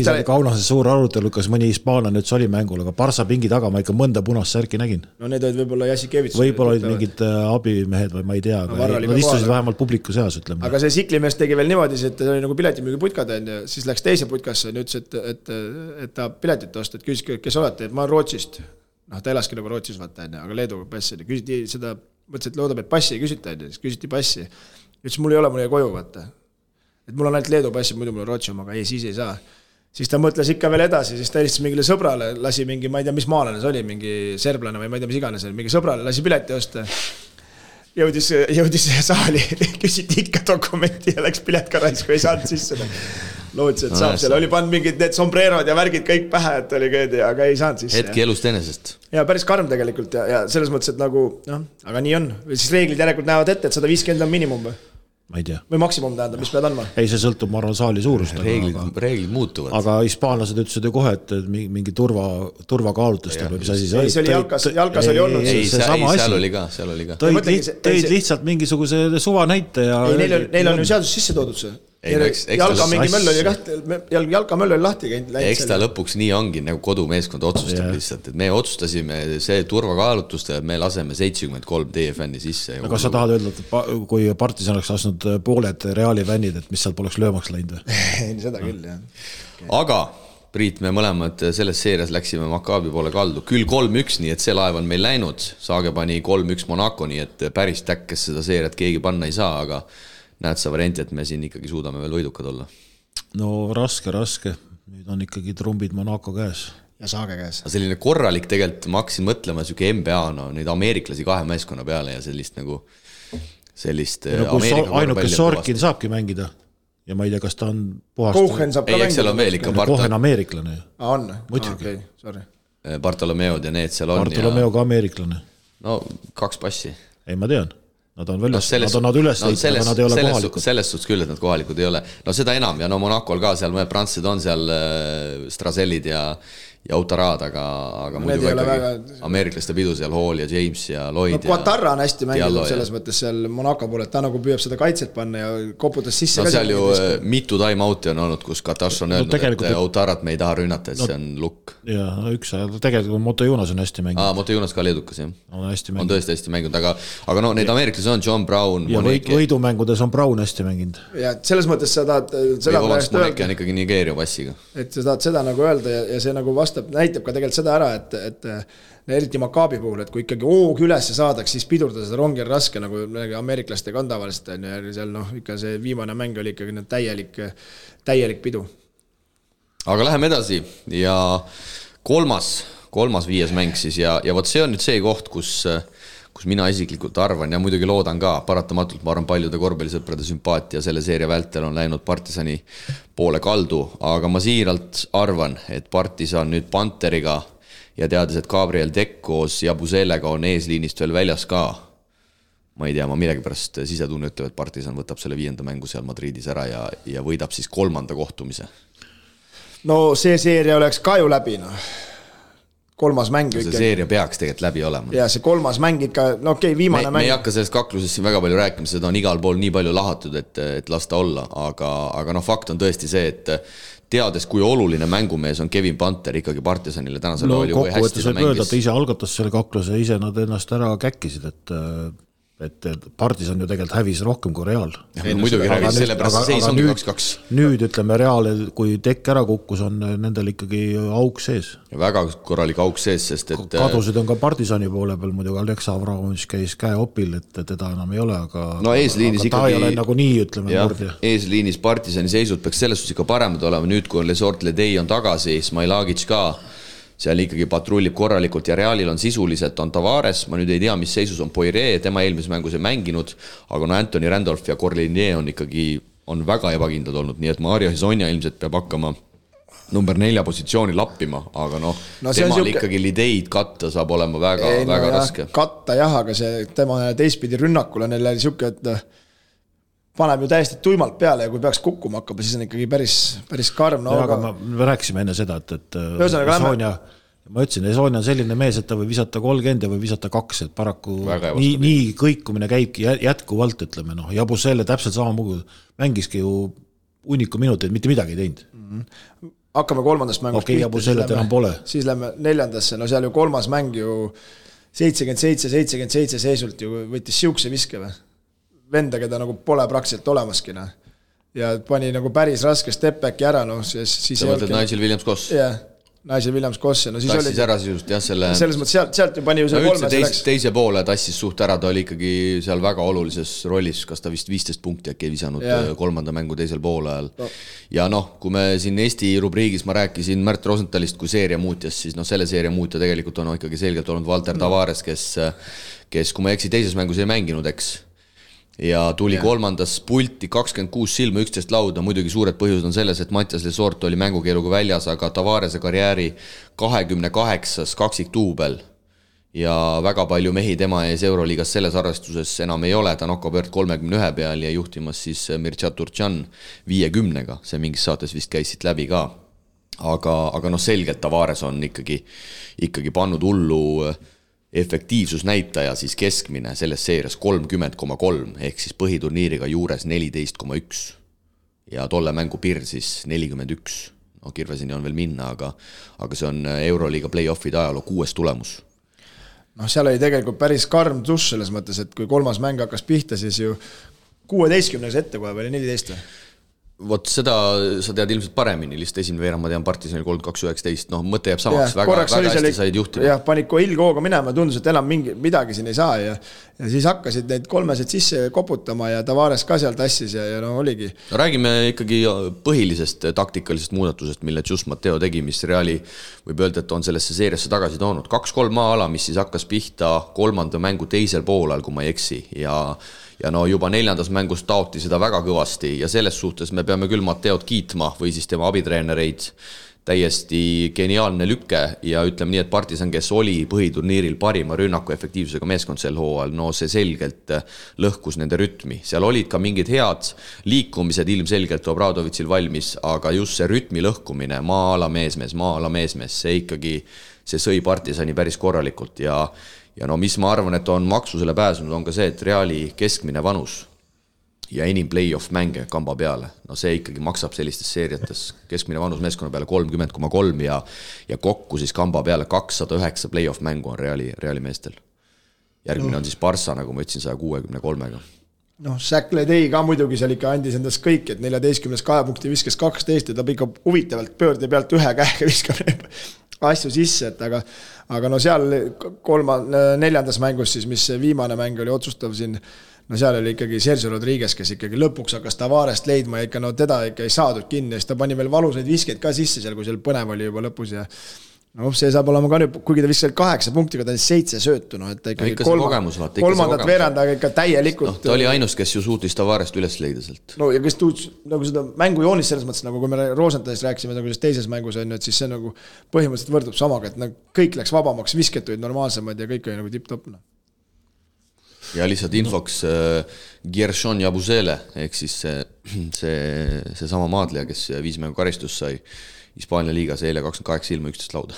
oli Kaunase suur arutelu, kas mõni hispaanlane nüüd oli mängul, aga Barsa pingi taga ma ikka mõnda punast särki nägin. No need olid võib-olla Jassikevits. Võib-olla olid mingid abimehed või ma ei tea, aga nad istusid vähemalt publiku seas, ütleme. Aga see siklimees tegi veel niimoodi, et ta oli nagu piletimüügi putkad ja siis läks teise putkasse ja ütles, et ta piletit osta, et küsis, kes olete, et ma olen Rootsist. Noh, ta elaski nagu Rootsis, vaata, aga Leeduga passi. Küsiti seda, mõtles, et loodab, et passi ei küsita, siis küsiti passi. Ütles, mul ei ole, mul ei koju, vaata. Et mul on ainult Leedu passi, muidu mul on Rootsi oma, aga ei, siis ei saa. Siis ta mõtles ikka veel edasi, siis ta helistas mingile sõbrale, lasi mingi, ma ei tea, mis maalane see oli, mingi serblane või ma ei tea, mis iganes, mingi sõbrale lasi pileti osta. Jõudis saali, küsiti ikka dokumenti ja läks pilet ka raisku, ei saanud sisse. Loodis, et saab, seal oli pannud mingid need sombrerod ja värgid kõik pähe, et oli köödi, aga ei saanud sisse. Hetki elust enesest. Ja päris karm tegelikult ja selles mõttes, et nagu, aga nii on. Siis reeglid järelikult näevad ette, et 150 on minimum või? Ma ei tea. Või maksimum tähendab, mis pead andma? Ei, see sõltub, ma arvan, saali suurust. Reeglid muutuvad. Aga hispaanlased ütlesid ju kohe, et mingi turvakaalutust või mis asi see oli. See oli jalkas oli olnud. Ei, seal oli ka. Tõid lihtsalt mingisuguse suva näite ja... Ei, neil on ju seadus sisse toodud see. Jalkamöll oli lahti käinud. Eks ta lõpuks nii ongi, nagu kodumeeskond otsustab lihtsalt, et me otsustasime see turvakaalutuste, et me laseme 73 teie fänni sisse. Aga sa tahad öelda, et kui Partisan oleks lasnud pooled Reali fännid, et mis seal poleks löömaks läinud või? Ei, seda küll, jah. Aga Priit, me mõlemad selles seerias läksime Maccabi poole kaldu. Küll 3-1, nii et see laev on meil läinud. Saage pani 3-1 Monaco, nii et päris täkkes seda seeriat keegi panna ei saa, aga näed sa varianti, et me siin ikkagi suudame veel võidukad olla? No raske. Nüüd on ikkagi trumbid Monaco käes. Ja Saage käes. Selline korralik tegelikult, ma hakkasin mõtlema selline NBA, neid ameeriklasi 2 meeskonna peale ja sellist nagu ainuke Sorkin saabki mängida ja ma ei tea, kas ta on puhast... Kohen saab ka mängida. Seal on veel ikka Kohen ameeriklane. On? Muidugi. Sorry. Bartolomeod ja need seal on. Bartolomeo ka ameeriklane. No 2 passi. Ei, ma tean. Nad on üles leidnud, aga nad ei ole kohalikud. Selles suhtes küll, et nad kohalikud ei ole. No seda enam ja no Monacol ka seal mõned prantslased on seal Strazellid ja Autarad, aga muidu ikkagi ameeriklaste pidu seal Hall ja James ja Lloyd. No Quatarra on hästi mänginud selles mõttes seal Monaco poole, et ta nagu püüab seda kaitset panna ja koputas sisse. No seal ju mitu time-out'i on olnud, kus Qatar on öelnud, et Autarat me ei taha rünnata, et see on lukk. Jaa, üks ajal. Tegelikult Moto Jonas on hästi mänginud. Moto Jonas ka leedukas, jah. On tõesti hästi mänginud, aga no neid ameeriklasi on John Brown, ja võidumängudes on Brown hästi mänginud. Ja selles mõttes sa tahad Moneke on ikkagi Nigeeria passiga. Et sa tahad seda nagu öelda ja see nagu vastab, näitab ka tegelikult seda ära, et eriti Maccabi puhul, et kui ikkagi hoog üles saadaks, siis pidurdada seda rongi on raske, nagu ameeriklastega on tavaliselt, ja seal ikka see viimane mäng oli ikkagi täielik pidu. Aga läheme edasi ja kolmas 5. mäng siis ja võt see on nüüd see koht, kus mina isiklikult arvan ja muidugi loodan ka, paratamatult ma arvan paljude korvpallisõprade sümpaatia selle seeria vältel on läinud Partisani poole kaldu, aga ma siiralt arvan, et Partisan nüüd Panteriga ja teades, et Gabriel Deck koos Jabuzelega on eesliinist veel väljas ka, ma ei tea, ma millegipärast sisetunne ütleb, et Partisan võtab selle 5. mängu seal Madridis ära ja võidab siis 3. kohtumise. No see seeria oleks ka ju läbi, kolmas mäng see seeria peaks tegelikult läbi olema. Ja see kolmas mäng ikka, viimane mäng. Me ei hakka sellest kaklusest siin väga palju rääkima, seda on igal pool nii palju lahatud, et lasta olla, aga fakt on tõesti see, et teades, kui oluline mängumees on Kevin Panter ikkagi Partisanile tänasel oli või hästi ta mängis. Ta ise algatas selle kakluse, ise nad ennast ära käkkisid, et Partisan ju tegelikult hävis rohkem kui Real. Muidugi hävis, sellepärast seis on 2-2. Nüüd ütleme Real, kui Dekk ära kukkus, on nendel ikkagi auk sees. Ja väga korralik auk sees, sest et kadusid on ka Partisani poole peal, muidugi Aleksa Avramovic käis käe opil, et teda enam ei ole, aga eesliinis ta ikkagi, ei ole nagu nii, ütleme murdja. Eesliinis Partisani seisud peaks selles suhtes ikka paremad olema, nüüd kui on Lesort Ledei on tagasi, Smailagic ka seal ikkagi patrullib korralikult ja Realil on sisuliselt on Tavares, ma nüüd ei tea, mis seisus on Poiré, tema eelmises mängus ei mänginud, aga Anthony Randolph ja Corlinier on väga ebakindlad olnud, nii et Mario Hezonja ilmselt peab hakkama number 4 positsiooni lappima, aga temal ikkagi lideid katta saab olema väga raske. Katta jah, aga see tema teistpidi rünnakul on neil siuke, et paneb ju täiesti tuimalt peale ja kui peaks kukkuma hakkama, siis on ikkagi päris karm. Aga me rääkisime enne seda, et ma ütlesin, Esonia on selline mees, et ta võib visata 30 ja võib visata 2, et paraku nii kõikumine käibki jätkuvalt, ütleme, Jabusele täpselt sama mugu mängiski ju uniku minuteid, mitte midagi ei teinud. Hakkame 3. mängust pihta, siis lähme 4. seal ju 3. mäng ju 77 seisult ju võttis siukse viske või? Venda, keda nagu pole praktiliselt olemaski. Ja pani nagu päris raske step-backi ära. Siis sa mõtled Nigel Williams-Koss? Jah, Nigel Williams-Koss. Tassis ära sisust, jah, selles mõttes sealt ju pani ju see 3. Teise poole tassis suht ära, ta oli ikkagi seal väga olulises rollis, kas ta vist 15 punkti äkki visanud 3. mängu teisel poole ajal. Ja kui me siin Eesti rubriigis ma rääkisin Märt Rosenthalist kui seeria muutjas, siis selle seeria muutja tegelikult on ikkagi selgelt olnud Valter Tavares, kes kui ma eksi teises mängus ei mänginud, eks ja tuli 3. pulti 26 silma 11 lauda, muidugi suured põhjused on selles, et Mattias Lesort oli mängukeeluga väljas, aga Tavarese karjääri 28. kaksiktuubel ja väga palju mehi tema ees Euroliigas selles arvestuses enam ei ole, ta Nokobert 31 peal ja juhtimas siis Mircea Turcan 50-ga, see mingis saates vist käis siit läbi ka, aga selgelt Tavares on ikkagi pannud hullu efektiivsusnäitaja siis keskmine selles seerias 30,3 ehk siis põhiturniiriga juures 14,1 ja tolle mängu piir siis 41. Kirvesini on veel minna, aga see on Euroliiga play-offide ajaloo 6. tulemus. Seal oli tegelikult päris karm tuss selles mõttes, et kui 3. mäng hakkas pihta, siis ju 16 ette kohe või 14. Vot seda sa tead ilmselt paremini, lihtsalt esimene veerand ma tean Partisanil 32-19, mõte jääb samaks, väga hästi said juhtima. Jah, panid ilgooga minema ja tundus, et enam midagi siin ei saa ja siis hakkasid neid 3 sisse koputama ja Tavares ka seal tassis ja oligi. Räägime ikkagi põhilisest taktikalisest muudatusest, mille Jus Mateo tegi, mis Reali võib öelda, et on sellesse seeriasse tagasi toonud. 2-3 maa-ala, mis siis hakkas pihta 3. mängu teisel poolel, kui ma ei eksi ja juba 4. mängus taoti seda väga kõvasti ja selles suhtes me peame küll Mateod kiitma või siis tema abitreenereid täiesti geniaalne lükke ja ütleme nii, et Partisan, kes oli põhiturniiril parima rünnaku efektiivsusega meeskond sel hooajal, no see selgelt lõhkus nende rütmi. Seal olid ka mingid head liikumised ilmselgelt Obradovitšil valmis, aga just see rütmi lõhkumine, maa-ala meesmees, see ikkagi, see sõi Partisani päris korralikult ja no mis ma arvan, et on maksusele pääsenud, on ka see, et Reali keskmine vanus ja enim play-off mänge kamba peale. No see ikkagi maksab sellistes seeriates keskmine vanus meeskonna peale 30,3 ja kokku siis kamba peale 209 play-off mängu on Reali meestel. Järgmine on siis Barça, nagu ma ütlesin, 163-ga. Noh, Säkle tei ka muidugi seal ikka andis endast kõik, et 14 2 punkti viskes 12 ja ta ikka huvitavalt pöörde pealt ühe käega viskab asju sisse, et aga no seal 4. mängus siis, mis viimane mäng oli otsustav siin, no seal oli ikkagi Sergio Rodriguez, kes ikkagi lõpuks hakkas Tavarest leidma ja ikka no teda ikka ei saadud kinni ja siis ta pani veel valusaid viskeid ka sisse seal, kui seal põnev oli juba lõpus ja no see saab olema ka nüüd, kuigi ta viskas 8 punktiga, ta oli 7 söötu, no et ta ikkagi kolmandat veerandaga ikka täielikult. No, ta oli ainus, kes ju suutis Tavarest üles leida sealt. No ja kes tuuds nagu seda mängu joonis selles mõttes, nagu kui me Rosenthalist rääkisime nagu teises mängus on, et siis see nagu põhimõtteliselt võrdub samaga, et nagu kõik läks vabamaks, visketuid normaalsemad ja kõik oli nagu tipp-topp. Ja lihtsalt infoks Gershon Jabusele, ehk siis see sama maadleja, kes 5 mängu karistus sai Hispaania liigas eile 28 ilma 11 lauda.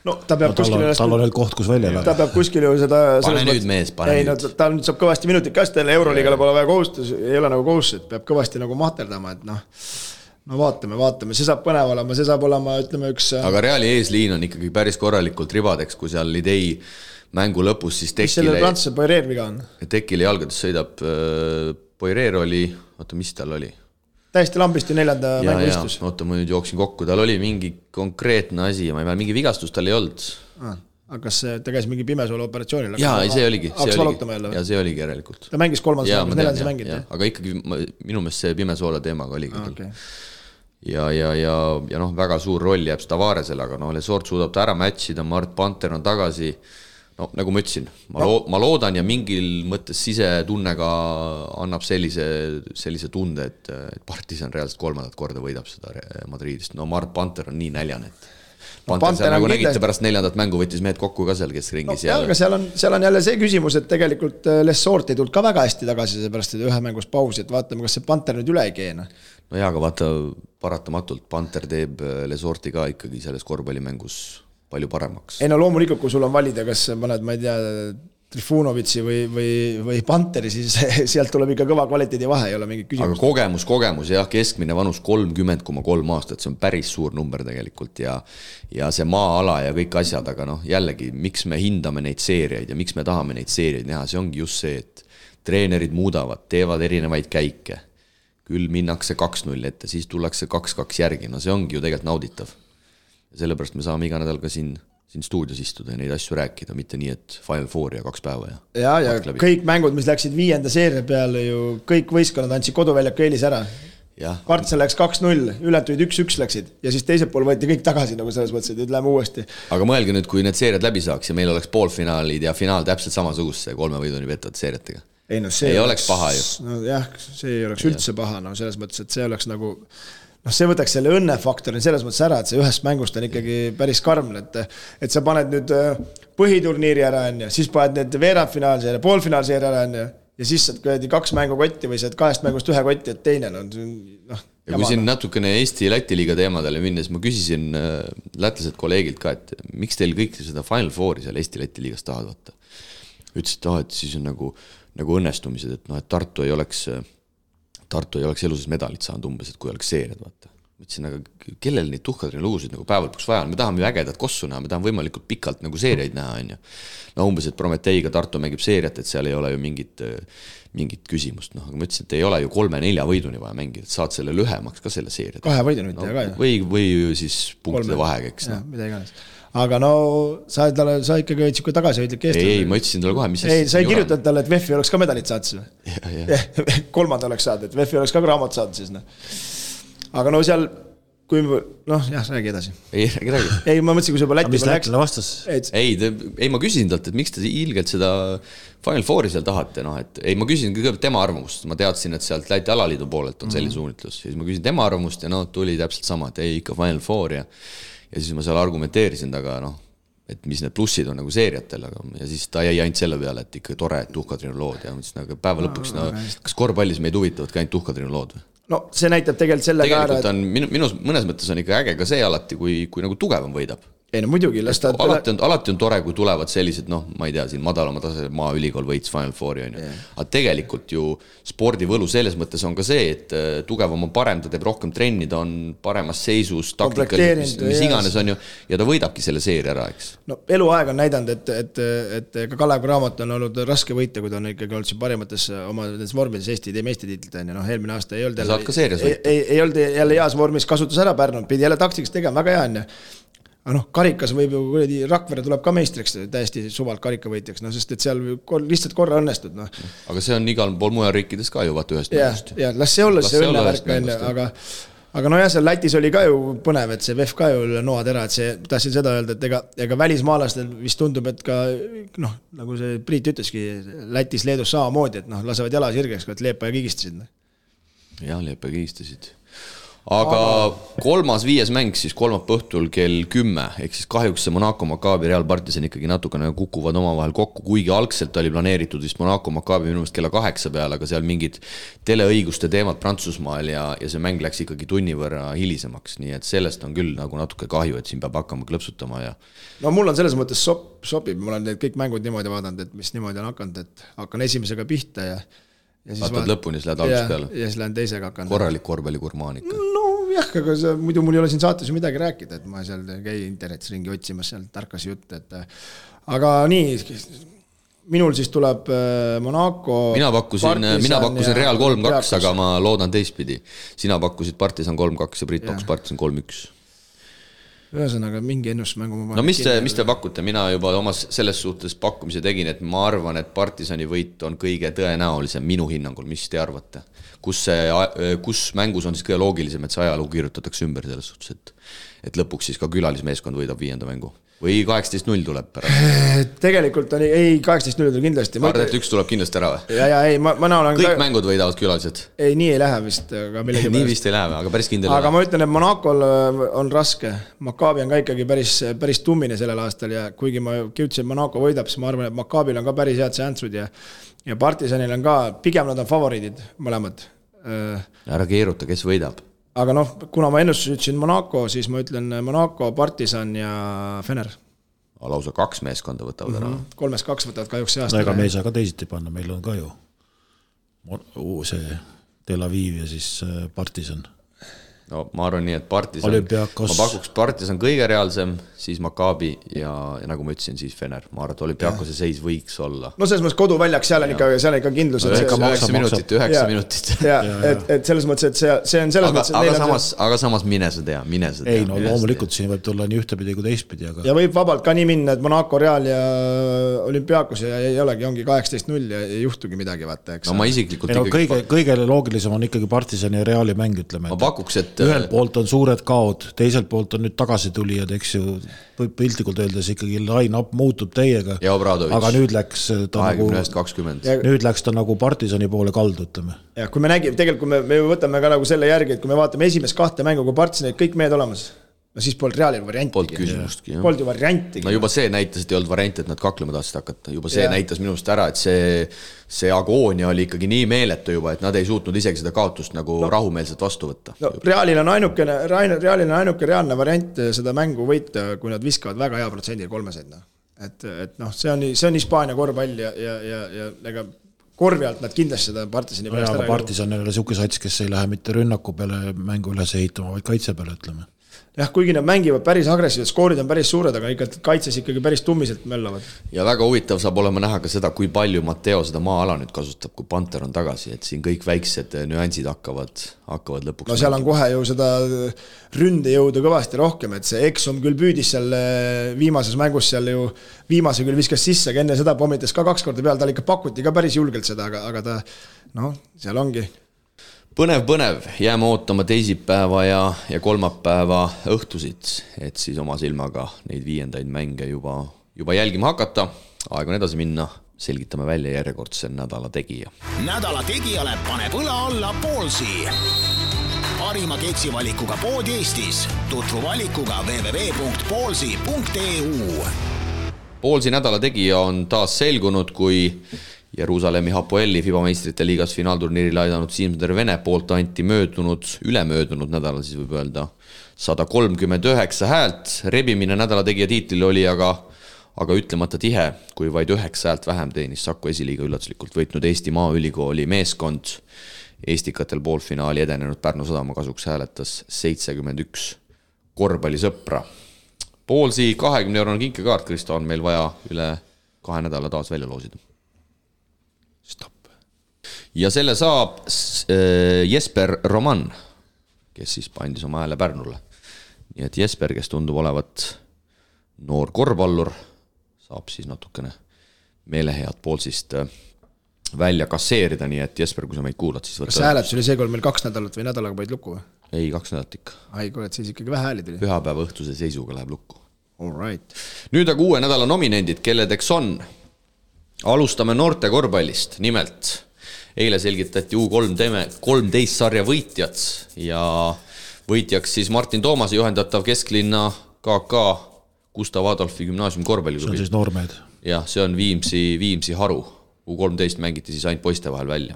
No ta peab kuskil tal on veel koht, kus välja ta peab kuskil ju seda pane nüüd mees, pane nüüd. No, ta nüüd saab kõvasti minutit ka, sest Euroliigale pole vaja kohustus, ei ole nagu kohustus, et peab kõvasti nagu mahterdama, et no vaatame, see saab põnev olema, see saab olema, ütleme üks aga Reali eesliin on ikkagi päris korralikult ribadeks, kui seal idei mängu lõpus siis Tekile... Mis selle Prantsuse Poirier viga on? Tekile jalgades sõidab Poirier oli, oota, mis tal oli? Täiesti lambist ju 4. mängu istus. Oota, ma nüüd jooksin kokku, tal oli mingi konkreetne asi ja ma ei mäleta, mingi vigastus tal ei olnud. Aga kas ta käis mingi pimesoole operatsioonil? Jaa, see oligi. Ja see oligi järelikult. Ta mängis 3. mängus, 4. mängid. Aga ikkagi minu meelest see pimesoole teemaga oligi. Okay. Ja noh, väga suur roll jääb Tavaresele, aga Lesort suudab ta ära matchida, Mart Panter on tagasi. No nagu ma ütlesin, ma loodan ja mingil mõttes sisetunnega annab sellise tunde, et Partisan reaalselt 3. korda võidab seda Madridist. No Mart Panter on nii näljane, et Panter seal nagu nägite pärast 4. mängu võttis mehed kokku ka seal, kes ringis aga seal on jälle see küsimus, et tegelikult Lesort ei tulnud ka väga hästi tagasi, seepärast et ühe mängus pausi, et vaatame, kas see Panter nüüd üle ei keena. No jaa, aga vaata paratamatult Panter teeb Lesorti ka ikkagi selles korvpallimängus palju paremaks. Ei no loomulikult, kui sul on valida, kas paned, ma ei tea, Trifunovitsi või Panteri, siis sealt tuleb ikka kõva kvaliteedi vahe, ei ole mingit küsimust. Aga kogemus, jah, keskmine vanus 30,3 aastat, see on päris suur number tegelikult ja see maa-ala ja kõik asjad, aga jällegi, miks me hindame neid seeriaid ja miks me tahame neid seeriaid näha, see ongi just see, et treenerid muudavad, teevad erinevaid käike, küll minnakse 2-0 ette, siis tullakse 2-2 järgi, see ongi ju tegelikult nauditav. Ja sellepärast me saame iga nädal ka siin stuudios istuda ja neid asju rääkida, mitte nii, et Final Four ja 2 päeva. Ja kõik mängud, mis läksid 5. seeria peale ju, kõik võistkonnad andsid koduväljaku eelis ära. Partsa läks 2-0, ületuid 1-1 läksid ja siis teisel pool võeti kõik tagasi, nagu selles mõttes, et läheme uuesti. Aga mõelge nüüd, kui need seeriad läbi saaks ja meil oleks poolfinaalid ja finaal täpselt samasuguse 3 võiduni vettavad seeriatega. Ei oleks paha ju. Jah, see ei oleks üldse paha, selles mõttes, et see oleks nagu see võtaks selle õnnefaktori selles mõttes ära, et see ühest mängust on ikkagi päris karm, et sa paned nüüd põhiturniiri ära, siis paned need veerandfinaalseeri, poolfinaalseeri ära, ja siis saad 2 mängu kotti või saad 2 mängust 1 kotti, et teine ja kui siin natukene Eesti-Läti liiga teemadele minnes, ma küsisin lätlased kolleegilt ka, et miks teil kõik seda Final Fouri seal Eesti-Läti liigas tahad võtta? Ütlesid, et siis on nagu õnnestumised, et Tartu ei oleks eluses medalit saanud umbes, et kui oleks seeriad, vaata. Mõtlesin, aga kellel neid tuhkadrine lugusid nagu päevalpuks vaja on? Me tahame ju ägedat kossu näha, me tahame võimalikult pikalt nagu seeriaid näha, on ju. No umbes, et Prometeiga Tartu mängib seeriat, et seal ei ole ju mingit küsimust. Aga ma ütlesin, et ei ole ju 3-4 võiduni vaja mängida, et saad selle lühemaks ka selle seeriat. 2 võiduni mitte ka. Või siis punktide vahega, eks. Mida iganes. Aga sa ikkagi võid siuke tagasihoidlik Eesti. Ei, ma ütlesin talle kohe, mis ei, sa ei kirjutanud talle, et VEF-i oleks ka medalit saanud. 3. oleks saanud, et VEF-i oleks ka raamat saanud siis. Aga seal kui jah, räägi edasi. Räägi. Ei, ma mõtlesin, kui sa juba Läti mis Lätile vastas? Ei, ma küsin talt, et miks te ilgelt seda Final Fouri seal tahate, et ma küsin kõigepealt tema arvamust, ma teadsin, et sealt Läti alaliidu poolelt on selline suunitlus, ja siis ma küsin tema arvamust ja tuli täpselt sama, et ei, ikka Final Four ja siis ma seal argumenteerisin taga, et mis need plussid on nagu seeriatel, ja siis ta jäi ainult selle peale, et ikka tore, et tuhkatrinu lood ja mõtlesin, aga päeva lõpuks, kas korvpallis meid huvitavad ka ainult tuhkatrinu lood või? No see näitab tegelikult selle tegelikult on, minus mõnes mõttes on ikka äge ka see alati, kui nagu tugevam võidab. Ei no muidugi, alati on tore, kui tulevad sellised, ma ei tea, siin madalama tase maaülikool võits Final Fouri, aga tegelikult ju spordivõlu selles mõttes on ka see, et tugevam on parem, ta teeb rohkem trenni, ta on paremas seisus, taktikaliselt, mis iganes on ju, ja ta võidabki selle seeri ära, eks. No eluaeg on näidanud, et ka Kalev Cramo on olnud raske võita, kui ta on ikkagi olnud siin parimates oma vormides Eesti meistritiitlit, eelmine aasta ei olnud jälle heas vormis, kasutus ära Pärnu, pidi jälle taktikas tegema, väga hea on ju. Aga karikas võib ju Rakvere tuleb ka meistriks täiesti suvalt karikavõitjaks, sest et seal lihtsalt korra õnnestud. Aga see on igal pool mujal riikides ka ju vaata ühest mängust. Ja las see olla see õnnevärk, aga seal Lätis oli ka ju põnev, et see VEF ka ju noatera, et see tahtsin seda öelda, et ega välismaalastel vist tundub, et ka nagu see Priit ütleski, Lätis, Leedus samamoodi, et lasevad jala sirgeks, et Leepa ja kigistasid. Jah, Leepa ja kigistasid. Aga 3.5. mäng siis kolmapäeva õhtul kell 10, ehk siis kahjuks see Monaco Maccabi Real Partisan ikkagi natukene kukuvad omavahel kokku, kuigi algselt oli planeeritud vist Monaco Maccabi minu meelest kella 8 peale, aga seal mingid teleõiguste teemad Prantsusmaal ja see mäng läks ikkagi tunni võrra hilisemaks, nii et sellest on küll nagu natuke kahju, et siin peab hakkama klõpsutama ja no mul on selles mõttes sobib, mul on need kõik mängud niimoodi vaadanud, et mis niimoodi on hakanud, et hakkan esimesega pihta ja vaatad lõpuni, siis lähed algust peale. Ja siis lähen teisega hakanud. Korralik korvpallikurmaan ikka. No jah, aga muidu mul ei ole siin saates ju midagi rääkida, et ma seal käi internetis ringi otsimas seal tarkas jutt, et aga nii, minul siis tuleb Monaco Mina pakkusin Real 3-2, aga ma loodan teistpidi. Sina pakkusid Partisan 3-2 ja Priit pakkus Partisan 3-1. Ühesõnaga mingi ennusmängu No mis te pakute? Mina juba omas selles suhtes pakkumise tegin, et ma arvan, et Partisani võit on kõige tõenäolisem minu hinnangul. Mis te arvate? Kus mängus on siis kõige loogilisem, et see ajalugu kirjutatakse ümber selles suhtes, et lõpuks siis ka külalismeeskond võidab 5. mängu? Või 18-0 tuleb pärast? Tegelikult on ei 18-0 tuleb kindlasti. Arvad, et 1 tuleb kindlasti ära või? Ei, ma olen kõik mängud võidavad külalised? Ei, nii ei lähe vist. Nii vist ei lähe, aga päris kindel. Aga ma ütlen, et Monacol on raske. Maccabi on ka ikkagi päris tummine sellel aastal ja kuigi ma kiutsin, et Monaco võidab, siis ma arvan, et Maccabil on ka päris head sääntsud ja Partisanil on ka, pigem nad on favoriidid mõlemad. Ära keeruta, kes võidab? Aga kuna ma ennustus ütlesin Monaco, siis ma ütlen Monaco, Partisan ja Fener. Lausa 2 meeskonda võtavad ära. 3-2 võtavad kahjuks see aasta. Ega me ei saa ka teisiti panna, meil on ka ju see Tel Aviv ja siis Partisan. No ma arvan nii, et Partisan, Olympiakos. Ma pakuks Partisan kõige reaalsem, siis Maccabi ja nagu ma ütlesin, siis Fener. Ma arvan, et Olympiakose seis võiks olla. No selles mõttes koduväljaks, seal on ikka kindlus. 9 minutit. Et selles mõttes, et see on selles mõttes. Aga samas mine sa tea. Ei, no loomulikult siin võib tulla nii ühtepidi kui teistpidi. Ja võib vabalt ka nii minna, et Monaco, Real ja Olympiakos ja ei olegi, ongi 18-0 ja ei juhtugi midagi, vaata. No ma isiklikult kõige loogilisem on ikkagi Partisani ja Reali mäng, ütleme. Ma pakuks, et ühelt poolt on suured kaod, teiselt poolt on nüüd tagasi tulijad, eks ju, piltlikult öeldes ikkagi line-up muutub teiega. Ja Obradovic. Aga nüüd läks ta 20-20. Nüüd läks ta nagu Partisani poole kaldu, ütleme. Ja kui me nägime, tegelikult me võtame ka nagu selle järgi, et kui me vaatame esimest 2 mängu, kui Partisanid kõik mehed olemas, no siis polnud Realil varianti. Polnud küsimustki. Polnud ju varianti. No juba see näitas, et ei olnud varianti, et nad kaklema tahtsid hakata. Juba see näitas minust ära, et see agoonia oli ikkagi nii meeletu juba, et nad ei suutnud isegi seda kaotust nagu rahumeelselt vastu võtta. No, Realil on ainuke reaalne variant seda mängu võita, kui nad viskavad väga hea protsendi 3-seid. Et see on Hispaania korvpall ja ega korvi alt nad kindlasti seda Partisani pärast ära. Partisan ei ole siuke sats, kes ei lähe mitte rünnaku peale mängu üles ehitama, vaid kaitse peale, ütleme. Jah, kuigi nad mängivad päris agressiivselt, skoorid on päris suured, aga ikka kaitses ikkagi päris tummiselt möllavad. Ja väga huvitav saab olema näha ka seda, kui palju Matteo seda maa-ala nüüd kasutab, kui Panter on tagasi, et siin kõik väiksed nüansid hakkavad lõpuks. No seal on kohe ju seda ründe jõuda kõvasti rohkem, et see Exum küll püüdis seal viimases mängus seal ju viimase küll viskas sisse, aga enne seda pommitas ka 2 korda peal, tal ikka pakuti ka päris julgelt seda, aga ta, seal ongi. põnev, jääme ootama teisipäeva ja kolmapäeva õhtusid, et siis oma silmaga neid viiendaid mänge juba jälgima hakata. Aeg on edasi minna, selgitame välja järjekordse nädala tegija. Nädala tegijale paneb õla alla Ballsi. Parima keksivalikuga pood Eestis. Tutvu valikuga www.ballsi.eu. Ballsi nädala tegija on taas selgunud, kui Jeruusalemmi Hapoeli FIBA meistrite liigas finaalturniiril aidanud Siim-Sander Vene poolt anti ülemöödunud nädalal, siis võib öelda 139 häält. Rebimine nädala tegija tiitlil oli aga ütlemata tihe, kui vaid 9 häält vähem teenis Saku esiliiga üllatuslikult võitnud Eesti Maaülikooli meeskond. Eestikatel poolfinaali edenenud Pärnu Sadama kasuks hääletas 71 korvpallisõpra. Ballsi 20-eurone kinkekaart, Kristo, on meil vaja üle 2 nädala taas välja loosida. Stop. Ja selle saab Jesper Roman, kes siis pandis oma hääle Pärnule. Nii et Jesper, kes tundub olevat noor korvpallur, saab siis natukene meelehead Ballsist välja kasseerida, nii et Jesper, kui sa meid kuulad, siis võtta... Kas hääletus oli see, kui meil 2 nädalat või nädalaga paid lukku või? Ei, 2 nädalat ikka. Ai, kuule, et siis ikkagi vähe hääli tuli. Pühapäeva õhtuse seisuga läheb lukku. All right. Nüüd aga uue nädala nominendid, kelledeks on. Alustame noorte korvpallist. Nimelt, eile selgitati U13 sarja võitjad ja võitjaks siis Martin Toomase juhendatav kesklinna KK Gustav Adolfi gümnaasium korvpalliklubi. See on siis noormehed. Jah, see on Viimsi haru. U13 mängiti siis ainult poiste vahel välja.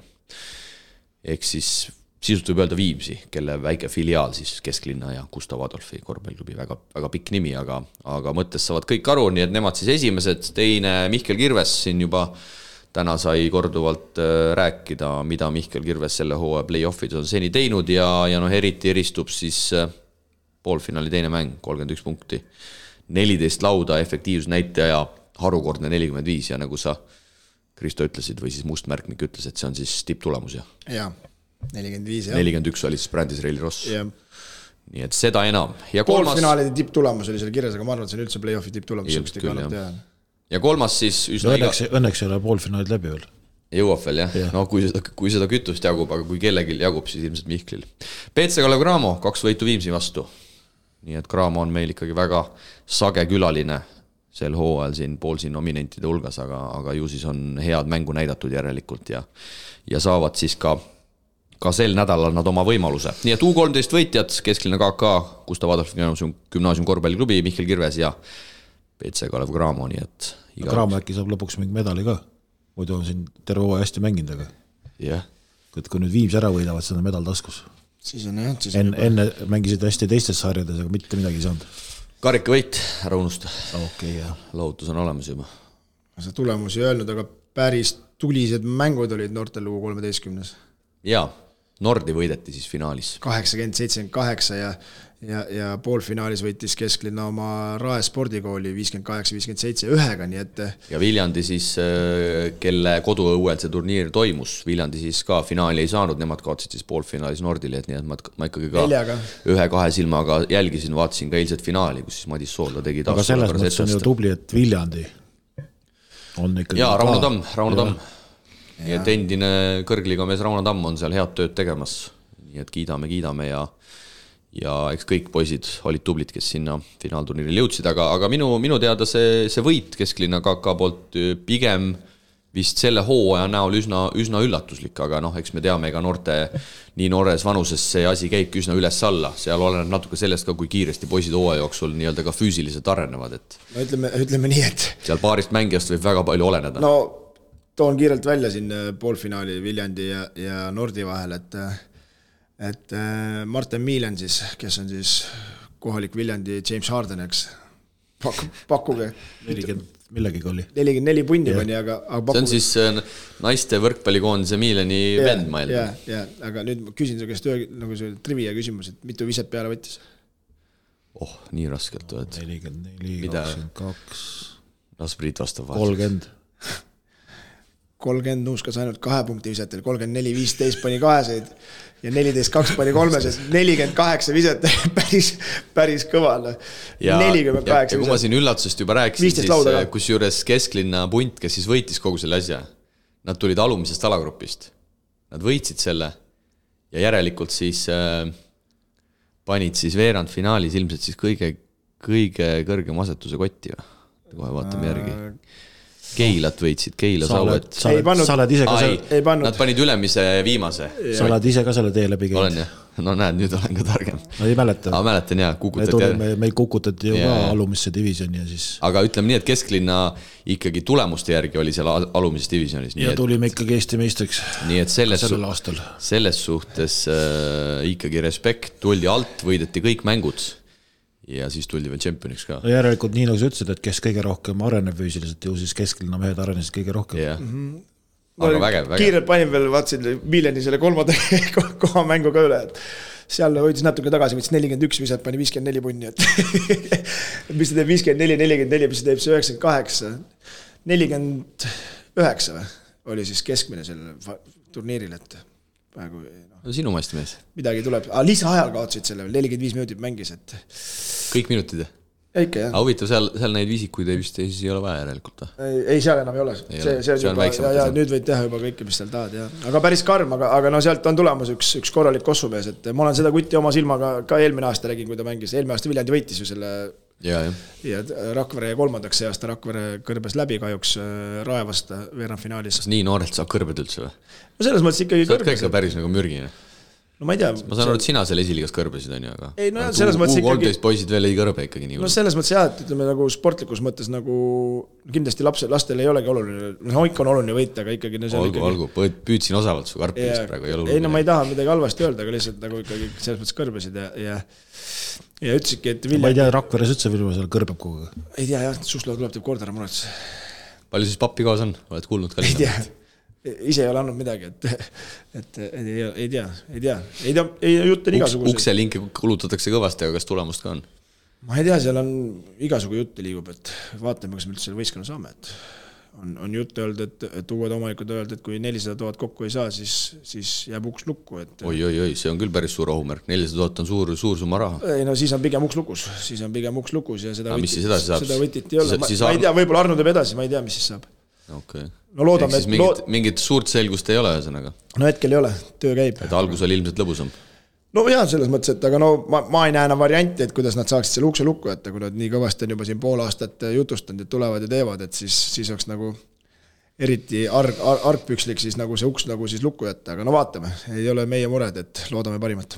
Ehk siis sisult võib öelda Viimsi, kelle väike filiaal siis kesklinna ja Gustav Adolfi korvpalliklubi, väga pikk nimi, aga mõttes saavad kõik aru, nii et nemad siis esimesed. Teine Mihkel Kirves siin juba täna sai korduvalt rääkida, mida Mihkel Kirves selle hooaja play-offid on seni teinud ja eriti eristub siis poolfinaali teine mäng, 31 punkti, 14 lauda, efektiivsusnäitaja harukordne 45 ja nagu sa Kristo ütlesid või siis Mustmärkmik ütles, et see on siis tipptulemus ja 45 41 oli siis Brandis Reili Ross. Nii et seda enam. Poolfinaalide tipptulemus oli seal kirjas, aga ma arvan, et see on üldse play-offi tipptulemus. Ja kolmas siis õnneks ei ole poolfinaalid läbi veel. Jõuab veel, jah. No, kui seda kütust jagub, aga kui kellelgi jagub, siis ilmselt Mihklil. PC Kalev Cramo, 2 võitu Viimsi vastu. Nii et Cramo on meil ikkagi väga sage külaline sel hooajal siin Ballsi nominentide hulgas, aga ju siis on head mängu näidatud järelikult ja saavad siis ka sel nädalal nad oma võimaluse. Nii et U13 võitjad, kesklinna KK, Gustav Adolfi gümnaasium korvpalliklubi, Mihkel Kirves ja PC Kalev Cramo, nii et Cramo äkki saab lõpuks mingi medali ka. Muidu on siin terve hooaja hästi mänginud, aga kui nüüd Viimsi ära võidavad, see on medal taskus. Siis on jah. Enne mängisid hästi teistes sarjades, aga mitte midagi ei saanud. Karika võit, ära unusta. Jah. Lahutus on olemas juba. See tulemus ei öelnud, aga päris tulised mängud olid noortel U13. Jaa, Nordi võideti siis finaalis. 80-78 ja poolfinaalis võitis kesklinna oma Rae spordikooli 58-57 ühega, nii et... Ja Viljandi siis, kelle koduõuel see turniir toimus, Viljandi siis ka finaali ei saanud, nemad kaotsid siis poolfinaalis Nordile, et nii et ma ikkagi ka 1-2 silmaga jälgisin, vaatasin ka eilset finaali, kus siis Madis Soolda tegi taas. Aga selles mõttes on ju tubli, et Viljandi on ikkagi... Jaa, Rauno Tamm. Nii et endine kõrgliga mees Rauno Tamm on seal head tööd tegemas, nii et kiidame ja eks kõik poisid olid tublid, kes sinna finaalturniiril jõudsid, aga minu teada see võit kesklinna KK poolt pigem vist selle hooaja näol üsna üllatuslik, aga eks me teame, ega nii noores vanuses see asi käibki üsna üles-alla, seal oleneb natuke sellest ka, kui kiiresti poisid hooaja jooksul nii-öelda ka füüsiliselt arenevad, et ütleme nii, et seal paarist mängijast võib väga palju oleneda. No toon kiirelt välja siin poolfinaali Viljandi ja Nordi vahel, et Martin Miilen siis, kes on siis kohalik Viljandi James Harden, eks pakkuge 40 millegagi oli 44 punni pani, aga see on siis naiste võrkpallikoondise Miileni vend mail. Aga nüüd ma küsin su käest nagu see trivia küsimus, et mitu viset peale võttis? Nii raskelt 44, 22 Las Priit vastab 30 nuuskas ainult 2 punkti visetel, 34, 15 pani kaheseid ja 14, 2 pani kolmeses, 48 viset, päris kõva. 48 ja kui ma siin üllatusest juba rääkisin, siis kus juures kesklinna punt, kes siis võitis kogu selle asja, nad tulid alumisest alagrupist, nad võitsid selle ja järelikult siis panid siis veerandfinaalis ilmselt siis kõige kõrgem asetuse kotti või? Kohe vaatame järgi. Keilat võitsid, Keila Sauet. Sa oled ise ka seal. Nad panid ülemise viimase. Sa oled ise ka selle tee läbi käinud. Olen jah. No näed, nüüd olen ka targem. No ei mäleta. Mäletan jah, kukutati. Meil kukutati ju ka alumisse divisjoni ja siis... Aga ütleme nii, et kesklinna ikkagi tulemuste järgi oli seal alumises divisionis. Ja tulime ikkagi Eesti meistriks. Nii et selles suhtes ikkagi respekt, tuldi alt, võideti kõik mängud ja siis tuldi veel tšempioniks ka. No järelikult nii nagu sa ütlesid, et kes kõige rohkem areneb füüsiliselt ju siis kesklinna mehed arenesid kõige rohkem. Jah. Aga vägev. Kiirelt panin veel, vaatsin Miljani selle 3. koha mängu ka üle, et seal hoidis natuke tagasi, võttis 41, mis pani 54 punni, et mis teeb 54, 44, mis teeb see 98, 49 või? Oli siis keskmine selle turniiril, et praegu no, sinu maist mees. Midagi tuleb, lisaajal kaotsid selle, 45 minutit mängis, et kõik minutid. Ikka, jah. Aga huvitav, seal neid visikuid ei ole vaja järelikult. Ei, seal enam ei ole. See on juba, ja nüüd võid teha juba kõike, mis seal tahad. Ja. Aga päris karm, aga no sealt on tulemas üks korralik kossumees, et ma olen seda kutti oma silmaga ka eelmine aasta räägin, kui ta mängis. Eelmine aasta Viljandi võitis ju selle ja Rakvere 3. see aasta Rakvere kõrbes läbi kahjuks Raevast veerandfinaalis. Kas nii noorelt saab kõrbed üldse või? No selles mõttes ikkagi kõrbes. Sa oled ka päris nagu mürgine. No ma ei tea. Ma saan aru, et sina selle esiliigas kõrbesid on ju, aga ei, no, selles mõttes ikkagi... poisid veel ei kõrbe ikkagi nii. No selles mõttes jah, et ütleme nagu sportlikus mõttes nagu kindlasti lastel ei olegi oluline, no ikka on oluline võita, aga ikkagi... Olgu, püüdsin osavalt su karpimist praegu. Ei, no ma ei taha midagi halvasti öelda, aga lihtsalt nagu ikkagi selles mõttes kõrbesid ja ütlesidki, et Ma ei tea, Rakveres üldse Vilma seal kõrbeb kogu. Ei tea jah, Susla tuleb teeb kord ära murets. Palju siis pappi kaas on? Oled kuulnud ka ise ei ole andnud midagi, et ei tea, jutt on igasuguseid. Ukselinke kulutatakse kõvasti, aga kas tulemust ka on? Ma ei tea, seal on igasugu jutte liigub, et vaatame, kas me üldse selle võistkonna saame, et on jutte öeldud, et uued omanikud öeldud, et kui 400 000 kokku ei saa, siis jääb uks lukku. Et... Oi, see on küll päris suur ohumärk, 400 000 on suur summa raha. Ei, no siis on pigem uks lukus ja seda võtit ei ole. Ma ei tea, võib-olla Arno teeb edasi, ma ei tea, mis siis saab. Okay. No loodame, mingit suurt selgust ei ole ühesõnaga. No hetkel ei ole, töö käib. Et algus oli ilmselt lõbusam. No jah, selles mõttes, et aga no ma ei näe enam varianti, et kuidas nad saaksid selle ukse lukku jätta, kui nad nii kõvasti on juba siin pool aastat jutustanud, et tulevad ja teevad, et siis oleks nagu eriti argpükslik siis nagu see uks nagu siis lukku jätta, aga no vaatame, ei ole meie mured, et loodame parimat.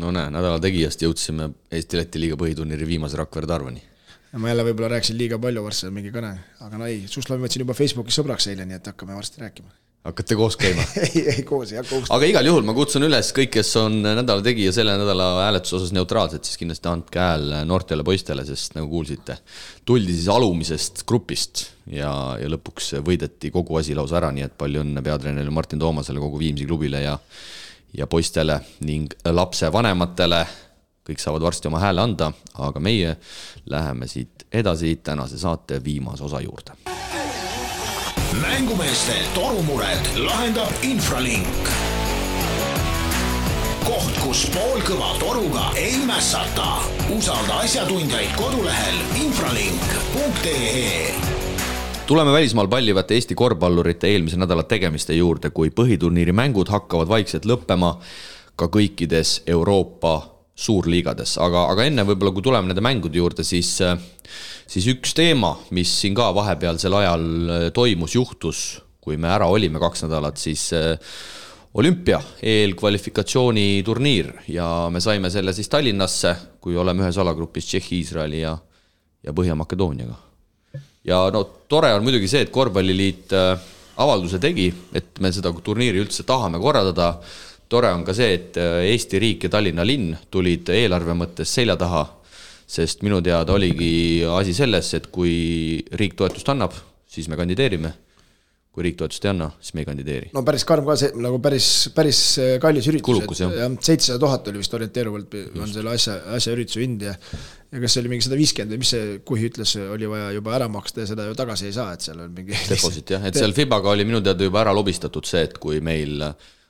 No näe, nädala tegijast jõudsime Eesti-Läti liiga põhiturniiri viimase Rakvere Tarvani. Ja ma jälle võib-olla rääksin liiga palju varsti mingi kõne, aga no ei, Suslavi võtsin juba Facebookis sõbraks eile, nii et hakkame varsti rääkima. Hakkate koos käima? ei koos, ei hakka koos. Aga igal juhul ma kutsun üles kõik, kes on nädala tegija selle nädala hääletuse osas neutraalsed, siis kindlasti andke hääl noortele poistele, sest nagu kuulsite, tuldi siis alumisest grupist ja lõpuks võideti kogu asi lausa ära, nii et palju õnne peatreenerile Martin Toomasele, kogu Viimsi klubile ja poistele ning lapse vanematele. Kõik saavad varsti oma hääle anda, aga meie läheme siit edasi tänase saate viimase osa juurde. Mängumeeste torumured lahendab Infralink. Koht, kus poolkõva toruga ei mässata. Usalda asjatundjaid kodulehel infralink.ee. Tuleme välismaal pallivate Eesti korvpallurite eelmise nädala tegemiste juurde, kui põhiturniiri mängud hakkavad vaikselt lõppema ka kõikides Euroopa suurliigades, aga enne võib-olla kui tuleme nende mängude juurde, siis üks teema, mis siin ka vahepealsel ajal toimus, juhtus, kui me ära olime 2 nädalat, siis olümpia eelkvalifikatsiooni turniir ja me saime selle siis Tallinnasse, kui oleme ühes alagrupis Tšehhi, Iisraeli ja Põhja-Makedooniaga. Ja no tore on muidugi see, et korvpalliliit avalduse tegi, et me seda turniiri üldse tahame korraldada. Tore on ka see, et Eesti riik ja Tallinna linn tulid eelarve mõttes selja taha, sest minu teada oligi asi selles, et kui riik toetust annab, siis me kandideerime. Kui riik toetust ei anna, siis me ei kandideeri. No päris karm ka see, nagu päris kallis üritus. Kulukus, jah. 700 000 oli vist orienteeruvalt on selle asja ürituse hind ja kas see oli mingi 150 või mis see Kuhi ütles, oli vaja juba ära maksta ja seda ju tagasi ei saa, et seal on mingi... Deposit, jah. Et seal FIBAga oli minu teada juba ära lobistatud see, et kui meil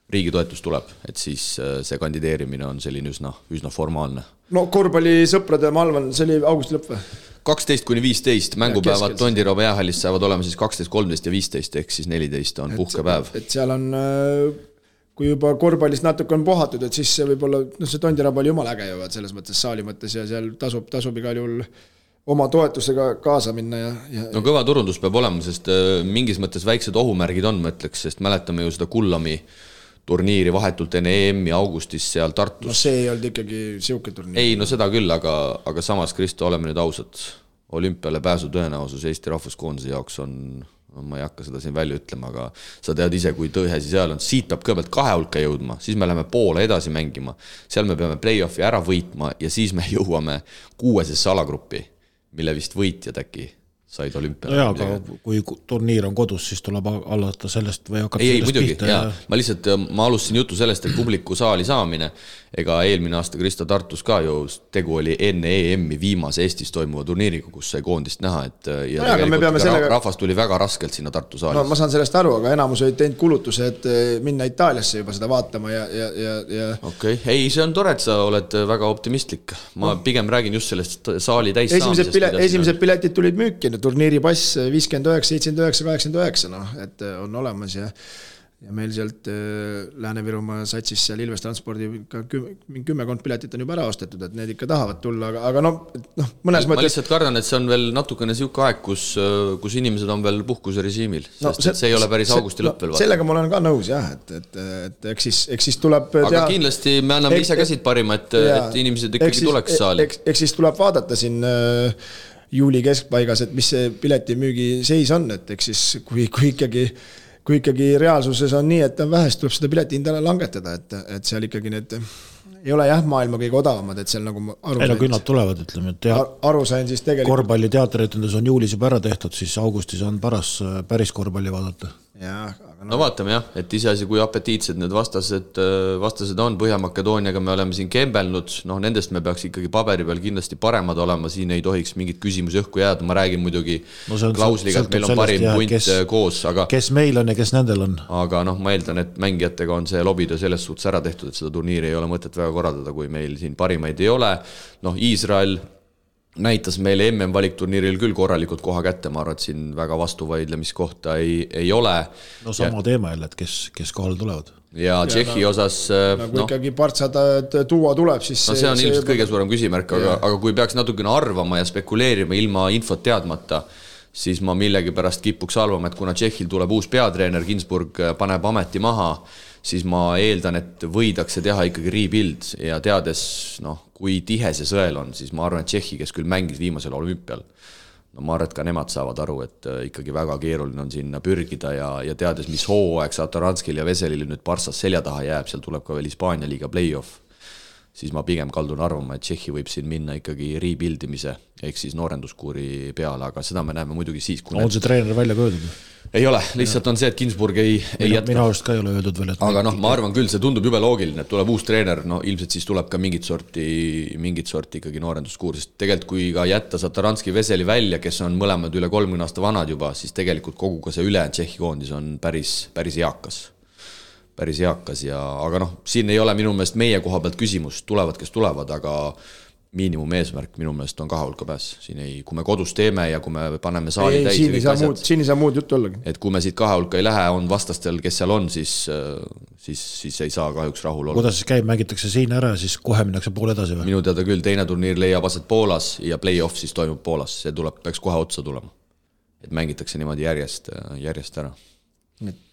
riigi toetus tuleb, et siis see kandideerimine on selline üsna formaalne. No korvpallisõprade, ma arvan, see oli augusti lõpp või? 12-15 mängupäevad Tondiraba jäähallis saavad olema siis 12, 13 ja 15 ehk siis 14 on puhkepäev. Et seal on kui juba korvpallist natuke on puhatud, et siis see võib-olla, see Tondiraba oli jumala äge juba selles mõttes saali mõttes ja seal tasub igal juhul oma toetusega kaasa minna ja... No kõva turundus peab olema, sest mingis mõttes väiksed ohumärgid on, ma ütleks, sest mäletame ju seda Kullami turniiri vahetult enne EM-i augustis seal Tartus. No see ei olnud ikkagi siuke turniir. Ei, no seda küll, aga samas, Kristo, oleme nüüd ausad. Olümpiale pääsu tõenäosus Eesti rahvuskoondise jaoks on, ma ei hakka seda siin välja ütlema, aga sa tead ise, kui tõhesi seal on. Siit peab kõigepealt 2 hulka jõudma, siis me läheme poole edasi mängima. Seal me peame play-offi ära võitma ja siis me jõuame 6. alagruppi, mille vist võitjad äkki said olümpiale. Jaa, aga kui turniir on kodus, siis tuleb allata sellest või hakata ei, sellest muidugi, pihta. Ma alustasin jutu sellest, et publiku saali saamine, ega eelmine aasta Krista Tartus ka ju tegu oli enne EM-i viimase Eestis toimuva turniiriga, kus sai koondist näha, et ja rahvas tuli väga raskelt sinna Tartu saalis. No, ma saan sellest aru, aga enamus olid teinud kulutuse, et minna Itaaliasse juba seda vaatama ja... Okei, ei, see on tore, et sa oled väga optimistlik. Ma pigem räägin just sellest saali täis saamisest. Esimesed piletid tulid müüki, turniiripass 59, 79, 89, et on olemas ja meil sealt Lääne-Virumaa satsis seal Ilves Transpordi 10 piletit on juba ära ostetud, et need ikka tahavad tulla, aga mõnes mõttes... Ma lihtsalt kardan, et see on veel natukene siuke aeg, kus inimesed on veel puhkuse režiimil, sest see ei ole päris augusti lõpp veel. Sellega ma olen ka nõus, jah, et eks siis tuleb... Aga kindlasti me anname ise käsid parima, et inimesed ikkagi tuleks saali. Eks siis tuleb vaadata siin... juuli keskpaigas, et mis see piletimüügi seis on, et eks siis kui ikkagi reaalsuses on nii, et on vähe, siis tuleb seda piletihinda langetada, et seal ikkagi need ei ole jah maailma kõige odavamad, et seal nagu aru sain. Küll nad tulevad, ütleme, et aru sain siis tegelikult... korvpalli teateritendus on juulis juba ära tehtud, siis augustis on päris korvpalli vaadata. Jah, no vaatame jah, et iseasi kui apetiitsed need vastased on. Põhja-Makedooniaga me oleme siin kembelnud, nendest me peaks ikkagi paberi peal kindlasti paremad olema, siin ei tohiks mingit küsimusi õhku jääda, ma räägin muidugi klausliga, et meil on parim punt koos, aga kes meil on ja kes nendel on. Aga ma eeldan, et mängijatega on see lobitöö selles suhtes ära tehtud, et seda turniiri ei ole mõtet väga korraldada, kui meil siin parimaid ei ole. Iisrael näitas meile MM-valikturniiril küll korralikult koha kätte, ma arvan, et siin väga vastuvaidlemiskohta ei ole. No sama teema jälle, et kes kohal tulevad. Ja Tšehhi osas... Kui ikkagi partsada tuua tuleb, siis... No see on ilmselt kõige suurem küsimärk, aga kui peaks natukene arvama ja spekuleerima ilma infot teadmata, siis ma millegi pärast kipuks arvama, et kuna Tšehhil tuleb uus peatreener, Ginsburg paneb ameti maha, siis ma eeldan, et võidakse teha ikkagi rebuild ja teades, kui tihe see sõel on, siis ma arvan, et Tšehhi, kes küll mängis viimasel olümpial, ma arvan, et ka nemad saavad aru, et ikkagi väga keeruline on sinna pürgida ja teades, mis hooaeg Satoranskil ja Veselil nüüd Parssas selja taha jääb, seal tuleb ka veel Hispaania liiga play-off, siis ma pigem kaldun arvama, et Tšehhi võib siin minna ikkagi rebuildimise ehk siis noorenduskuuri peale, aga seda me näeme muidugi siis, kui... On see treener välja köödud? Ei ole, lihtsalt on see, et Ginsburg ei jätka. Minu arust ka ei ole öeldud veel. Aga ma arvan küll, see tundub jube loogiline, et tuleb uus treener, ilmselt siis tuleb ka mingit sorti ikkagi noorenduskuur, sest tegelikult kui ka jätta Sataranski Veseli välja, kes on mõlemad üle 30 aasta vanad juba, siis tegelikult kogu ka see ülejäänud Tšehhi koondis on päris eakas ja, aga siin ei ole minu meelest meie koha pealt küsimus, tulevad, kes tulevad, aga miinimum eesmärk minu meelest on 2 hulka pääs. Siin ei, kui me kodus teeme ja kui me paneme saali täis siin ei saa muud juttu ollagi. Et kui me siit 2 hulka ei lähe, on vastastel, kes seal on, siis ei saa kahjuks rahul olla. Kuidas siis käib, mängitakse siin ära ja siis kohe minnakse pool edasi või? Minu teada küll, teine turniir leiab aset Poolas ja play-off siis toimub Poolas. See peaks kohe otsa tulema. Et mängitakse niimoodi järjest ära.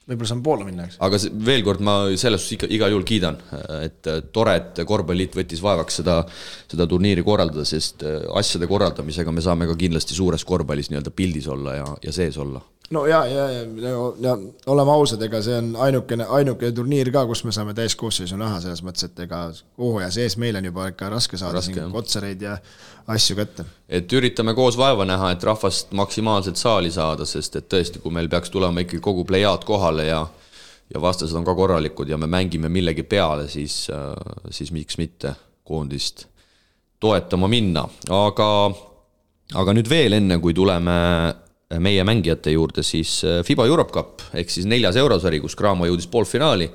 Võib-olla saan Poola minna, eks? Aga veel kord ma selles igal juhul kiidan, et tore, et korvpalliit võttis vaevaks seda turniiri korraldada, sest asjade korraldamisega me saame ka kindlasti suures korvpallis nii-öelda pildis olla ja sees olla. No ja oleme ausad, ega see on ainuke turniir ka, kus me saame täiskoosseisu näha selles mõttes, et ega hooaja sees meil on juba ikka raske saada kotsareid ja asju kätte. Et üritame koos vaeva näha, et rahvast maksimaalselt saali saada, sest et tõesti, kui meil peaks tulema ikkagi kogu plejaad kohale ja vastased on ka korralikud ja me mängime millegi peale, siis miks mitte koondist toetama minna. Aga nüüd veel enne, kui tuleme meie mängijate juurde, siis FIBA Europe Cup ehk siis 4. eurosari, kus Cramo jõudis poolfinaali,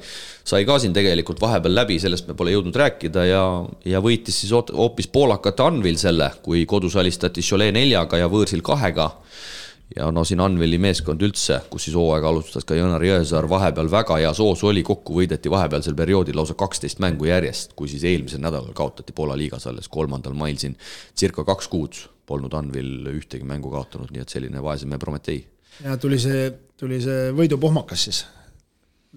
sai ka siin tegelikult vahepeal läbi, sellest me pole jõudnud rääkida ja võitis siis hoopis poolakate Anvil selle, kui kodus alistati Cholet 4 ja võõrsil 2 ja no siin Anveli meeskond üldse, kus siis hooaega alustas ka Jönar Jõesaar, vahepeal väga hea soos oli, kokku võideti vahepealsel perioodil lausa 12 mängu järjest, kui siis eelmisel nädalal kaotati Poola liigas alles 3. mail siin circa 2 kuud polnud Anvil ühtegi mängu kaotanud, nii et selline vaeseme Prometee. Ja tuli see võidupohmakas siis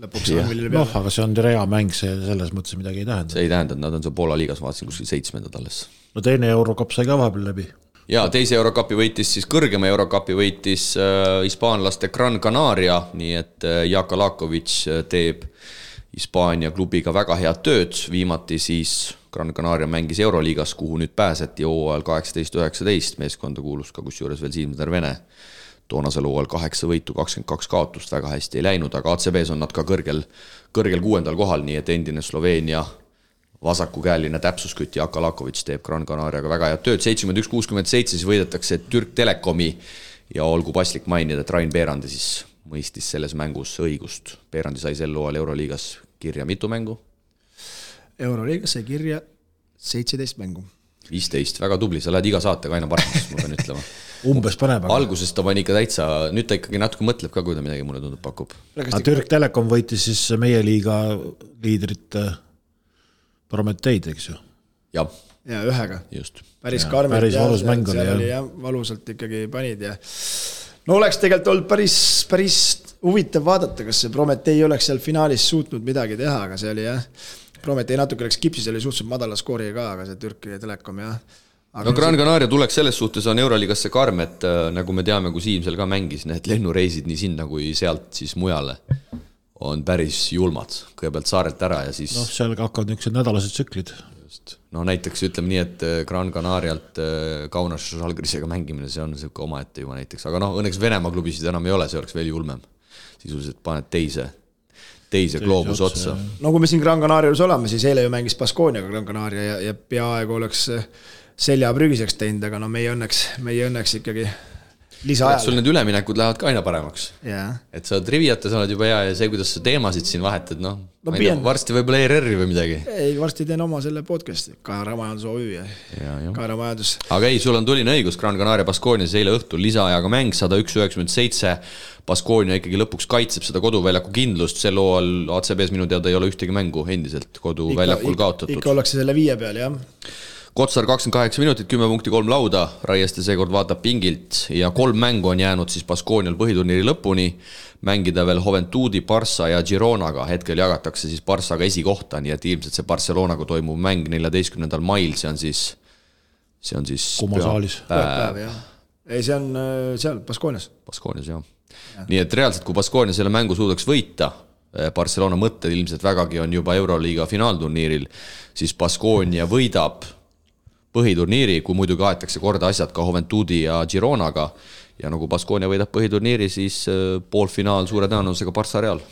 lõpuks Anvilile peale. Aga see on rea mäng, see selles mõttes midagi ei tähenda. See ei tähenda, et nad on seal Poola liigas, vaatasin kuskil 7. alles. No teine Eurocup sai ka vahepeal läbi. Ja teise Eurocupi võitis siis kõrgema Eurocupi võitis hispaanlaste Gran Canaria, nii et Jaka Lakovic teeb Hispaania klubiga väga head tööd, viimati siis Gran Canaria mängis Euroliigas, kuhu nüüd pääseti hooajal 18-19, meeskonda kuulus ka kusjuures veel Siim Tervene. Toonasel hooajal 8 võitu, 22 kaotust, väga hästi ei läinud, aga ACB-s on nad ka kõrgel 6. kohal, nii et endine Sloveenia vasakukäeline täpsuskütt Jaka Lakovic teeb Gran Canariaga väga head tööd, 71-67 siis võidetakse Türk Telekomi ja olgu paslik mainida, et Rain Peerandi siis mõistis selles mängus õigust. Peerandi sai sel hooajal Euroliigas kirja mitu mängu? Euroliigas sai kirja 17 mängu. 15, väga tubli, sa lähed iga saatega aina paremaks, ma pean ütlema. Umbes paneb. Alguses ta pani ikka täitsa, nüüd ta ikkagi natuke mõtleb ka, kui ta midagi mulle tundub pakub. Türk Telekom võitis siis meie liiga liidrit Prometeid, eks ju? Ja ühega. Just. Päris karmid. Päris valus mäng oli. Valusalt ikkagi panid ja no oleks tegelikult olnud päris huvitav vaadata, kas see Prometei oleks seal finaalis suutnud midagi teha, aga see oli Prometei natuke läks kipsis, oli suhteliselt madala skooriga ka, aga see Türki Telekom Aga no Gran Canaria tuleks selles suhtes on Euroliigasse karm, et nagu me teame, kui Siim seal ka mängis, need lennureisid nii sinna kui sealt siis mujale on päris julmad. Kõigepealt saarelt ära ja siis... No seal hakkavad niisugused nädalased tsüklid. Just. No näiteks ütleme nii, et Gran Canarialt Kaunas Žalgirisega mängimine, see on selline omaette juba näiteks. Aga õnneks Venemaa klubisid enam ei ole, see oleks veel julmem. Sisuliselt paned teise gloobus otsa. No kui me siin Gran Canarias oleme, siis eile ju mängis Baskooniaga Gran Canaria ja peaaegu oleks selja prügiseks teinud, aga meie õnneks ikkagi lisaajal. Sul need üleminekud lähevad ka aina paremaks. Yeah. Et sa oled riviata, sa oled juba hea ja see, kuidas sa teemasid siin vahetad, varsti võib-olla ERR-i või midagi. Ei, varsti teen oma selle podcasti, Kaara Majandus OÜ ja Kaara Majandus. Aga ei, sul on tuline õigus, Gran Canaria Baskoonias eile õhtul lisaajaga mäng 101-97. Baskoonia ikkagi lõpuks kaitseb seda koduväljaku kindlust, sel hooajal ACB-s minu teada ei ole ühtegi mängu endiselt koduväljakul kaotatud. Ikka ollakse selle 5 peal, jah. Kotsar 28 minutit, 10 punkti 3 lauda, Raieste seekord vaatab pingilt ja 3 mängu on jäänud siis Baskoonial põhiturniiri lõpuni, mängida veel Juventudi, Barça ja Gironaga, hetkel jagatakse siis Barçaga esikohta, nii et ilmselt see Barcelonaga toimub mäng 14. mail, see on siis Kumasaalis. Päev, jah. Ei, see on seal, Baskoonias. Baskoonias, jah. Nii et reaalselt, kui Baskoonia selle mängu suudaks võita, Barcelona mõtted ilmselt vägagi on juba Euroliiga finaalturniiril, siis Baskoonia võidab põhiturniiri, kui muidugi aetakse korda asjad ka Juventudi ja Gironaga ja nagu Baskoonia võidab põhiturniiri, siis poolfinaal suure tõenäosusega Barça Real.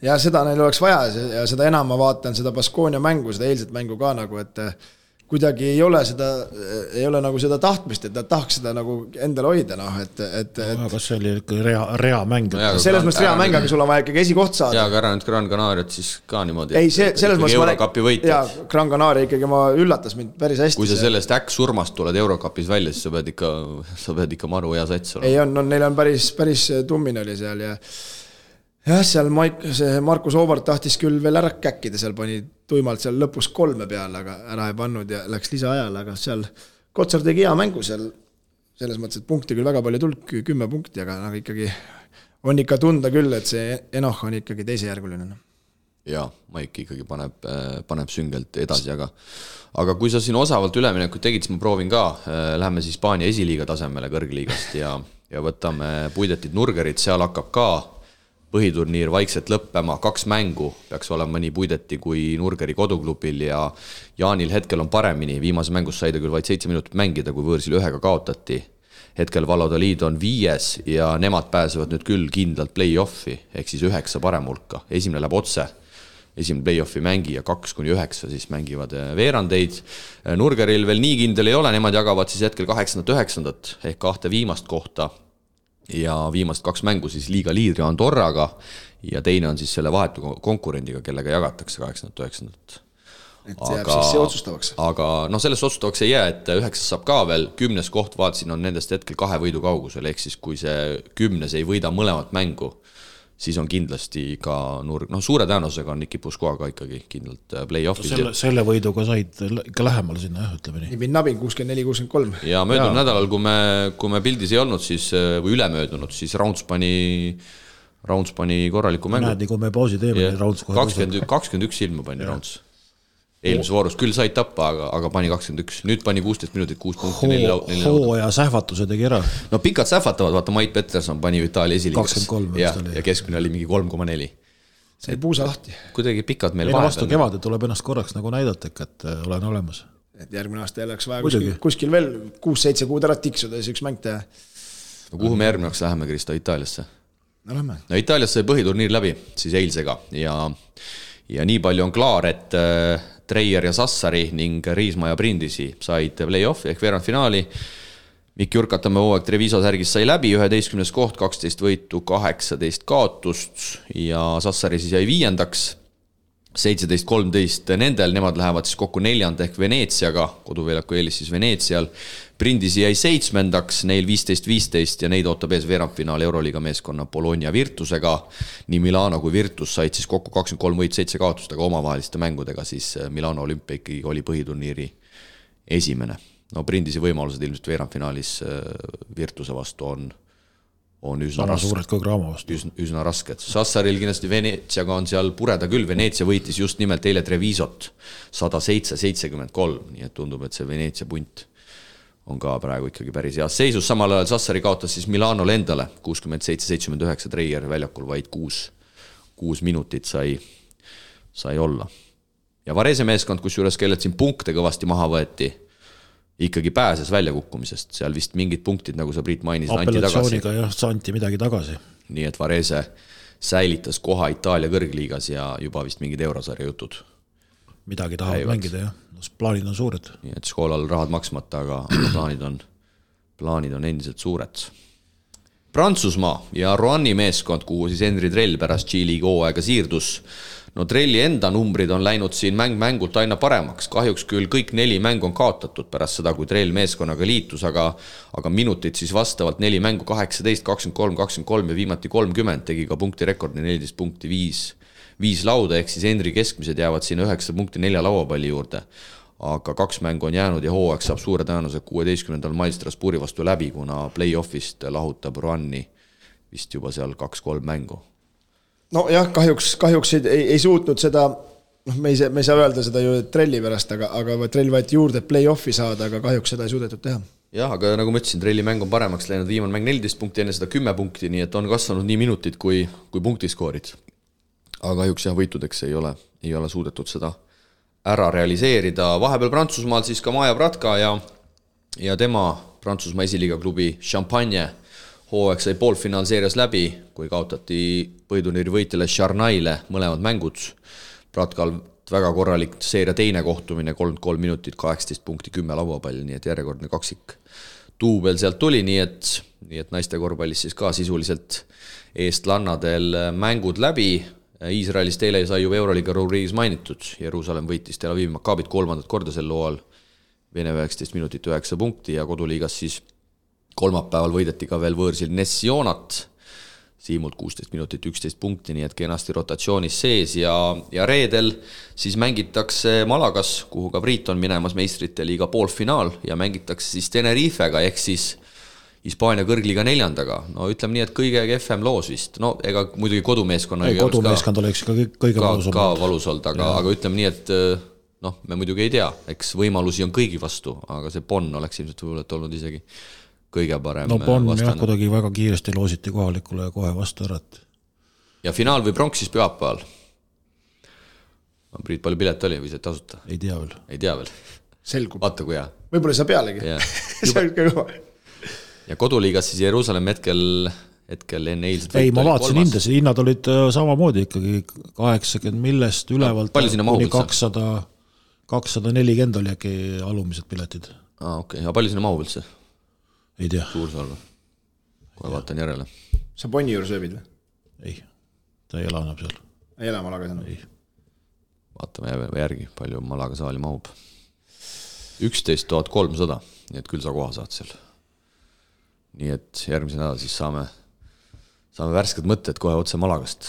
Ja seda neil oleks vaja ja seda enam ma vaatan seda Baskoonia mängu, seda eilset mängu ka nagu, et kuidagi ei ole nagu seda tahtmist, et nad tahaks seda nagu endale hoida, Kas see oli rea mäng? Selles mõttes rea mäng, aga sul on vaja ikkagi esikoht saada. Ja, aga ära nüüd Gran Canariat siis ka niimoodi. Ei, selles mõttes Eurocupi võitjad. Ja, Gran Canaria ikkagi üllatas mind päris hästi. Kui sa sellest surmast tuled Eurocupis välja, siis sa pead ikka maru hea sats olema. Ei, neil on päris tummin oli seal ja seal Markus Oovart tahtis küll veel ära käkkida, seal pani tuimalt seal lõpus 3 peale, aga ära ei pannud ja läks lisaajal, aga seal Kotsar tegi hea mängu seal, selles mõttes, et punkti küll väga palju tulnud, 10 punkti, aga ikkagi on ikka tunda küll, et see Enoch on ikkagi teisejärguline. Ja, Maik ikkagi paneb süngelt edasi, aga kui sa siin osavalt üleminekut tegid, siis ma proovin ka, läheme siis Hispaania esiliiga tasemele kõrgliigast ja võtame Puidetit Nurgerit, seal hakkab ka põhiturniir vaikselt lõppema, 2 mängu peaks olema nii Puideti kui Nurgeri koduklubil ja Jaanil hetkel on paremini, viimase mängus sai ta küll vaid 7 minutit mängida, kui võõrsil 1 kaotati. Hetkel Valladolid on 5 ja nemad pääsevad nüüd küll kindlalt play-offi, ehk siis 9 parem hulka. Esimene läheb otse, esimene play-offi mängi ja 2-9 siis mängivad veerandeid. Nurgeril veel nii kindel ei ole, nemad jagavad siis hetkel 8-9 ehk 2 viimast kohta. Ja viimast 2 mängu siis liiga liidri Andorraga ja teine on siis selle vahetu konkurendiga, kellega jagatakse 8-9. et see jääb siis see otsustavaks. Aga sellest otsustavaks ei jää, et 9 saab ka veel, 10 koht vaatasin on nendest hetkel 2 võidu kaugusel, ehk siis kui see 10 ei võida mõlemat mängu, siis on kindlasti ka nurg, suure tõenäosusega on Niki Puskoaga ikkagi kindlalt play-offis. Selle võiduga said ikka lähemale sinna, ütleme nii. Nibin-nabin 64-63. Ja möödunud nädalal, kui me pildis ei olnud, siis, või ülemöödunud, siis Rounds pani korraliku mängu. Näed, nii kui me pausi teeme, Rounds kohe 21 ilma pani Rounds. Eelmise voorus küll said tappa, aga pani 21. Nüüd pani 16 minutit, 6 punkti. Hooaja sähvatuse tegi ära. No pikad sähvatavad, vaata Mait Peterson pani Itaalia esiliigas. 23. Ja keskmine oli mingi 3,4. See puusa lahti. Kuidagi pikad meil vahepeal. Vastu kevade tuleb ennast korraks nagu näidata, et olen olemas. Et järgmine aasta jälleks vaja kuskil veel 6-7 kuud ära tiksuda ja üks mäng teha. No kuhu me järgmine aasta läheme, Kristo, Itaaliasse? No lähme. No Itaaliasse põhiturniir läbi, siis eilsega. Ja nii palju on klaar, et Treier ja Sassari ning Riisma ja Brindisi said play-offi ehk veerandfinaali. Mikk Jurkatamme hooaeg Treviso särgis sai läbi, 11 koht, 12 võitu, 18 kaotust ja Sassari siis jäi 5. 17-13 nendel, nemad lähevad siis kokku 4. ehk Veneetsiaga, koduväljaku eelis siis Veneetsial. Brindisi jäi 7. neil 15-15 ja neid ootab ees veerandfinaal Euroliiga meeskonna Bologna Virtusega. Nii Milano kui Virtus said siis kokku 23 võit 7 kaotust, aga omavaheliste mängudega siis Milano Olümpia ikkagi oli põhiturniiri esimene. No Brindisi võimalused ilmselt veerandfinaalis Virtuse vastu on üsna rasked. Sassaril kindlasti Veneetsiaga on seal pureda küll. Veneetsia võitis just nimelt eile Trevisot 107-73, nii et tundub, et see Veneetsia punt on ka praegu ikkagi päris heas seisus. Samal ajal Sassari kaotas siis Milanole endale 67-79, Treier väljakul vaid 6 minutit sai olla. Ja Varese meeskond, kus juures kellelt siin punkte kõvasti maha võeti, ikkagi pääses väljakukkumisest. Seal vist mingid punktid, nagu sa Priit mainisid, apellatsiooniga jah, anti midagi tagasi. Nii et Varese säilitas koha Itaalia kõrgliigas ja juba vist mingid eurosarja jutud. Midagi tahavad mängida, jah. Plaanid on suured. Nii et Školal rahad maksmata, aga plaanid on endiselt suured. Prantsusmaa ja Roanni meeskond, kuhu siis Henri Trell pärast G-liiga hooaega siirdus. No Trelli enda numbrid on läinud siin mängult aina paremaks. Kahjuks küll kõik 4 mängu on kaotatud pärast seda, kui Trell meeskonnaga liitus, aga minutid siis vastavalt 4 mängu 18, 23, 23 ja viimati 30 tegi ka punkti rekordi 14 punkti 5 lauda, ehk siis Henri keskmised jäävad siin 9 punkti 4 lauapalli juurde. Aga 2 mängu on jäänud ja hooaeg saab suure tõenäosusega 16. mail Strasbourgi vastu läbi, kuna play-offist lahutab Roanni vist juba seal 2-3 mängu. No jah, kahjuks ei suutnud seda, me ei saa öelda seda ju Trelli pärast, aga Trell võeti juurde play-offi saada, aga kahjuks seda ei suudetud teha. Jah, aga nagu ma ütlesin, Trelli mäng on paremaks läinud, viimane mäng 14 punkti, enne seda 10 punkti, nii et on kasvanud nii minutid kui punktiskoorid. Aga kahjuks jah, võitudeks ei ole suudetud seda ära realiseerida. Vahepeal Prantsusmaal siis ka Maja Bratka ja tema Prantsusmaa esiliiga klubi Champagne hooaeg sai poolfinaalseerias läbi, kui kaotati põhiturniiri võitjale Charnaile mõlemad mängud. Bratkal väga korralik seeria teine kohtumine, 33 minutit, 18 punkti, 10 lauapalli, nii et järjekordne kaksik duubel sealt tuli, nii et naiste korvpallis siis ka sisuliselt eestlannadel mängud läbi. Iisraelist eile sai ju Euroliiga rubriigis mainitud. Jeruusalemm võitis Tel Avivi Maccabit 3. korda sel loal. Vene 19 minutit 9 punkti ja koduliigas siis kolmapäeval võideti ka veel võõrsil Nessionat. Siimult 16 minutit 11 punkti, nii et kenasti rotatsioonis sees ja reedel siis mängitakse Malagas, kuhu ka Priit on minemas meistrite liiga poolfinaal ja mängitakse siis Tenerifega ehk siis Hispaania kõrgliiga 4. No ütleme nii, et kõige kehvem loos vist. No ega muidugi kodumeeskonna kodumeeskond oleks ka kõige valus olnud, aga ütleme nii, et me muidugi ei tea, eks võimalusi on kõigi vastu, aga see Bonn oleks ilmselt võib-olla olnud isegi kõige parem. No Bonn jah, kuidagi väga kiiresti loositi kohalikule ja kohe vastu ära. Ja finaal või pronks siis pühapäeval? Priit, palju pilet oli või see tasuta? Ei tea veel. Selgub. Vaata kui hea. Võib-olla ei saa pealegi. See on kõva. Ja koduliigas siis Jeruusalemm hetkel enne eilset ei, ma vaatasin hindasid, hinnad olid samamoodi ikkagi 80 millest ülevalt kuni 240 oli äkki alumised piletid. Okei, aga palju sinna mahub üldse? Ei tea. Suursalva. Kohe vaatan järele. Sa Bonni juures ööbid või? Ei, ta ei ela enam seal. Ei ela Malagas enam? Ei. vaatame järgi, palju Malaga saali mahub. 11 300, nii et küll sa koha saad seal. Nii et järgmise nädal siis saame värsked mõtted kohe otse Malagast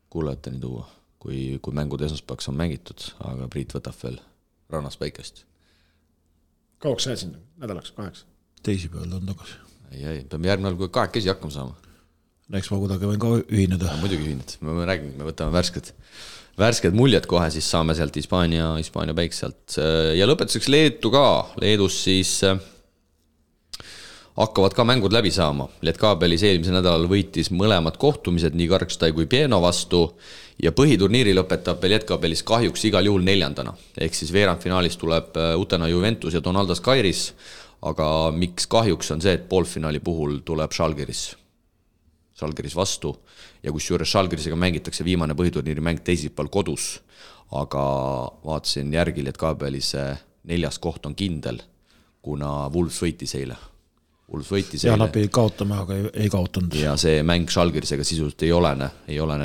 kuulajateni tuua, kui mängud esmaspäevaks on mängitud, aga Priit võtab veel rannas päikest. Kauaks sa jääd sinna? Nädalaks, 8? Teisipäeval on tagasi. Ei, peame järgmine nädal, kui 2 hakkama saama. Eks ma kuidagi võin ka ühineda. Muidugi ühined, me räägime, me võtame värsked muljed kohe, siis saame sealt Hispaania päik sealt. Ja lõpetuseks Leetu ka. Leedus siis hakkavad ka mängud läbi saama. Lietkabelis eelmise nädalal võitis mõlemad kohtumised nii Karkstai kui Pieno vastu ja põhiturniiri lõpetab Lietkabelis kahjuks igal juhul 4. Ehk siis veerandfinaalis tuleb Utena Juventus ja Donaldas Kairis, aga miks kahjuks on see, et poolfinaali puhul tuleb Žalgiris vastu ja kus juures Žalgirisega mängitakse viimane põhiturniiri mäng teisipäeval kodus, aga vaatasin järgi, et Kaabelis 4. koht on kindel, kuna Wolves võitis eile. Ja nad pidid kaotama, aga ei kaotanud. Ja see mäng Žalgirisega sisuliselt ei olene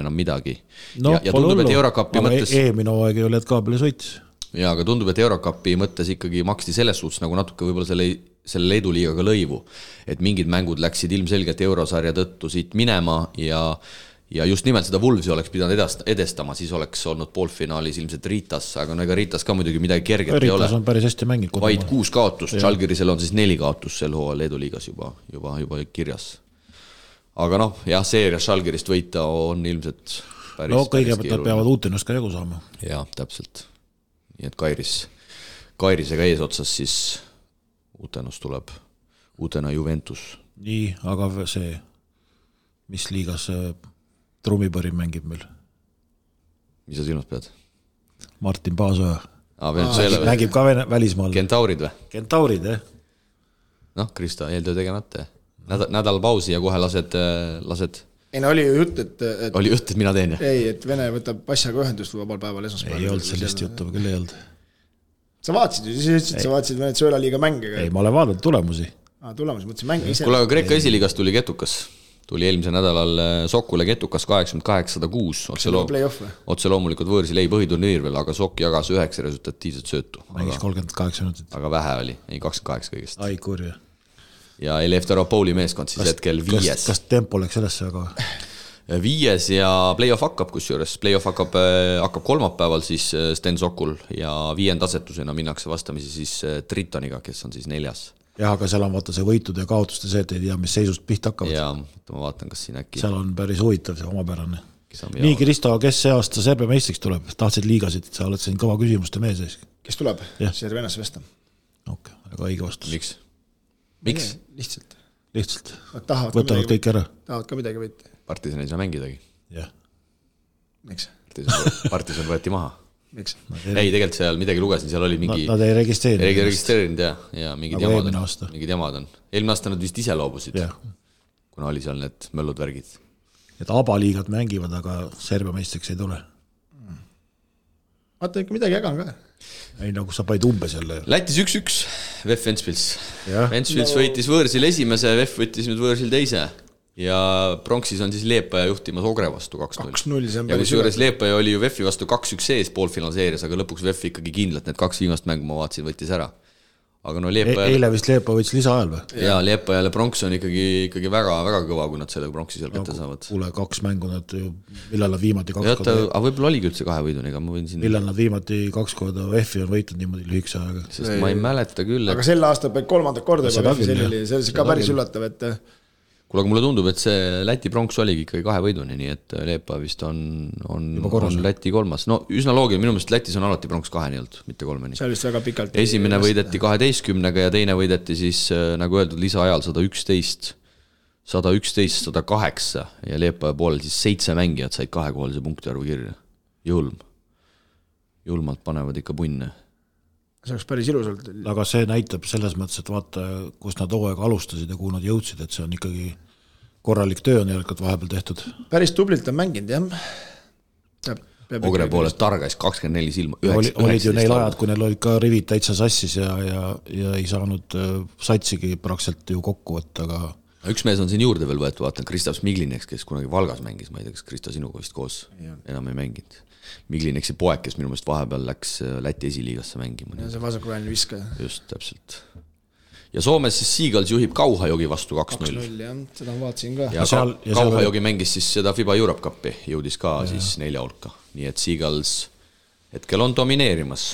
enam midagi. No, ja tundub, et Eurocupi mõttes... Eelmine aeg ei ole, et Kaabelis võitis. Ja, aga tundub, et Eurocupi mõttes ikkagi maksti selles suhtes nagu natuke võib-olla selle Leedu liigaga lõivu, et mingid mängud läksid ilmselgelt eurosarja tõttu siit minema ja just nimelt seda Wolvesi oleks pidanud edestama, siis oleks olnud poolfinaalis ilmselt Ritas, aga ega Ritas ka muidugi midagi kerget ei ole. Ritas on päris hästi mängid. Vaid 6 kaotust, Žalgirisel on siis 4 kaotust sel hooajal Leedu liigas juba kirjas. Aga jah, seerias Žalgirist võita on ilmselt päris... No kõigepealt nad peavad Utenust ka jagu saama. Jah, täpselt. Nii et Kairisega ees otsas siis Utenust tuleb Utena Juventus. Nii, aga see, mis liigas Trummipõri mängib meil? Mis sa silmas pead? Martin Paasoja. Mängib ka välismaal. Kentaurid või? Kentaurid, jah. Krista, eeltöö tegemata. Nädal pausi ja kohe lased... Ei, no oli ju jutt, et... Oli jutt, et mina teen. Ei, et Vene võtab passaga ühendust vabal päeval esmaspäeval. Ei olnud sellist juttu, küll ei olnud. Sa vaatasid ju, siis ütlesid, sa vaatasid Venezuela liiga mänge. Ei, ma olen vaadanud tulemusi. Tulemusi, mõtlesin mänge ise. Kuule, aga Kreeka esiliigast tuli Ketukas. Tuli eelmise nädalal Sokule Ketukas 88-106. Otse loomulikult võõrsil ei põhiturniir veel, aga Sok jagas 9 resultatiivset söötu. Mängis 38 minutit. Aga vähe oli, ei 28 kõigest. Ai, kurja. Ja Elefteropouli meeskond siis hetkel 5. Kas tempo läks sellesse, aga... 5 ja play-off hakkab, kusjuures play-off hakkab kolmapäeval siis Sten Sokul ja 5. asetusena minnakse vastamisi siis Tritoniga, kes on siis 4. Jah, aga seal on vaata see võitude ja kaotuste see, et ei tea, mis seisust pihta hakkavad. Ja ma vaatan, kas siin äkki... Seal on päris huvitav see omapärane. Nii, Kristo, kes see aasta Serbia meistriks tuleb? Tahtsid liigasid, sa oled siin kõva küsimuste mees ees. Kes tuleb? Servenas Vesta. Okei, aga õige vastus. Miks? Lihtsalt. Võtavad kõik ära. Tahavad ka midagi võita. Partisan ei saa mängidagi. Jah. Miks? Partisan võeti maha. Miks? Ei, tegelikult seal midagi lugesin, seal oli mingi... Nad ei registreerinud. Ja mingid jamad on. Eelmine aasta nad vist ise loobusid, kuna oli seal need möllud värgid. Et abaliigad mängivad, aga Serbia meistriks ei tule. Vaata ikka midagi ägan ka. Ei, nagu sa paid umbes jälle. Lätis 1-1, VEF Ventspils. Ventspils võitis võõrsil esimese, VEF võttis nüüd võõrsil teise. Ja Pronksis on siis Leepaja juhtimas Ogre vastu 2-0. Ja kus juures Leepaja oli ju VEF-i vastu 2-1 sees poolfinaalseeris, aga lõpuks VEF ikkagi kindlalt need 2 viimast mängu ma vaatasin, võttis ära. Aga no Leepaja... Eile vist Leepaja võttis lisaajal või? Ja Leepajale Pronks on ikkagi väga, väga kõva, kui nad selle Pronksi seal kätte saavad. Kuule, 2 mängu nad ju, millal nad viimati 2 korda... Aga võib-olla oligi üldse 2 võiduniga, ma võin siin... Millal nad viimati 2 korda VEF-i on võitnud niimoodi lühikse ajaga? Sest ma ei mäleta küll, et... Aga sel aasta peab 3. korda juba VEF-i, see oli ka päris üllatav, et... Kuule, aga mulle tundub, et see Läti Pronks oligi ikkagi 2 võiduni, nii et Leepa vist on Läti 3. No üsna loogiline, minu meelest Lätis on alati Pronks 2 nii olnud, mitte 3. See oli vist väga pikalt. Esimene võideti 12-ga ja teine võideti siis, nagu öeldud, lisaajal 111-108 ja Leepa poolel siis 7 mängijad said 2-kohalise punkti arvu kirja. Julmalt panevad ikka punne. See oleks päris ilusalt. Aga see näitab selles mõttes, et vaata, kus nad hooaega alustasid ja kuhu nad jõudsid, et see on ikkagi korralik töö on järelikult vahepeal tehtud. Päris tublilt on mänginud, jah. Ogre poolest targais 24 silma. Olid ju neil ajad, kui neil olid ka rivid täitsa sassis ja ei saanud satsigi praktiliselt ju kokku võtta, aga... Üks mees on siin juurde veel võetud, vaatan Kristav Smigliniks, kes kunagi Valgas mängis, ma ei tea, kas Krista sinuga vist koos enam ei mänginud. Miglineksi poeg, kes minu meelest vahepeal läks Läti esiliigasse mängima. Ja see vasakuväline viskaja. Just, täpselt. Ja Soomes siis Seagulls juhib Kauhajogi vastu 2-0. 2-0, jah, seda ma vaatasin ka. Ja Kauhajogi mängis siis seda FIBA Europe Cupi, jõudis ka siis 4 hulka. Nii et Seagulls hetkel on domineerimas.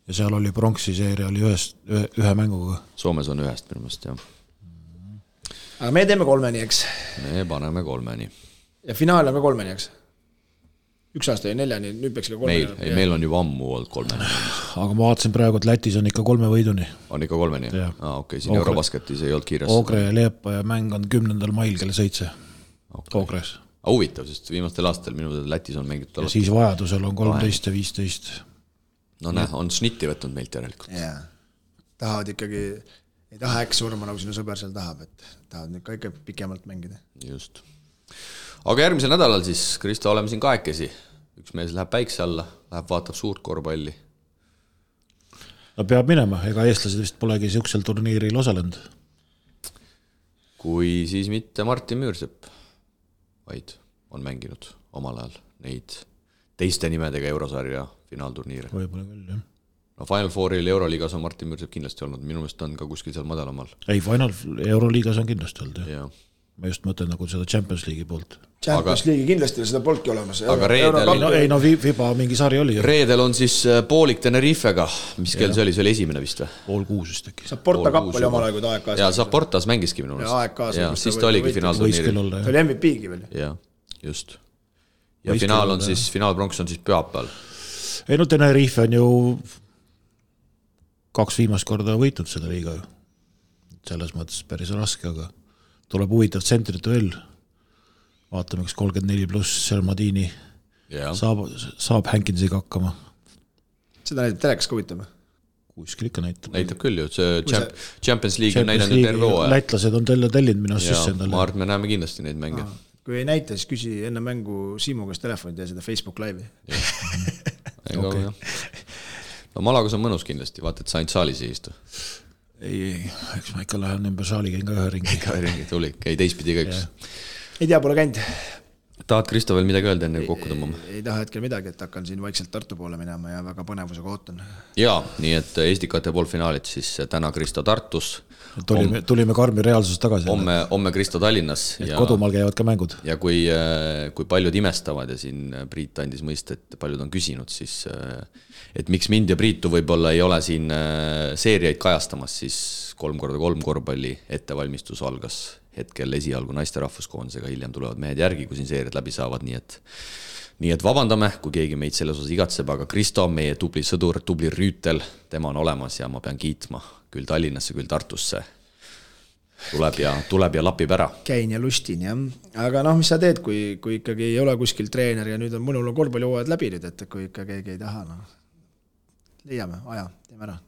Ja seal oli pronksi seeria oli ühe mänguga. Soomes on 1 minu meelest, jah. Aga me teeme 3, eks? Me paneme 3. Ja finaal on ka 3, eks? 1 aasta ja 4, nüüd peaks ka 3. Meil on juba ammu olnud 3. Aga ma vaatasin praegu, et Lätis on ikka 3 võiduni. On ikka 3, nii? Okei, siin Eurobasketis ei olnud kiires. Ogre ja Leepa ja mäng on 10. mail kell 7. Ogres. Huvitav, sest viimastel aastal minu Lätis on mängitud ja siis vajadusel on 13 ja 15. No näe, on šnitti võtnud meilt järelikult. Jaa, tahavad ikkagi, ei taha äkki surma, nagu sinu sõber seal tahab, et tahavad nüüd ka ikka pikemalt mängida. Just. Aga järgmisel nädalal siis, Kristo, oleme siin kahekesi. Üks mees läheb päikse alla, läheb vaatab suurt korvpalli. No peab minema, ega eestlased vist polegi siuksel turniiril osalenud. Kui siis mitte Martin Müürsepp, vaid on mänginud omal ajal neid teiste nimedega Eurosarja finaalturniire. Võib-olla küll, jah. No Final Fouril Euroliigas on Martin Müürsepp kindlasti olnud, minu meelest on ka kuskil seal madalamal. Ei, Final Euroliigas on kindlasti olnud, jah. Ma just mõtlen nagu seda Champions League'i poolt. Champions League'i kindlasti seda polki olemas. Aga reedel... FIBA mingi sari oli. Reedel on siis poolik Tenerifega. Mis kell see oli? See oli esimene vist või? 5:30 vist äkki. Saporta kapp oli omal aeg, kui ta AEK-s. Ja Saportas mängiski minu meelest. Ja siis ta oligi finaalturniiril. Ta oli MVP-gi veel. Ja, just. Ja finaal on siis, finaalpronks on siis pühapäeval. Ei no Tenerife on ju 2 viimast korda võitnud seda liiga. Selles mõttes päris raske, aga tuleb huvitav tsentrit veel. Vaatame, kas 34 pluss Sermadini saab Hankinsiga hakkama. Seda näitab telekas ka huvitav. Kuskil ikka näitab. Näitab küll ju, see Champions League on näidanud terve hooaja. Lätlased on tellinud minu sisse endale. Ma arvan, me näeme kindlasti neid mänge. Kui ei näita, siis küsi enne mängu Siimu käest telefoni ja seda Facebook live'i. No Malagos on mõnus kindlasti, vaata, et sa ainult saalis ei istu. Ei, eks ma ikka lähen ümber saali, käin ka ühe ringi. Ikka ühe ringi, tuli, käi teistpidi ka üks. Ei tea, pole käinud. Tahad Kristo veel midagi öelda enne kokku tõmbama? Ei taha hetkel midagi, et hakkan siin vaikselt Tartu poole minema ja väga põnevusega ootan. Jaa, nii et Estikate poolfinaalid siis täna Kristo Tartus. Tulime karmi reaalsusest tagasi. Homme Kristo Tallinnas. Et kodumaal käivad ka mängud. Ja kui paljud imestavad ja siin Priit andis mõista, et paljud on küsinud, siis et miks mind ja Priitu võib-olla ei ole siin seeriaid kajastamas, siis 3x3 korvpalli ettevalmistus algas hetkel esialgu naiste rahvuskoondisega, hiljem tulevad mehed järgi, kui siin seeriad läbi saavad, nii et vabandame, kui keegi meid selles osas igatseb, aga Kristo on meie tubli sõdur, tubli rüütel, tema on olemas ja ma pean kiitma küll Tallinnasse, küll Tartusse. Tuleb ja lapib ära. Käin ja lustin, jah. Aga mis sa teed, kui ikkagi ei ole kuskil treener ja nüüd on mõnul korvpallihooajad läbi nüüd, et kui ikka keegi ei taha, leiame, aja, teeme ära.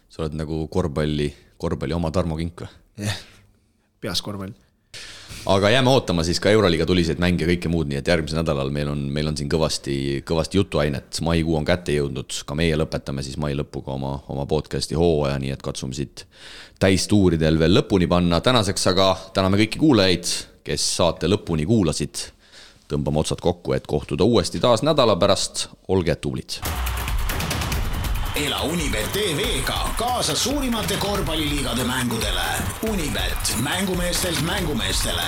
Sa oled nagu korvpalli oma Tarmo Kink või? Jah, peas korvpall. Aga jääme ootama siis ka Euroliiga tuliseid mänge ja kõike muud, nii et järgmisel nädalal meil on siin kõvasti jutuainet. Maikuu on kätte jõudnud, ka meie lõpetame siis mai lõpuga oma podcasti hooaja, nii et katsume siit täistuuridel veel lõpuni panna. Tänaseks aga täname kõiki kuulajaid, kes saate lõpuni kuulasid. Tõmbame otsad kokku, et kohtuda uuesti taas nädala pärast. Olge tublid! Ela Unibet TV-ga kaasa suurimate korvpalliliigade mängudele. Unibet, mängumeestelt mängumeestele.